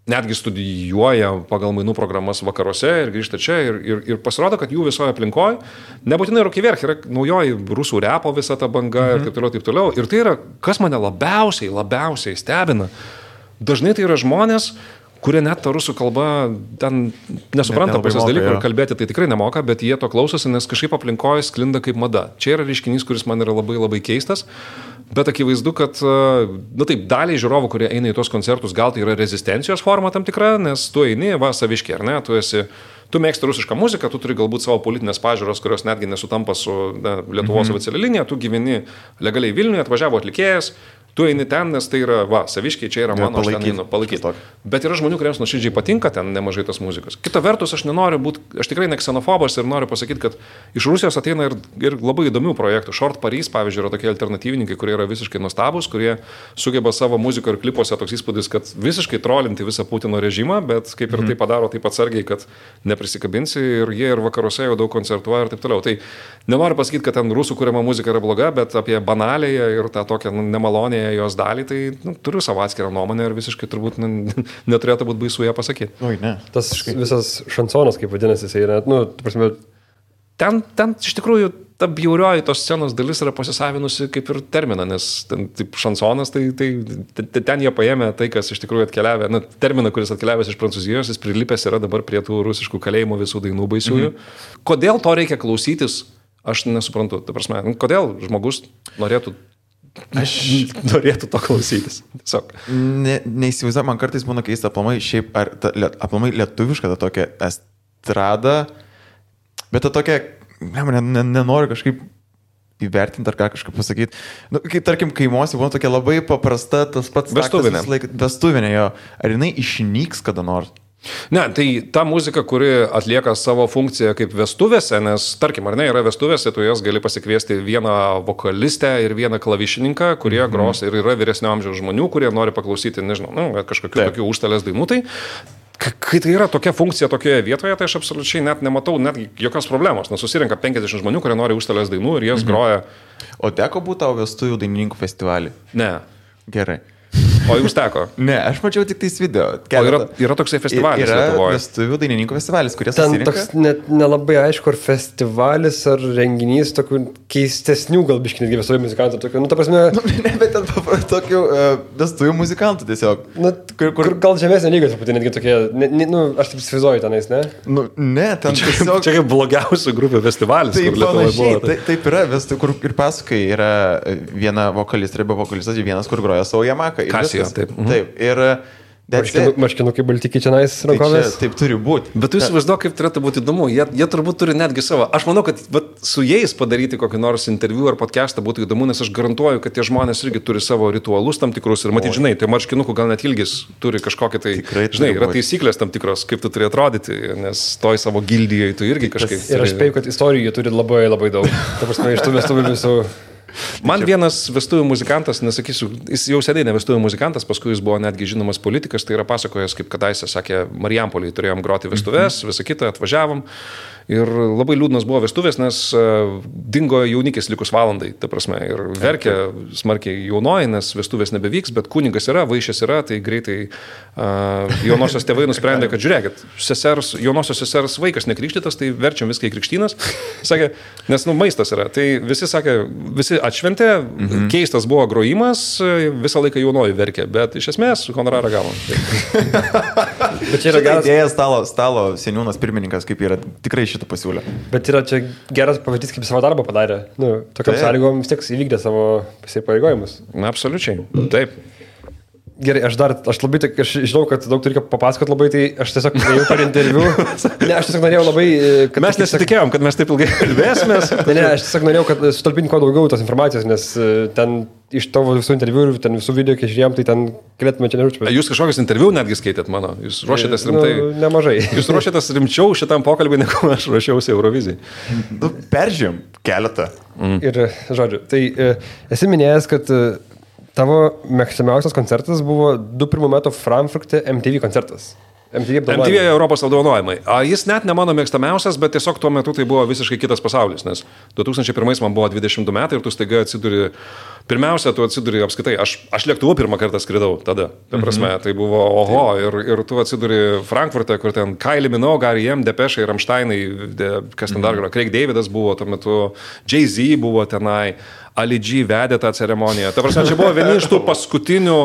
netgi studijuoja pagal mainų programas vakaruose ir grįžta čia ir pasirodo, kad jų visoje aplinkoje, nebūtinai Rūkį Vverch, yra naujoji rusų repo visa ta banga ir taip toliau. Ir tai yra, kas mane labiausiai stebina. Dažnai tai yra žmonės, kurie net tą rusų kalbą ten nesupranta pusės dalykų ir kalbėti tai tikrai nemoka, bet jie to klausosi, nes kažkaip aplinkoje sklinda kaip mada. Čia yra reiškinys, kuris man yra labai keistas. Bet akivaizdu, kad, taip, daliai žiūrovų, kurie eina į tos koncertus, gal tai yra rezistencijos forma tam tikra, nes tu eini, saviškiai, ar ne, tu mėgsti rusišką muziką, tu turi galbūt savo politinės pažiūros, kurios netgi nesutampa su Lietuvos oficialia linija, tu gyveni legaliai Vilniuje, atvažiavo atlikėjas, tu eini ten, nes tai yra, saviškiai, čia yra mano, aš ten einu palaikyti. Bet yra žmonių, kuriems nuoširdžiai patinka ten nemažai tos muzikos. Kita vertus, aš nenoriu būti, aš tikrai ne ksenofobas ir noriu pasakyti, kad iš Rusijos ateina ir labai įdomių projektų. Short Paris, pavyzdžiui, yra tokie alternatyvininkai, kurie yra visiškai nuostabus, kurie sugeba savo muziko ir klipuose toks įspūdis, kad visiškai trolinti visą Putino režimą, bet kaip ir tai padaro taip atsargiai, kad neprisikabinsi ir jie ir vakaruose jau daug koncertuoja ir taip toliau. Tai nenoriu pasakyti, kad ten rusų kuriama muzika yra bloga, bet apie banalėje ir tą tokią nemalonėje jos dalį, tai turiu savo atskirą nuomonę ir visiškai turbūt neturėtų būti baisu ją pasakyti. Oi, ne. Tas visas šansonas, kaip vadinasi, jisai yra, prasme... Ten iš tikrųjų ta bjaurioji tos scenos dalis yra pasisavinusi kaip ir terminą, nes ten taip šansonas, tai ten jie paėmė tai, kas iš tikrųjų atkeliavė, terminą, kuris atkeliavęs iš Prancūzijos, jis prilipęs yra dabar prie tų rusiškų kalėjimų visų dainų baisiųjų. Kodėl to reikia klausytis, aš nesuprantu. Ta prasme, kodėl žmogus norėtų to klausytis. Tiesiog. Neįsivaizduoju, man kartais būna keista aplamai šiaip, ar aplamai lietuviška ta tokia estrada, bet ta tokia, nenoriu kažkaip įvertinti ar ką kažkaip pasakyti. Kai tarkim kaimuose būna tokia labai paprasta, tas pats vestuvinė jo. Ar jinai išnyks kada nors? Ne, tai ta muzika, kuri atlieka savo funkciją kaip vestuvėse, nes, tarkim, ar ne, yra vestuvėse, tu jas gali pasikviesti vieną vokalistę ir vieną klavišininką, kurie gros ir yra vyresnio amžiaus žmonių, kurie nori paklausyti, nežinau, kažkokių tokių užstalės dainų. Tai kai tai yra tokia funkcija tokioje vietoje, tai aš absoliučiai net nematau netgi jokios problemos, nes susirenka 50 žmonių, kurie nori užstalės dainų ir jas groja. O teko būti tavo vestuvių dainininkų festivalį? Ne. Gerai. O jums teko? Ne, aš mačiau tik tais video. O yra toksai festivalis Lietuvoje? Yra vestuvių dainininkų festivalis, kurie susirenka. Ten toks net nelabai aišku, ar festivalis, ar renginys tokių keistesnių galbiškai netgi vestuvių muzikantų. Tokių, ta prasme... Ne, bet ten tokių vestuvių muzikantų tiesiog. Kur gal žemesnė lyga, truputį netgi tokie, aš taip įsivaizduoju tenais, ne? Ne, ten tiesiog... Čia kaip blogiausių grupių festivalis, kur Lietuvoje buvo. Taip yra, kur ir pasakai, yra viena vokalistė arba vokalistas, vienas, kur groja savo Yamaha. Kasija, taip. Taip, ir... Marškinukai baltikiai čia nais rankovės. Taip turi būti. Bet tu įsivaizduok, kaip turėtų būti įdomu. Jie turbūt turi netgi savo. Aš manau, kad su jais padaryti kokį nors interviu ar podcastą būtų įdomu, nes aš garantuoju, kad tie žmonės irgi turi savo ritualus tam tikrus. Ir matyt, žinai, tai marškinukų gal net ilgis turi kažkokį tai... Tikrai, žinai, yra taisyklės tam tikros, kaip tu turi atrodyti, nes toj savo gildijai tu irgi kažkaip... Ir aš spėju, kad istorijų turi labai daug. Ta prasme, iš tų vestuvių visų... Man vienas vestuvių muzikantas, nesakysiu, jis jau seniai ne vestuvių muzikantas, paskui jis buvo netgi žinomas politikas, tai yra pasakojęs, kaip kadaise sakė, Marijampolėje turėjom groti vestuvės, visą kitą atvažiavom. Ir labai liūdnas buvo vestuvės, nes dingo jaunikis likus valandai, ta prasme, ir verkė smarkiai jaunoji, nes vestuvės nebevyks, bet kunigas yra, vaišės yra, tai greitai jaunosios tėvai nusprendė, kad žiūrėkit, jaunosios sesers vaikas nekrikštytas, tai verčiam viską į krikštynas, sakė, nes maistas yra, tai visi sakė, visi atšventė, keistas buvo grojimas, visą laiką jaunoji verkė, bet iš esmės honorarą gavom. Bet čia yra geras idėja stalo seniūnas pirmininkas, kaip yra tikrai šitą pasiūlę. Bet yra čia geras pavyzdys, kaip savo darbą padarė. Nu, tokiam sąlygom vis tiek įvykdė savo įsipareigojimus. Na, absoliučiai. Taip. Gerai, aš žinau, kad daug turiu papasakoti labai, tai aš tiesiog norėjau per interviu. Ne, aš tiesiog norėjau labai... Mes nesitikėjom, kad mes taip ilgai kalbėsimės. Ne, aš tiesiog norėjau, kad sutalpinti kuo daugiau tos informacijos, nes ten iš tavo visų interviu ir ten visų video, kai žiūrėjom, tai ten galėtume čia nežinau. Jūs kažkokius interviu netgi skaitėt mano? Jūs ruošiatės rimtai? Nemažai. Jūs ruošiatės rimčiau šitam pokalbį, negu aš ruošiausi Eurovizijai. Peržym keletą. Ir, žodžiu, tai esi minėjęs, kad tavo mėgstamiausias koncertas buvo 2001 metų Frankfurte MTV koncertas. MTV Europos apdovanojimai. Jis net ne mano mėgstamiausias, bet tiesiog tuo metu tai buvo visiškai kitas pasaulis, nes 2001 man buvo 22 metai ir tu staiga atsiduri, pirmiausia, tu atsiduri apskaitai, aš lėktuvu pirmą kartą skridau tada, ta prasme, tai buvo oho, ir tu atsiduri Frankfurte, kur ten Kylie Minogue, R.E.M., Depeche, Rammsteinai, kas ten dar yra, Craig Davidas buvo tuo metu, Jay-Z buvo tenai, Ali G vedė tą ceremoniją. Ta prasme, čia buvo vieni iš tų paskutinių.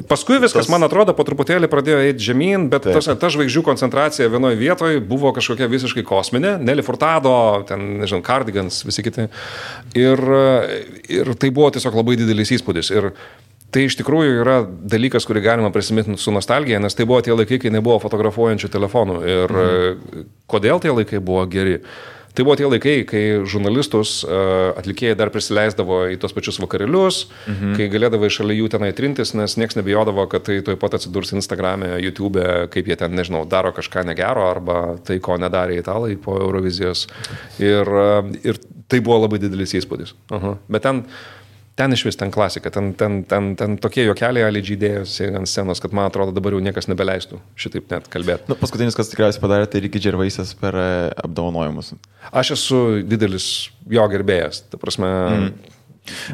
Paskui viskas, man atrodo, po truputėlį pradėjo eiti žemyn, bet ta žvaigždžių koncentracija vienoje vietoje buvo kažkokia visiškai kosminė. Nelly Furtado, ten, nežinau, Cardigans, visi kiti. Ir tai buvo tiesiog labai didelis įspūdis. Ir tai iš tikrųjų yra dalykas, kurį galima prisiminti su nostalgija, nes tai buvo tie laikai, kai nebuvo fotografuojančių telefonų. Ir kodėl tie laikai buvo geri? Tai buvo tie laikai, kai žurnalistus atlikėjai dar prisileisdavo į tos pačius vakarėlius, kai galėdavo šalia jų tenai trintis, nes nieks nebijodavo, kad tai tuoj pat atsidurs Instagram'e, YouTube'e, kaip jie ten, nežinau, daro kažką negero, arba tai, ko nedarė italai po Eurovizijos. Ir tai buvo labai didelis įspūdis. Bet ten iš vis, ten klasika, ten tokie juokeliai Ali G dėjosi ant scenos, kad man atrodo dabar jau niekas nebeleistų šitaip net kalbėti. Nu, paskutinis, kas tikriausiai padarė, tai Ricky Gervaisas per apdovanojimus. Aš esu didelis jo gerbėjas, ta prasme.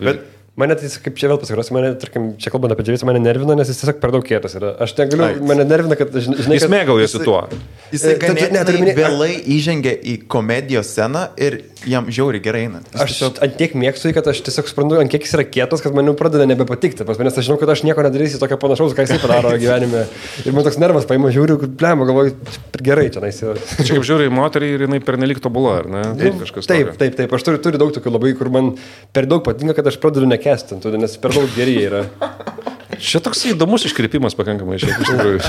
Bet mane tai, kaip čia vėl pasikarosiu, mane, tarkim, čia kalbant apie Dževisą, mane nervina, nes jis tiesiog per daug kietas yra. Aš negaliu, mane nervina, kad, žinai, jis mėgaujasi tuo. Jisai ganėtinai vėlai įžengia į komedijos sceną ir jam žiauriai gerai eina. Aš ant tiek mėgstu, kad aš tiesiog suprantu, ant kiek jis yra kietas, kad man jau pradeda nebepatikti. Nes aš žinau, kad aš nieko nedarysiu tokio panašaus, ką jisai padaro gyvenime. Ir man toks nervas paima, žiūriu, blema, galvoju, gerai čia naisiu. Čia kaip žiūri į moterį ir jinai pernelyg tobula, ar ne? Taip. Aš turiu daug tokių labai, kur man per daug patinka, kad aš pradedu nekestinti, nes per daug geri yra. Čia toks įdomus iškreipimas pakankamai šiaip iš tikrųjų.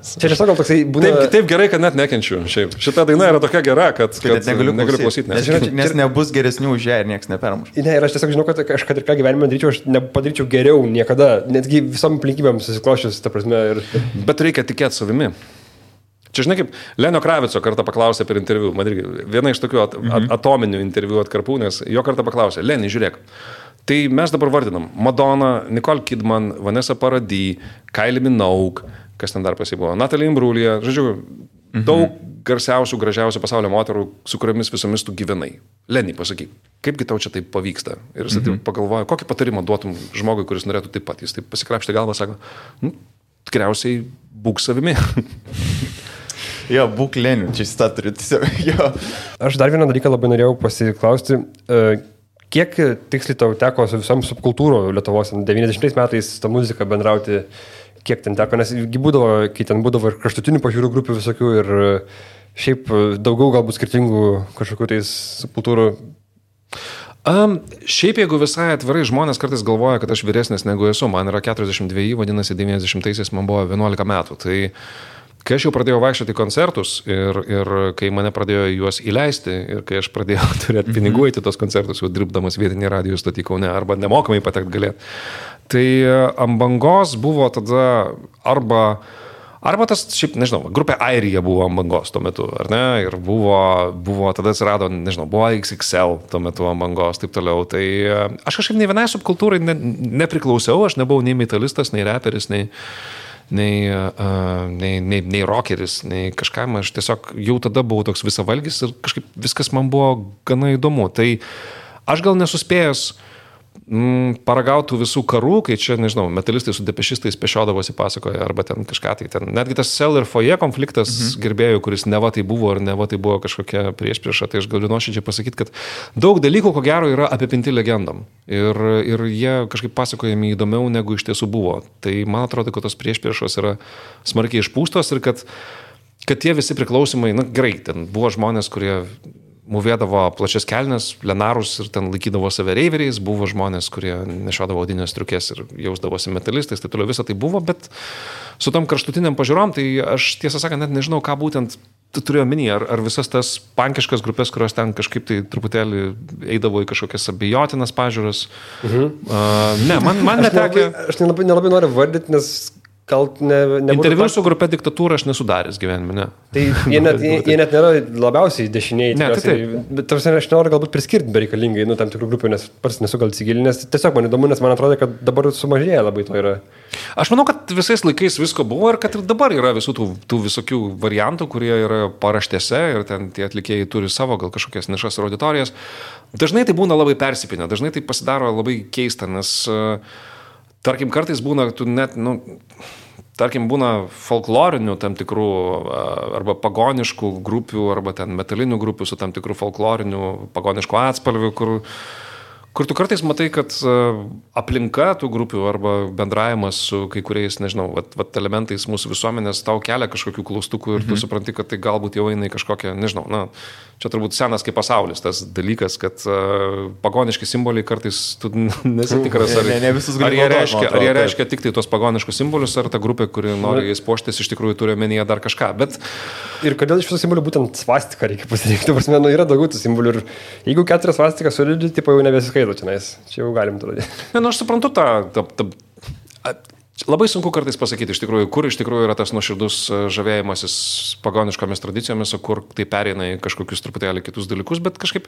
Čia tiesiog gal toksai būna... Taip gerai, kad net nekenčiu. Šiaip. Šita daina yra tokia gera, kad negaliu klausyti. Nes nebus geresnių už ją ir niekas nepermuš. Ne, ir aš tiesiog žinau, kad aš kad ir ką gyvenime daryčiau, aš nepadaryčiau geriau niekada, netgi visom aplinkybėm susikloščius, ta prasme. Bet reikia tikėti savimi. Čia žinai, kaip Lenio Kravico kartą paklausė per interviu, man irgi viena iš tokių atominių interviu atkarpų, nes jo kartą paklausė, Leni, žiūrėk, tai mes dabar vardinam Madonna, Nicole Kidman, Vanessa Paradis, Kylie Minogue, kas ten dar pasibuvo, Natalie Imbruglia, žodžiu, daug garsiausių, gražiausių pasaulio moterų, su kuriomis visomis tu gyvenai. Leni, pasakyk, kaipgi tau čia taip pavyksta? Ir jis taip pagalvoja, kokį patarimą duotum žmogui, kuris norėtų taip pat. Jis taip pasikrapštė galvą, sako, tikriausiai būk savimi. Jo, būk Leniu, čia jis tą turi tiesiog. Jo. Aš dar vieną dalyką labai norėjau pasiklausti. Kiek tiksliai tau teko su visom subkultūro Lietuvos 90 metais tą muziką bendrauti, kiek ten teko, nes būdavo, kai ten būdavo ir kraštutinių pažiūrų grupių visokių ir šiaip daugiau galbūt skirtingų kažkokių tais subkultūrų. Šiaip jeigu visai atvirai žmonės kartais galvoja, kad aš vyresnis negu esu, man yra 42, vadinasi 90-aisiais man buvo 11 metų, tai kai aš jau pradėjau vaikščioti į koncertus ir kai mane pradėjo juos įleisti ir kai aš pradėjau turėti pinigų į tos koncertus, jau dirbdamas vietinį radijo stotį Kaune arba nemokamai patekti galėti, tai ant bangos buvo tada arba tas, šiaip, nežinau, grupė Airija buvo ant bangos tuo metu, ar ne, ir buvo tada atsirado, nežinau, buvo XXL tuo metu ant bangos, taip toliau, tai aš kažkaip nei vienai subkultūrai nepriklausiau, aš nebuvau nei metalistas, nei reperis, nei rockeris, nei kažkam, aš tiesiog jau tada buvau toks visavalgis ir kažkaip viskas man buvo gana įdomu. Tai aš gal nesuspėjęs paragautų visų karų, kai čia, nežinau, metalistai su depešistais pešiodavosi pasakoja, arba ten kažką tai ten. Netgi tas Cell ir Foje konfliktas gerbėjų, kuris neva tai buvo ar neva tai buvo kažkokia priešprieša, tai aš galiu nuoširdžiai pasakyti, kad daug dalykų, ko gero, yra apipinti legendom. Ir jie kažkaip pasakojami įdomiau, negu iš tiesų buvo. Tai man atrodo, kad tos priešpriešos yra smarkiai išpūstos ir kad tie visi priklausimai, gerai, ten buvo žmonės, kurie mūvėdavo plačias kelnes, lenarus ir ten laikydavo save reiveriais, buvo žmonės, kurie nešiodavo odinės striukės ir jausdavosi metalistais, tai toliau visą tai buvo, bet su tom kraštutiniam pažiūrom, tai aš tiesą sakant net nežinau, ką būtent turėjau minį, ar visas tas pankiškas grupės, kurios ten kažkaip tai truputėlį eidavo į kažkokias abejotinas pažiūras. Ne, man netekė. Aš nelabai noriu vardyti, nes gal interviu su grupė Diktatūra aš nesudaręs gyvenime, ne. Tai jie net nėra labiausiai dešiniai. Ne, tai bet aš noriu galbūt priskirti bereikalingai, tam tikrų grupių, nes pats nesu gal įsigilinęs. Tiesiog man įdomu, nes man atrodo, kad dabar sumažėja labai to yra. Aš manau, kad visais laikais visko buvo ir kad ir dabar yra visų tų visokių variantų, kurie yra paraštėse ir ten tie atlikėjai turi savo gal kažkokias nišas ir auditorijas. Dažnai tai būna labai persipinę, dažnai tai pasidaro labai keista, nes tarkim, kartais būna, tarkim, būna folklorinių tam tikrų arba pagoniškų grupių, arba ten metalinių grupių su tam tikrų folklorinių pagoniškų atspalvių, kur tu kartais matai, kad aplinka tų grupių arba bendravimas su kai kuriais, nežinau, elementais mūsų visuomenės tau kelia kažkokių klaustukų ir tu supranti, kad tai galbūt jau eina į kažkokią, nežinau, čia turbūt senas kaip pasaulis tas dalykas, kad pagoniški simboliai kartais tu nesitikras, ar jie reiškia tik tai tos pagoniškus simbolius, ar ta grupė, kuri nori jais puoštis, iš tikrųjų turi omenyje dar kažką. Bet ir kodėl iš visų simbolių būtent svastiką reikia pasirinkti? Prasme, yra daugiau tų simbolių ir jeigu 4 svastikas solidžiai, tipo jau nebesiskaito čia jau galim tada. Aš suprantu labai sunku kartais pasakyti iš tikrųjų, kur iš tikrųjų yra tas nuoširdus žavėjimasis pagoniškomis tradicijomis, o kur tai pereina į kažkokius truputėlį kitus dalykus, bet kažkaip,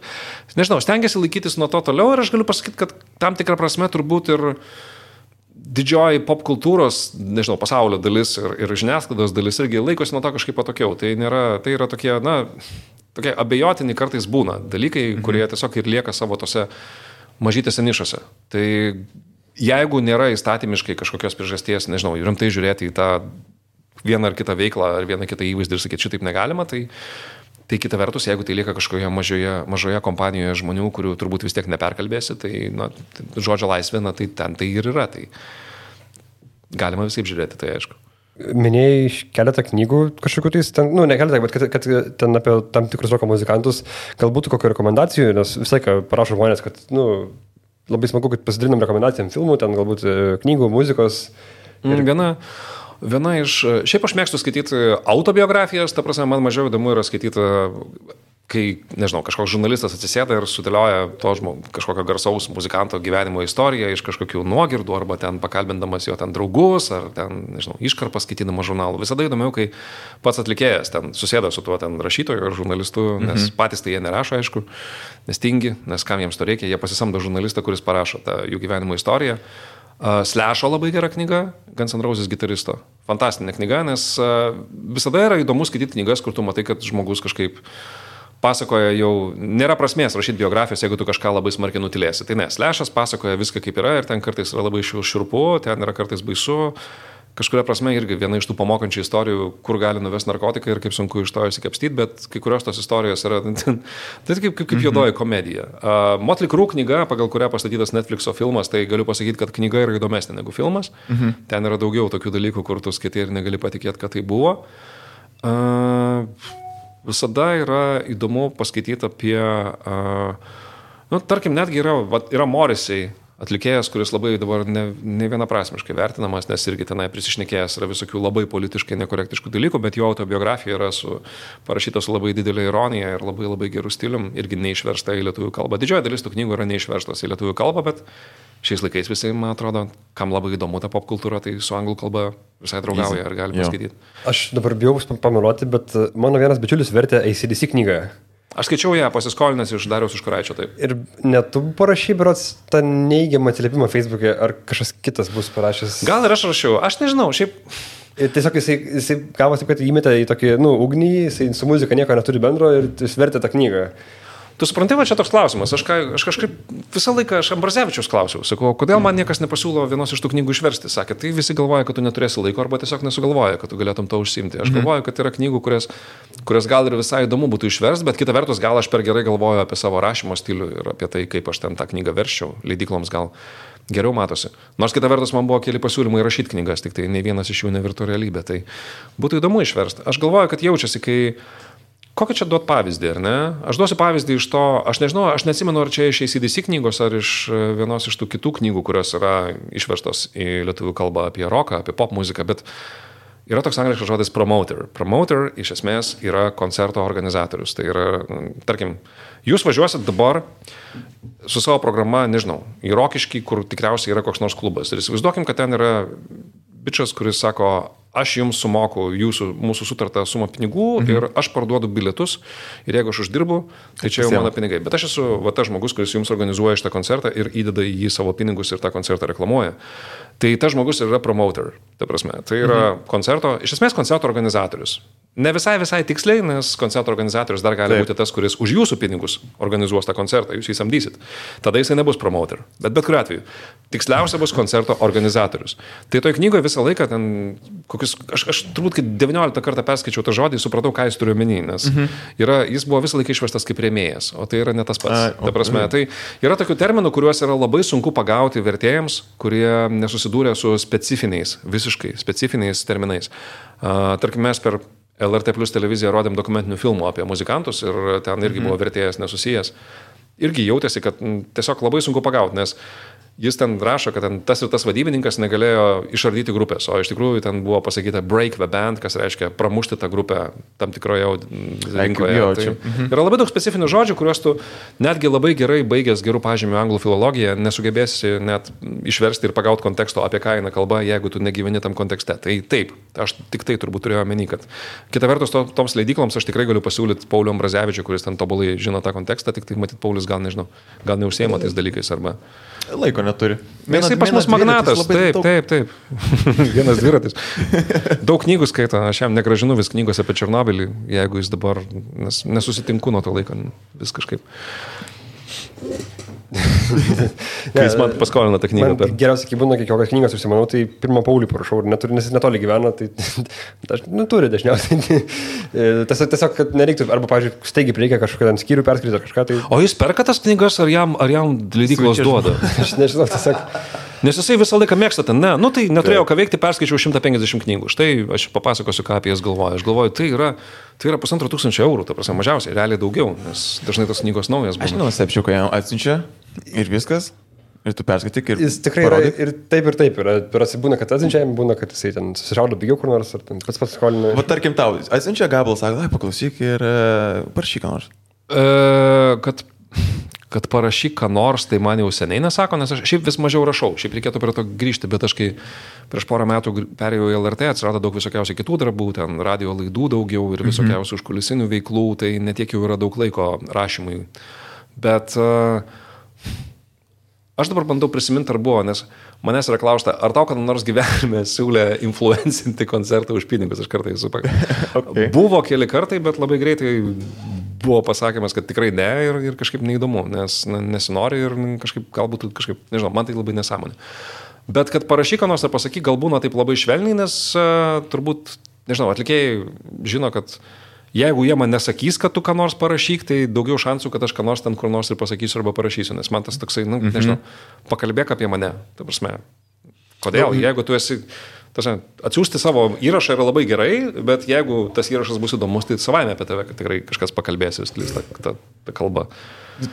nežinau, stengiasi laikytis nuo to toliau ir aš galiu pasakyti, kad tam tikrą prasme turbūt ir didžioji popkultūros, nežinau, pasaulio dalis ir žiniasklaidos dalis irgi laikosi nuo to kažkaip patokiau. Tai yra tokie, tokie abejotini kartais būna dalykai, kurie tiesiog ir lieka savo tose mažytėse nišose. Tai jeigu nėra įstatymiškai kažkokios priežasties, nežinau, rimtai žiūrėti į tą vieną ar kitą veiklą ar vieną kitą įvaizdį ir sakyti, šitaip negalima, tai kita vertus, jeigu tai lieka kažkoje mažoje kompanijoje žmonių, kurių turbūt vis tiek neperkalbėsi, tai žodžio laisvė, tai ten tai ir yra. Tai galima visaip žiūrėti, tai aišku. Minėjai keletą knygų kažkokių tais, ne keletą, bet kad ten apie tam tikrus roko muzikantus, galbūt kokių rekomendacijų, nes visai ką parašo žmonės, kad labai smagu, kad pasidalinam rekomendacijom filmų, ten galbūt knygų, muzikos. Ir viena iš, šiaip aš mėgstu skaityti autobiografijas, ta prasme, man mažiau įdomu yra skaityti, kai, nežinau, kažkoks žurnalistas atsisėda ir sudėlioja to kažkokio garsaus muzikanto gyvenimo istoriją iš kažkokių nuogirdų, arba ten pakalbindamas jo ten draugus, ar ten, nežinau, iškarpas skaitydamas žurnalų. Visada įdomiau, kai pats atlikėjas ten susėda su tuo ten rašytoju ar žurnalistu, nes patys tai jie nerašo, aišku, nes tingi, nes kam jiems to reikia, jie pasisamdo žurnalistą, kuris parašo tą jų gyvenimo istoriją. Slash'o labai gera knyga, Guns N' Roses gitaristo. Fantastinė knyga, nes visada yra įdomu skaityti knygas, kur tu matai, kad žmogus kažkaip pasakoja jau, nėra prasmės rašyti biografijos, jeigu tu kažką labai smarkiai nutilėsi. Tai ne, Slash'as pasakoja viską kaip yra ir ten kartais yra labai šiurpu, ten yra kartais baisu. Kažkuria prasme irgi viena iš tų pamokančių istorijų, kur gali nuvesti narkotikai ir kaip sunku iš to išsikapstyti, bet kai kurios tos istorijos yra tai kaip juodoji komedija. Motley Crue knyga, pagal kurią pastatytas Netflixo filmas, tai galiu pasakyti, kad knyga yra įdomesnė negu filmas. Ten yra daugiau tokių dalykų, kur tu skaitai ir negali patikėti, kad tai buvo. Visada yra įdomu paskaityti apie, tarkim, netgi yra Morrissey atlikėjas, kuris labai dabar ne vienaprasmiškai vertinamas, nes irgi tenai prisišnekėjęs yra visokių labai politiškai nekorektiškų dalykų, bet jo autobiografija yra parašyta su labai didelė ironija ir labai labai gerų stilium, irgi neišversta į lietuvių kalbą. Didžioji dalis tų knygų yra neišverstos į lietuvių kalbą, bet šiais laikais visi, man atrodo, kam labai įdomu ta popkultūra, tai su anglų kalba visai draugauja ir gali paskaityti. Aš dabar bijau pameluoti, bet mano vienas bičiulis vertė AC/DC knygą. Aš skaičiau ją pasiskolinęs iš Dariaus Užkuraičio, taip. Ir net tu parašy, berods, tą neigiamą atsiliepimą Facebook'e, ar kažkas kitas bus parašęs? Gal ir aš rašiau, aš nežinau, šiaip. Ir tiesiog jisai gavosi, kad įmetė į tokį, ugnį, jisai su muzika nieko neturi bendro ir jis vertė tą knygą. Tu supranti, va čia toks klausimas. Aš kažkaip visą laiką Ambrazevičiaus klausiau. Sakau, kodėl man niekas nepasiūlo vienos iš tų knygų išversti? Sakė, tai visi galvoja, kad tu neturėsi laiko arba tiesiog nesugalvoja, kad tu galėtum to užsiimti. Aš galvoju, kad yra knygų, kurias gal ir visai įdomu būtų išversti, bet kita vertus gal aš per gerai galvoju apie savo rašymo stilių ir apie tai, kaip aš ten tą knygą verščiau. Leidykloms gal geriau matosi. Nors kita vertus man buvo keli pasiūlymai rašyti knygas, tik tai nei vienas iš jų nevirto realybė. Tai būtų įdomu išversti. Aš galvoju, kad jaučiasi, kai kokį čia duot pavyzdį, ar ne? Aš duosiu pavyzdį iš to, aš nežinau, aš neatsimenu, ar čia iš ACDC knygos, ar iš vienos iš tų kitų knygų, kurios yra išverstos į lietuvių kalbą apie roką, apie pop muziką, bet yra toks angliškas žodis promoter. Promoter iš esmės yra koncerto organizatorius. Tai yra, tarkim, jūs važiuosit dabar su savo programa, nežinau, į Rokiškį, kur tikriausiai yra koks nors klubas. Ir įsivaizduokim, kad ten yra bičas, kuris sako, aš jums sumoku mūsų sutartą sumą pinigų ir aš parduodu bilietus ir jeigu aš uždirbu, tai čia jau mano pinigai. Bet aš esu tas žmogus, kuris jums organizuoja šitą koncertą ir įdeda į jį savo pinigus ir tą koncertą reklamuoja. Tai tas žmogus yra promoter, ta prasme. Tai yra iš esmės koncerto organizatorius. Ne visai tiksliai, nes koncerto organizatorius dar gali būti tas, kuris už jūsų pinigus organizuos tą koncertą, jūs jį samdysit. Tada jisai nebus promoter. Bet kuriuo atveju, tiksliausia bus koncerto organizatorius. Tai toj knygoje visą laiką ten, aš turbūt, kai 19 kartą perskaičiau tą žodį, supratau, ką jis turiu omeny, nes jis buvo visą laiką išverstas kaip rėmėjas, o tai yra ne tas pats. Ta prasme, tai yra tokių terminų, kuriuos yra labai sunku pagauti vertėjams, kurie nesusidūrė su visiškai specifiniais terminais. Tarkim, mes per LRT Plus televiziją rodėm dokumentinių filmų apie muzikantus ir ten irgi buvo vertėjas nesusijęs. Irgi jautėsi, kad tiesiog labai sunku pagauti, nes jis ten rašo, kad ten tas ir tas vadybininkas negalėjo išardyti grupės, o iš tikrųjų ten buvo pasakyta break the band, kas reiškia pramušti tą grupę tam tikroje rinkoje. Tai yra labai daug specifinių žodžių, kuriuos tu netgi labai gerai baigęs gerų pažymių anglų filologiją nesugebėsi net išversti ir pagauti konteksto, apie ką eina kalba, jeigu tu negyveni tam kontekste. Tai taip, aš tik tai turbūt turėjau omeny, kad kita vertus toms leidykloms aš tikrai galiu pasiūlyti Paulių Ambrazevičių, kuris ten tobulai žino tą kontekstą, tik tai matyt Paulius gal neužsiema tais dalykais arba laiko neturi. Jisai pas mus magnatas, taip. Vienas dviratis. Daug knygų skaito, aš jam negražinu vis knygos apie Černobylį, jeigu jis dabar, nes nesusitinku nuo to laiko, vis kažkaip. Kai jis man paskolina tą knygą. Geriausiai, kai būna kokios knygos užsimanau, tai pirmą Paulių parašau, nes jis netoli gyvena, tai turi dažniausiai. Tiesiog, kad nereiktų, arba, pavyzdžiui, staigiai reikia kažkokią ten skyrių perskaityti ar kažką. Tai... O jis perka tas knygas, ar jam leidyklos duoda? Aš nežinau, tiesiog... Nes jisai visą laiką mėgsta ten, nu tai neturėjau ką veikti, perskaičiau 150 knygų. Štai aš papasakosiu, ką apie jas galvoju. Aš galvoju, tai yra 1500 eurų, ta prasme, mažiausiai, realiai daugiau, nes dažnai tos knygos naujas būna. Aš nenustebčiau, kai jam atsiunčia ir viskas, ir tu perskaityk ir jis tikrai parodyk. Yra ir taip. Būna, kad atsiunčia, būna, kad jisai ten susišaudo pigiau kur nors, ar ten pats skolina. Va, tarkim, tau atsiunčia gabalą, sako, paklausyk ir parašyk ką nors. Kad parašyk ką nors, tai man jau seniai nesako, nes aš šiaip vis mažiau rašau, šiaip reikėtų prie to grįžti, bet aš kai prieš porą metų perėjau į LRT, atsirado daug visokiausių kitų darbų, ten radio laidų daugiau ir visokiausių užkulisinių veiklų, tai netiek jau yra daug laiko rašymui. Bet aš dabar bandau prisiminti, ar buvo, nes manęs yra klausta, ar tau kada nors gyvenime siūlė influencinti koncertą už pinigus, aš kartais okay. Buvo keli kartai, bet labai greitai buvo pasakymas, kad tikrai ne ir kažkaip neįdomu, nes nesinori ir galbūt kažkaip, nežinau, man tai labai nesąmonė. Bet kad parašyk ką nors ar pasakyk, gal būna taip labai švelniai, nes turbūt, nežinau, atlikėjai žino, kad jeigu jie man nesakys, kad tu ką nors parašyk, tai daugiau šansų, kad aš ką nors ten kur nors ir pasakysiu arba parašysiu, nes man tas toksai, nežinau, pakalbėk apie mane, ta prasme. Kodėl? Jeigu tu esi... Atsiųsti savo įrašą yra labai gerai, bet jeigu tas įrašas bus įdomus, tai savaime apie tave tikrai kažkas pakalbės ir sklis tą kalbą.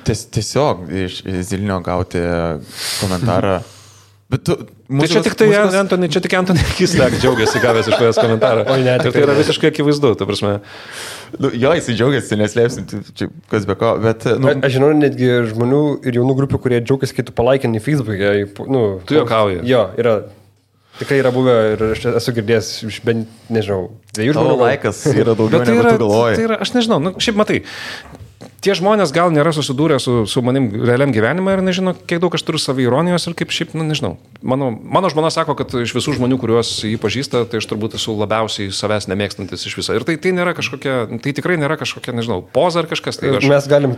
Tiesiog iš Zilinio gauti komentarą. Bet tu, tai čia tik Antony Kislek džiaugiasi gavęs iš tavęs komentarą. Ir tai yra visiškai akivaizdu, ta prasme. Jo, jisai džiaugiasi, neslėpsim, čia kas be ko, bet... Aš žinau netgi žmonių ir jaunų grupių, kurie džiaugiasi, kai tu palaikinį Facebook'e. Tu juokauji. Jo, yra... Tikrai yra buvę ir aš esu girdėjęs iš bent, nežinau, 2 žmonių. Tavo laikas yra daugiau negu tu galvoji. Tai yra, aš nežinau, šiaip matai, tie žmonės gal nėra susidūrę su manim realiam gyvenime ir nežino, kiek daug aš turiu saviironijos ir kaip šiaip, nežinau. Mano žmona sako, kad iš visų žmonių, kuriuos jį pažįsta, tai aš turbūt esu labiausiai savęs nemėgstantis iš viso. Ir tai nėra kažkokia, tai tikrai nėra kažkokia, nežinau, poza ar kažkas. Tai mes galim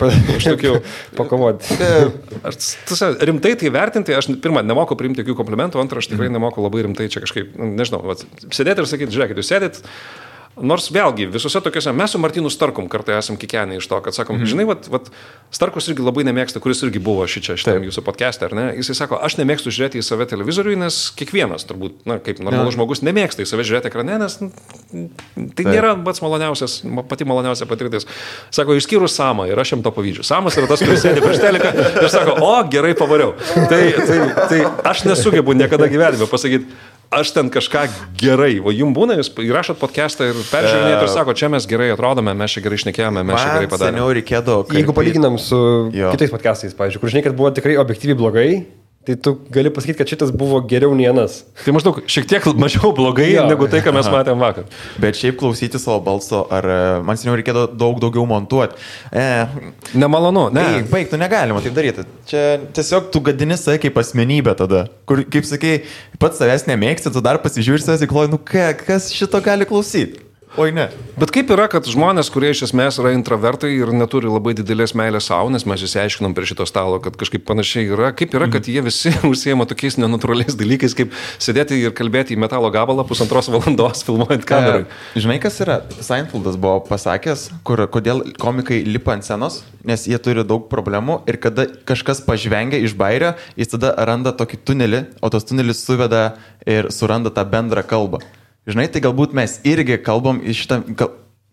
pakovoti. Rimtai tai vertinti, aš pirmą, nemoku priimti jokių komplimentų, antrą, aš tikrai nemoku labai rimtai čia kažkaip, nežinau, sėdėti ir sakyti, žiūrėkit, jūs sėdit. Nors vėlgi, visose tokiuose, mes su Martynu Starkum kartai esam kikenę iš to, kad sakom, žinai, Starkus irgi labai nemėgsta, kuris irgi buvo šitam jūsų podcast'e, ar ne? Jisai sako, aš nemėgstu žiūrėti į save televizoriui, nes kiekvienas turbūt, kaip normalus žmogus, nemėgsta į save žiūrėti ekrane, nes tai nėra pati maloniausia patirtis. Sako, išskyrus Samą ir aš jam to pavydžiu. Samas yra tas, kuris sėdi prieš teliką ir sako, o, gerai pavariau. Tai aš nesugebu niekada gyvenime pasakyti, aš ten kažką gerai, o jums būna, jūs įrašot podcastą ir peržiūrinėt ir sako, čia mes gerai atrodome, mes čia gerai šnekėjome, mes čia gerai padarėme. Seniau reikėdavo. Jeigu palyginam su kitais podcastais, pavyzdžiui, kur žinai, kad buvo tikrai objektyviai blogai, tai tu gali pasakyti, kad šitas buvo geriau nei anas. Tai maždaug šiek tiek mažiau blogai negu tai, ką mes matėm vakar. Bet šiaip klausyti savo balso, ar man seniau reikėdavo daug daugiau montuoti. Nemalonu, ne. Baig, tu negalima taip daryti. Čia tiesiog tu gadini save kaip asmenybę tada. Kur, kaip sakai, pats savęs nemėgsti, tu dar pasižiūri savęs ir kloji, kas šito gali klausyti. Oi ne. Bet kaip yra, kad žmonės, kurie iš esmės yra intravertai ir neturi labai didelės meilės savo, nes mes išsiaiškinom prie šito stalo, kad kažkaip panašiai yra, kaip yra, kad jie visi užsiema tokiais nenatūraliais dalykais, kaip sėdėti ir kalbėti į metalo gabalą 1,5 valandos filmuojant kamerą. Žinai, kas yra? Seinfeldas buvo pasakęs, kodėl komikai lipa ant scenos, nes jie turi daug problemų ir kada kažkas pažvengia iš bairio, jis tada randa tokį tunelį, o tas tunelis suveda ir suranda tą bendrą kalbą. Žinai, tai galbūt mes irgi kalbam iš šitą,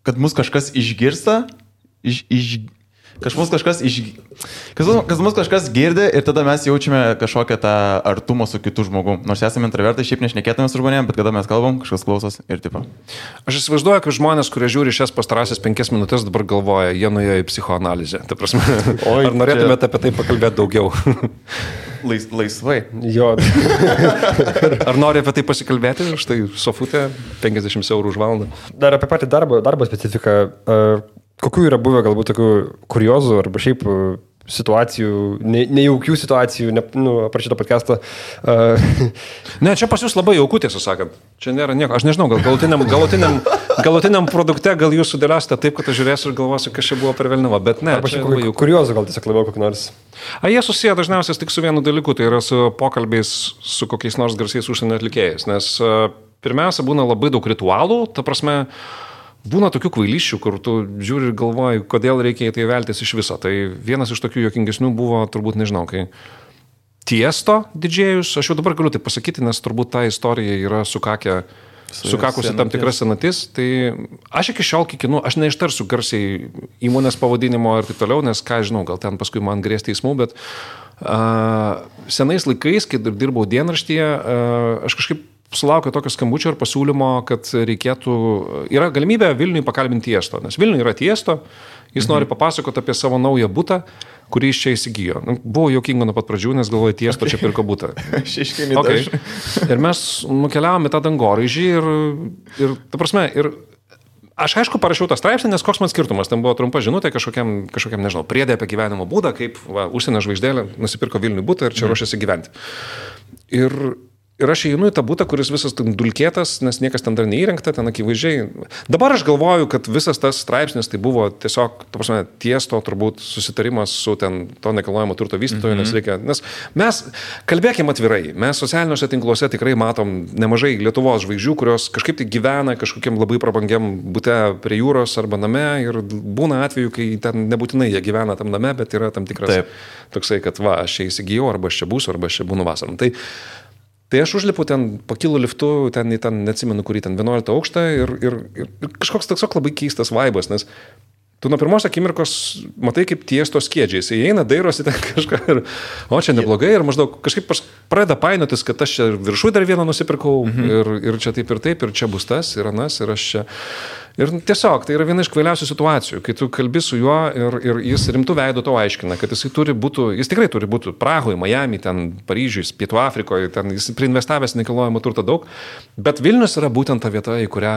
kad mus kažkas išgirsta, kad mus kažkas girdi ir tada mes jaučiame kažkokią tą artumą su kitu žmogu. Nors esame intravertai, šiaip nešnekėtume su žmonėm, bet kada mes kalbam, kažkas klausos ir tipo. Aš įsivaizduoju, kad žmonės, kurie žiūri šias pastarąsias 5 minutės, dabar galvoja, jie nuėjo į psichoanalizę. Ta prasme, ar norėtumėte apie tai pakalbėti daugiau? Laisvai. Jo. Ar nori apie tai pasikalbėti? Štai sofutė, 50 eurų už valandą. Dar apie patį darbo specifiką. Kokių yra buvę galbūt tokių kuriozų arba šiaip situacijų, nejaukių situacijų, aprašyto podcast'o? Ne, čia pas jūs labai jauku, tiesą sakant. Čia nėra nieko. Aš nežinau, gal galutiniam produkte gal jūs sudėliosite taip, kad aš žiūrėsiu ir galvosiu, kas čia buvo per velniavą, bet ne. Arba šiaip kuriozų gal tiesiog labiau kokį nors. Jie susiję dažniausiai tik su vienu dalyku, tai yra su pokalbiais su kokiais nors garsiais užsienio atlikėjais, nes pirmiausia būna labai daug ritualų, ta prasme, būna tokių kvailysčių, kur tu žiūri ir galvoji, kodėl reikia į tai veltis iš viso. Tai vienas iš tokių juokingesnių buvo, turbūt nežinau, kai Tiesto didžėjus, aš jau dabar galiu tai pasakyti, nes turbūt ta istorija yra sukakusi tam tikras senatis, tai aš iki šiol kikinu, aš neištarsiu garsiai įmonės pavadinimo ir taip toliau, nes ką žinau, gal ten paskui man grės teismų, bet senais laikais, kai dirbau dienraštyje, aš kažkaip sulaukiau tokio skambučio ir pasiūlymo, kad reikėtų, yra galimybė Vilniui pakalbinti Tiesto, nes Vilniui yra Tiesto, jis nori papasakoti apie savo naują butą, kurį iš čia įsigijo. Buvo juokinga nuo pat pradžių, nes galvoju, Tiesto čia pirko butą. Okay. Ir mes nukeliavome tą dangoraižį ir ta prasme, ir aš aišku parašiau tą straipsnį, nes koks man skirtumas, ten buvo trumpa žinutė kažkokiam nežinau, priedė apie gyvenimo būdą, kaip užsienio žvaigždėlė nusipirko Vilniui butą ir čia ruošiasi gyventi. Ir aš įeinu į tą butą, kuris visas dulkėtas, nes niekas ten dar neįrengta, ten akivaizdžiai. Dabar aš galvoju, kad visas tas straipsnis tai buvo tiesiog, ta prasme, Tiesto turbūt susitarimas su ten to nekilnojamo turto vystytoju, nes mes kalbėkime atvirai, mes socialiniuose tinkluose tikrai matom nemažai Lietuvos žvaigždžių, kurios kažkaip tai gyvena kažkokiam labai prabangiam bute prie jūros arba name ir būna atveju, kai ten nebūtinai jie gyvena tam name, bet yra tam tikras toksai, kad aš čia įsigijau, arba aš čia būsiu, arba aš čia būnu vasarom. Tai aš užlipu ten, pakilu liftu, ten neatsimenu, kurį ten 11 aukštą ir kažkoks toks labai keistas vaibas, nes tu nuo pirmos akimirkos matai, kaip Tiesto skiedžiai. Jis įeina, dairosi ten kažką ir, o čia neblogai, ir maždaug kažkaip pradeda painiotis, kad aš čia viršui dar vieną nusipirkau ir čia taip, ir čia bus tas, ir anas, ir aš čia. Ir tiesiog, tai yra viena iš kvailiausių situacijų, kai tu kalbi su juo ir jis rimtų veidų to aiškina, kad jis tikrai turi būti Prahoje, Miami, ten Paryžiuje, Pietų Afrikoje, ten jis priinvestavęs nekilnojamo turto daug, bet Vilnius yra būtent ta vieta, į kurią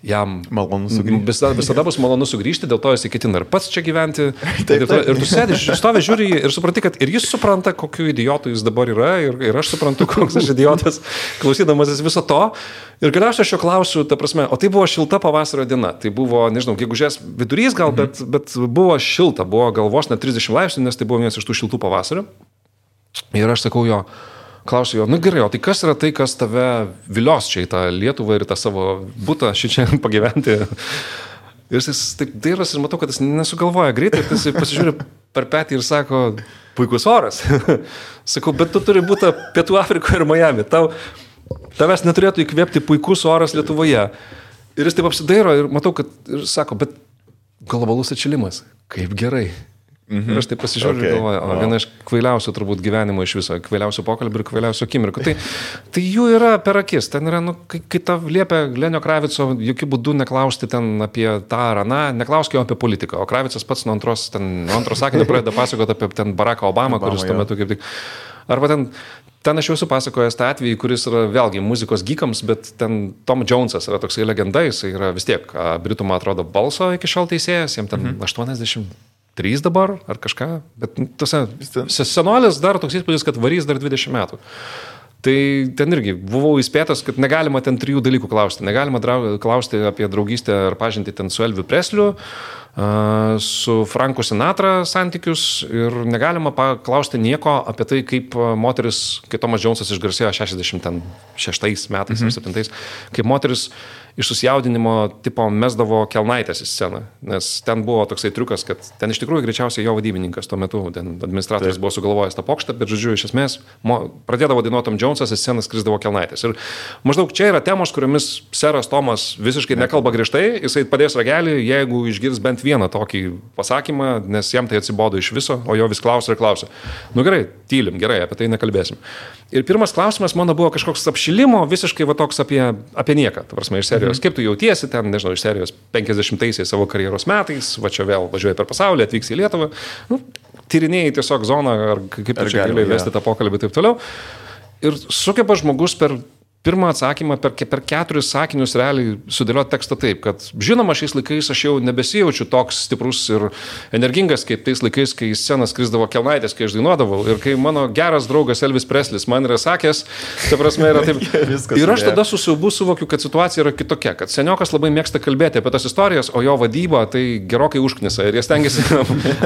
jam malonu sugrįžti. Visada bus malonu sugrįžti, dėl to jis ketina ir pats čia gyventi. Ir tu sėdi, stovi, žiūri ir supranti, kad ir jis supranta, kokiu idiotu jis dabar yra, ir aš suprantu, koks aš idiotas, klausydamasis viso to. Ir galiausiai aš jo klausiu, ta prasme, o tai buvo šilta pavasario diena. Tai buvo, nežinau, gegužės vidurys gal, bet buvo šilta, buvo galvos net 30 laipsnių, nes tai buvo vienas iš tų šiltų pavasario. Ir aš sakau jo, klausiu jo, nu gerai, o tai kas yra tai, kas tave vilios čia į tą Lietuvą ir tą savo butą šičia pagyventi? Ir jis taip dairos ir matau, kad jis nesugalvoja greitai, jis pasižiūri per petį ir sako, puikus oras. Sakau, bet tu turi būti Pietų Afrikoje ir Miami. Tavęs neturėtų įkvėpti puikus oras Lietuvoje. Ir jis taip apsidairo ir matau, kad ir sako, bet globalus atšilimas, kaip gerai. Ir aš taip pasižiūriu ir galvoju, viena iš kvailiausių turbūt gyvenimo iš viso, kvailiausių pokalbių ir kvailiausių akimirkų. Tai jų yra per akis. Ten yra, kai ta liepia Lenio Kravico, jokių būdų neklausti ten apie tą ar aną, neklausk jo apie politiką. O Kravicas pats nuo antros sakinio pradeda pasakoti apie ten Baracką Obamą, kuris tuo metu kaip tik... Arba ten aš jau esu pasakojęs tą atvejį, kuris yra vėlgi muzikos geekams, bet ten Tom Jonesas yra toksai legenda, jis yra vis tiek Britų, man atrodo, balso iki šiol teisėjas, jam ten 83 dabar ar kažką, bet senolis dar toks įspūdis, kad varys dar 20 metų. Tai ten irgi buvau įspėtas, kad negalima ten 3 dalykų klausti. Negalima klausti apie draugystę ar pažintį ten su Elviu Presliu, su Franku Sinatra santykius ir negalima paklausti nieko apie tai, kaip moteris, kai Tomas Jonesas išgarsėjo 66 metais ar 7, kaip moteris iš susijaudinimo tipo mesdavo kelnaitės į sceną, nes ten buvo toksai triukas, kad ten iš tikrųjų greičiausiai jo vadybininkas tuo metu, ten administratorius buvo sugalvojęs tą pokštą, bet žodžiu, iš esmės pradėdavo dainuoti Tom Jonesas, į sceną skrisdavo kelnaitės. Ir maždaug čia yra temos, kuriomis seras Tomas visiškai nekalba griežtai, jisai padės ragelį, jeigu išgirs bent vieną tokį pasakymą, nes jam tai atsibodo iš viso, o jo vis klausia ir klausia. Nu gerai, tylim, gerai, apie tai nekalbėsim. Ir pirmas klausimas mano buvo kažkoks apšilimo, visiškai va toks apie nieką, ta prasme, iš serijos. Kaip tu jautiesi ten, nežinau, iš serijos 50-aisiais savo karjeros metais, va čia vėl važiuoji per pasaulį, atvyksi į Lietuvą, tyrinėjai tiesiog zoną, ar kaip tu čia gali vesti tą pokalbį ir taip toliau. Ir sugeba žmogus per pirmą atsakymą, per 4 sakinius realiai sudėlioti tekstą taip, kad žinoma, šiais laikais aš jau nebesijaučiu toks stiprus ir energingas, kaip tais laikais, kai į sceną skrisdavo kelnaitės, kai aš dainuodavau. Ir kai mano geras draugas Elvis Preslis man yra sakęs, ta prasme yra taip. Ir aš tada su siaubu suvokiu, kad situacija yra kitokia, kad seniokas labai mėgsta kalbėti apie tas istorijas, o jo vadyba tai gerokai užknisa. Ir jie stengiasi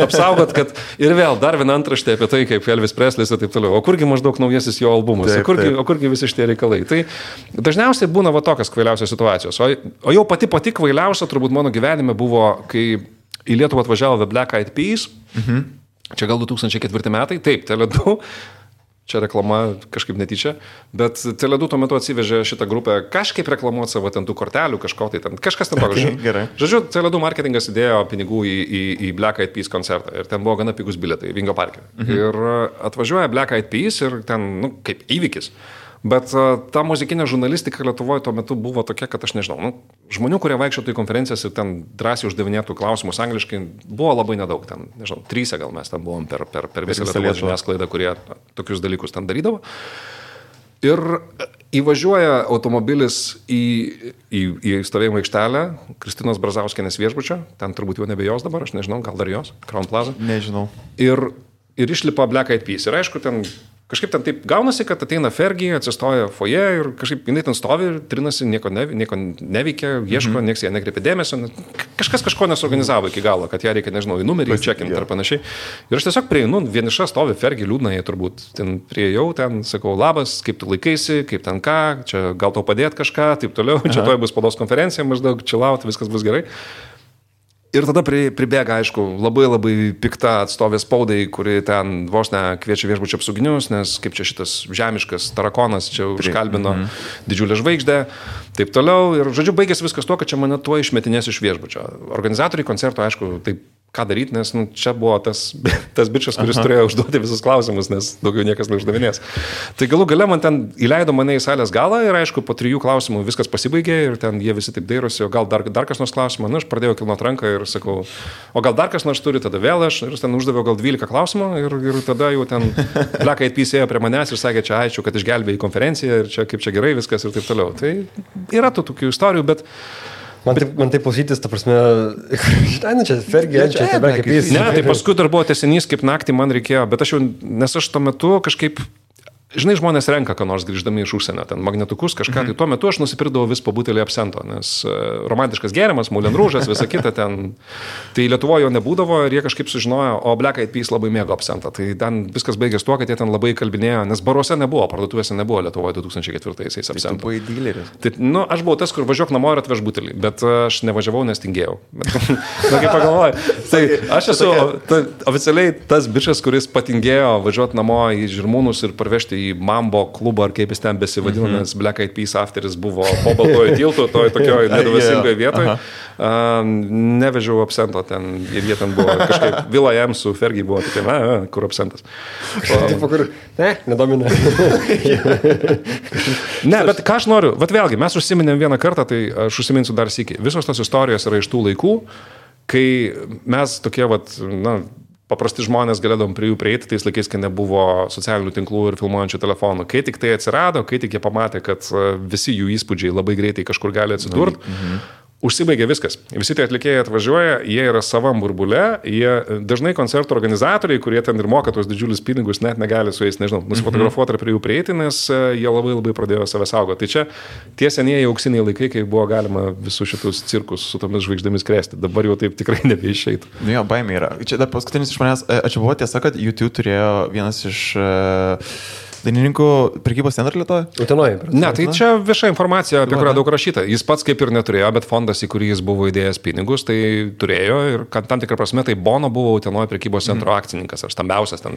apsaugot, kad ir vėl dar viena antraštė apie tai, kaip Elvis Preslis ir taip toliau. O kurgi maždaug naujasis jo albumas? O kurgi visi šitie reikalai? Tai dažniausiai būna va tokios kvailiausios situacijos. O jau pati kvailiausia turbūt mano gyvenime buvo, kai į Lietuvą atvažiavo The Black Eyed Peas. Čia gal 2004 metai. Taip, Tele2. Čia reklama kažkaip netyčia. Bet Tele2 tuo metu atsivežė šitą grupę kažkaip reklamuoti savo ten tų kortelių, kažko tai ten. Kažkas ten toks. Žodžiu, Tele2 marketingas įdėjo pinigų į Black Eyed Peas koncertą. Ir ten buvo gana pigus bilietai Vingio parke. Ir atvažiuoja Black Eyed Peas ir ten, kaip įvykis. Bet ta muzikinė žurnalistika Lietuvoje tuo metu buvo tokia, kad aš nežinau, žmonių, kurie vaikščiotų į konferencijas ir ten drąsiai uždavinėtų klausimus angliškai, buvo labai nedaug. Ten, nežinau, 3 gal mes ten buvom per visą Lietuvos žiniasklaidą, kurie tokius dalykus ten darydavo. Ir įvažiuoja automobilis į stovėjimo aikštelę Kristinos Brazauskienės viešbučio, ten turbūt jau nebe jos dabar, aš nežinau, gal dar jos, Crown Plaza. Nežinau. Ir išlipa Black Eyed Peas. Ir aišku, ten kažkaip ten taip gaunasi, kad ateina Fergie, atsistoja foje ir kažkaip jinai ten stovi ir trinasi, nieko neveikia, ieško, nieks ją nekreipia dėmesio. Kažkas kažko nesuorganizavo iki galo, kad ją reikia, nežinau, į numerį čekinti ar panašiai. Ir aš tiesiog prieinu, vieniša stovi Fergie, liūdna, jie turbūt ten priejau, ten sakau, labas, kaip tu laikaisi, kaip ten ką, čia gal tau padėti kažką, taip toliau, čia toj bus spaudos konferencija, maždaug chillaut, viskas bus gerai. Ir tada pribėga, aišku, labai pikta atstovė spaudai, kuri ten vos ne kviečia viešbučio apsauginius, nes kaip čia šitas žemiškas tarakonas čia užkalbino didžiulę žvaigždę, taip toliau. Ir žodžiu, baigėsi viskas tuo, kad čia mane tuo išmetinės iš viešbučio. Organizatoriai koncerto, aišku, taip ką daryti, nes čia buvo tas bičas, kuris turėjo užduoti visus klausimus, nes daugiau niekas neuždavinės. Tai galų gale man ten įleido mane į salės galą ir aišku, po 3 klausimų viskas pasibaigė ir ten jie visi taip dairosi, o gal dar kas nors klausimą, aš pradėjau kilnot ranką ir sakau, o gal dar kas nors turi, tada vėl aš ir ten uždaviau gal 12 klausimų ir tada jau ten Black Eyed Peas ėjo prie manęs ir sakė, čia ačiū, kad išgelbėjai konferenciją ir čia kaip čia gerai viskas ir taip toliau. Tai yra tų tokių istorijų, bet Man taip klausytis, ta prasme, žinai, nu čia Fergie, čia tebe kaip jis. Ne, tai paskui dar buvo tęsinys, kaip naktį man reikėjo, bet nes aš tuo metu kažkaip... Žinai, žmonės renka, ką nors grįždami iš užsienio, ten magnetukus, kažką, tai tuo metu aš nusipirkdavau vis po butelį absento, nes romantiškas gėrimas, Moulin Rouge'as, visa kita ten, tai Lietuvoje jo nebūdavo ir jie kažkaip sužinojo, o Black Eyed Peas labai mėgo absentą, tai ten viskas baigės tuo, kad jie ten labai kalbinėjo, nes baruose nebuvo, parduotuvėse nebuvo Lietuvoje 2004-aisiais absento. Tu buvai dyleris. Tai, aš buvau tas, kur važiuok namo ir atveš butelį, bet aš nevažiavau, nes tingėjau. Na, kaip pagalvoju, tai aš esu oficialiai tas bičas, kuris patingėjo važiuoti namo į Žirmūnus ir parvežti į Mambo klubą, ar kaip jis ten besivadino, nes Black Eyed Peas afteris buvo po Baltojo tilto, tokioj nedavasingoje vietoje. Nevežiau absento ten, ir jie ten buvo kažkaip, Vila jam su Fergie buvo tokie, kur absentas. Nedomina. Ne, bet ką aš noriu, vėlgi, mes užsiminėm vieną kartą, tai aš užsiminsiu dar sykį. Visos tos istorijos yra iš tų laikų, kai mes tokie, paprasti žmonės galėdom prie jų prieiti tais laikais, kai nebuvo socialinių tinklų ir filmuojančių telefonų. Kai tik tai atsirado, kai tik jie pamatė, kad visi jų įspūdžiai labai greitai kažkur gali atsidurti, užsibaigė viskas. Visi tie atlikėjai atvažiuoja, jie yra savam burbule, jie dažnai koncertų organizatoriai, kurie ten ir moka tos didžiulius pinigus, net negali su jais, nežinau, nusifotografuoti ar prie jų prieiti, nes jie labai labai pradėjo save saugoti. Tai čia tie senieji auksiniai laikai, kai buvo galima visus šitus cirkus su tomis žvaigždėmis krėsti. Dabar jau taip tikrai nebeišeitų. Nu jo, baimė yra. Čia dar paskutinis iš manęs, čia buvo tiesa, kad YouTube turėjo vienas iš... dainininkų prekybos centrą Lietuvoje? Utenoje. Ne, tai čia vieša informacija, apie kurią daug rašyta. Jis pats kaip ir neturėjo, bet fondas, į kurį jis buvo įdėjęs pinigus, tai turėjo ir tam tikrą prasme tai Bono buvo Utenoje prekybos centro akcininkas ar stambiausias ten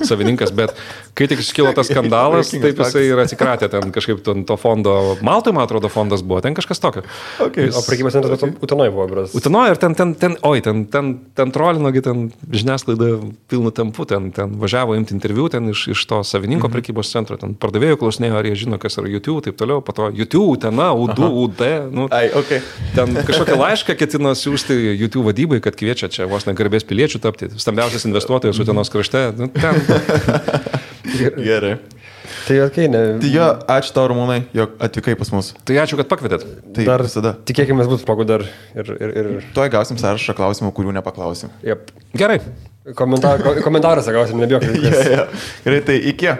savininkas, bet kai tik iškilo tas skandalas, taip jisai ir atsikratė ten kažkaip to fondo. Maltai, man atrodo, fondas buvo, ten kažkas tokio. Okay. O prekybos centras Utenoje buvo, bras. Utenoje ir ten trolinogi, ten žiniasklaida pilnu tempu, ten važiavo imti interviu ten iš to savininko prekybos centro, ten pardavėjų klausinėjo, ar jie žino, kas yra YouTube, taip toliau, po to YouTube, Utena, UD, ten kažkokią laišką ketino siūsti YouTube vadybai, kad kviečia čia vos negarbės piliečių tapti, stambiausias investuotojas Utenos krašte. Gerai. Tai okay, ne. Tai jo, ačiū tau, Ramūnai, jog atvykai pas mus. Tai ačiū, kad pakvietėt. Tai dar visada. Tikėkime, būtų smagu dar ir... Tuoj gausim sąrašą klausimų, kurių nepaklausim. Yep. Gerai. Komentaruose gausim, nebijok. Gerai, tai iki.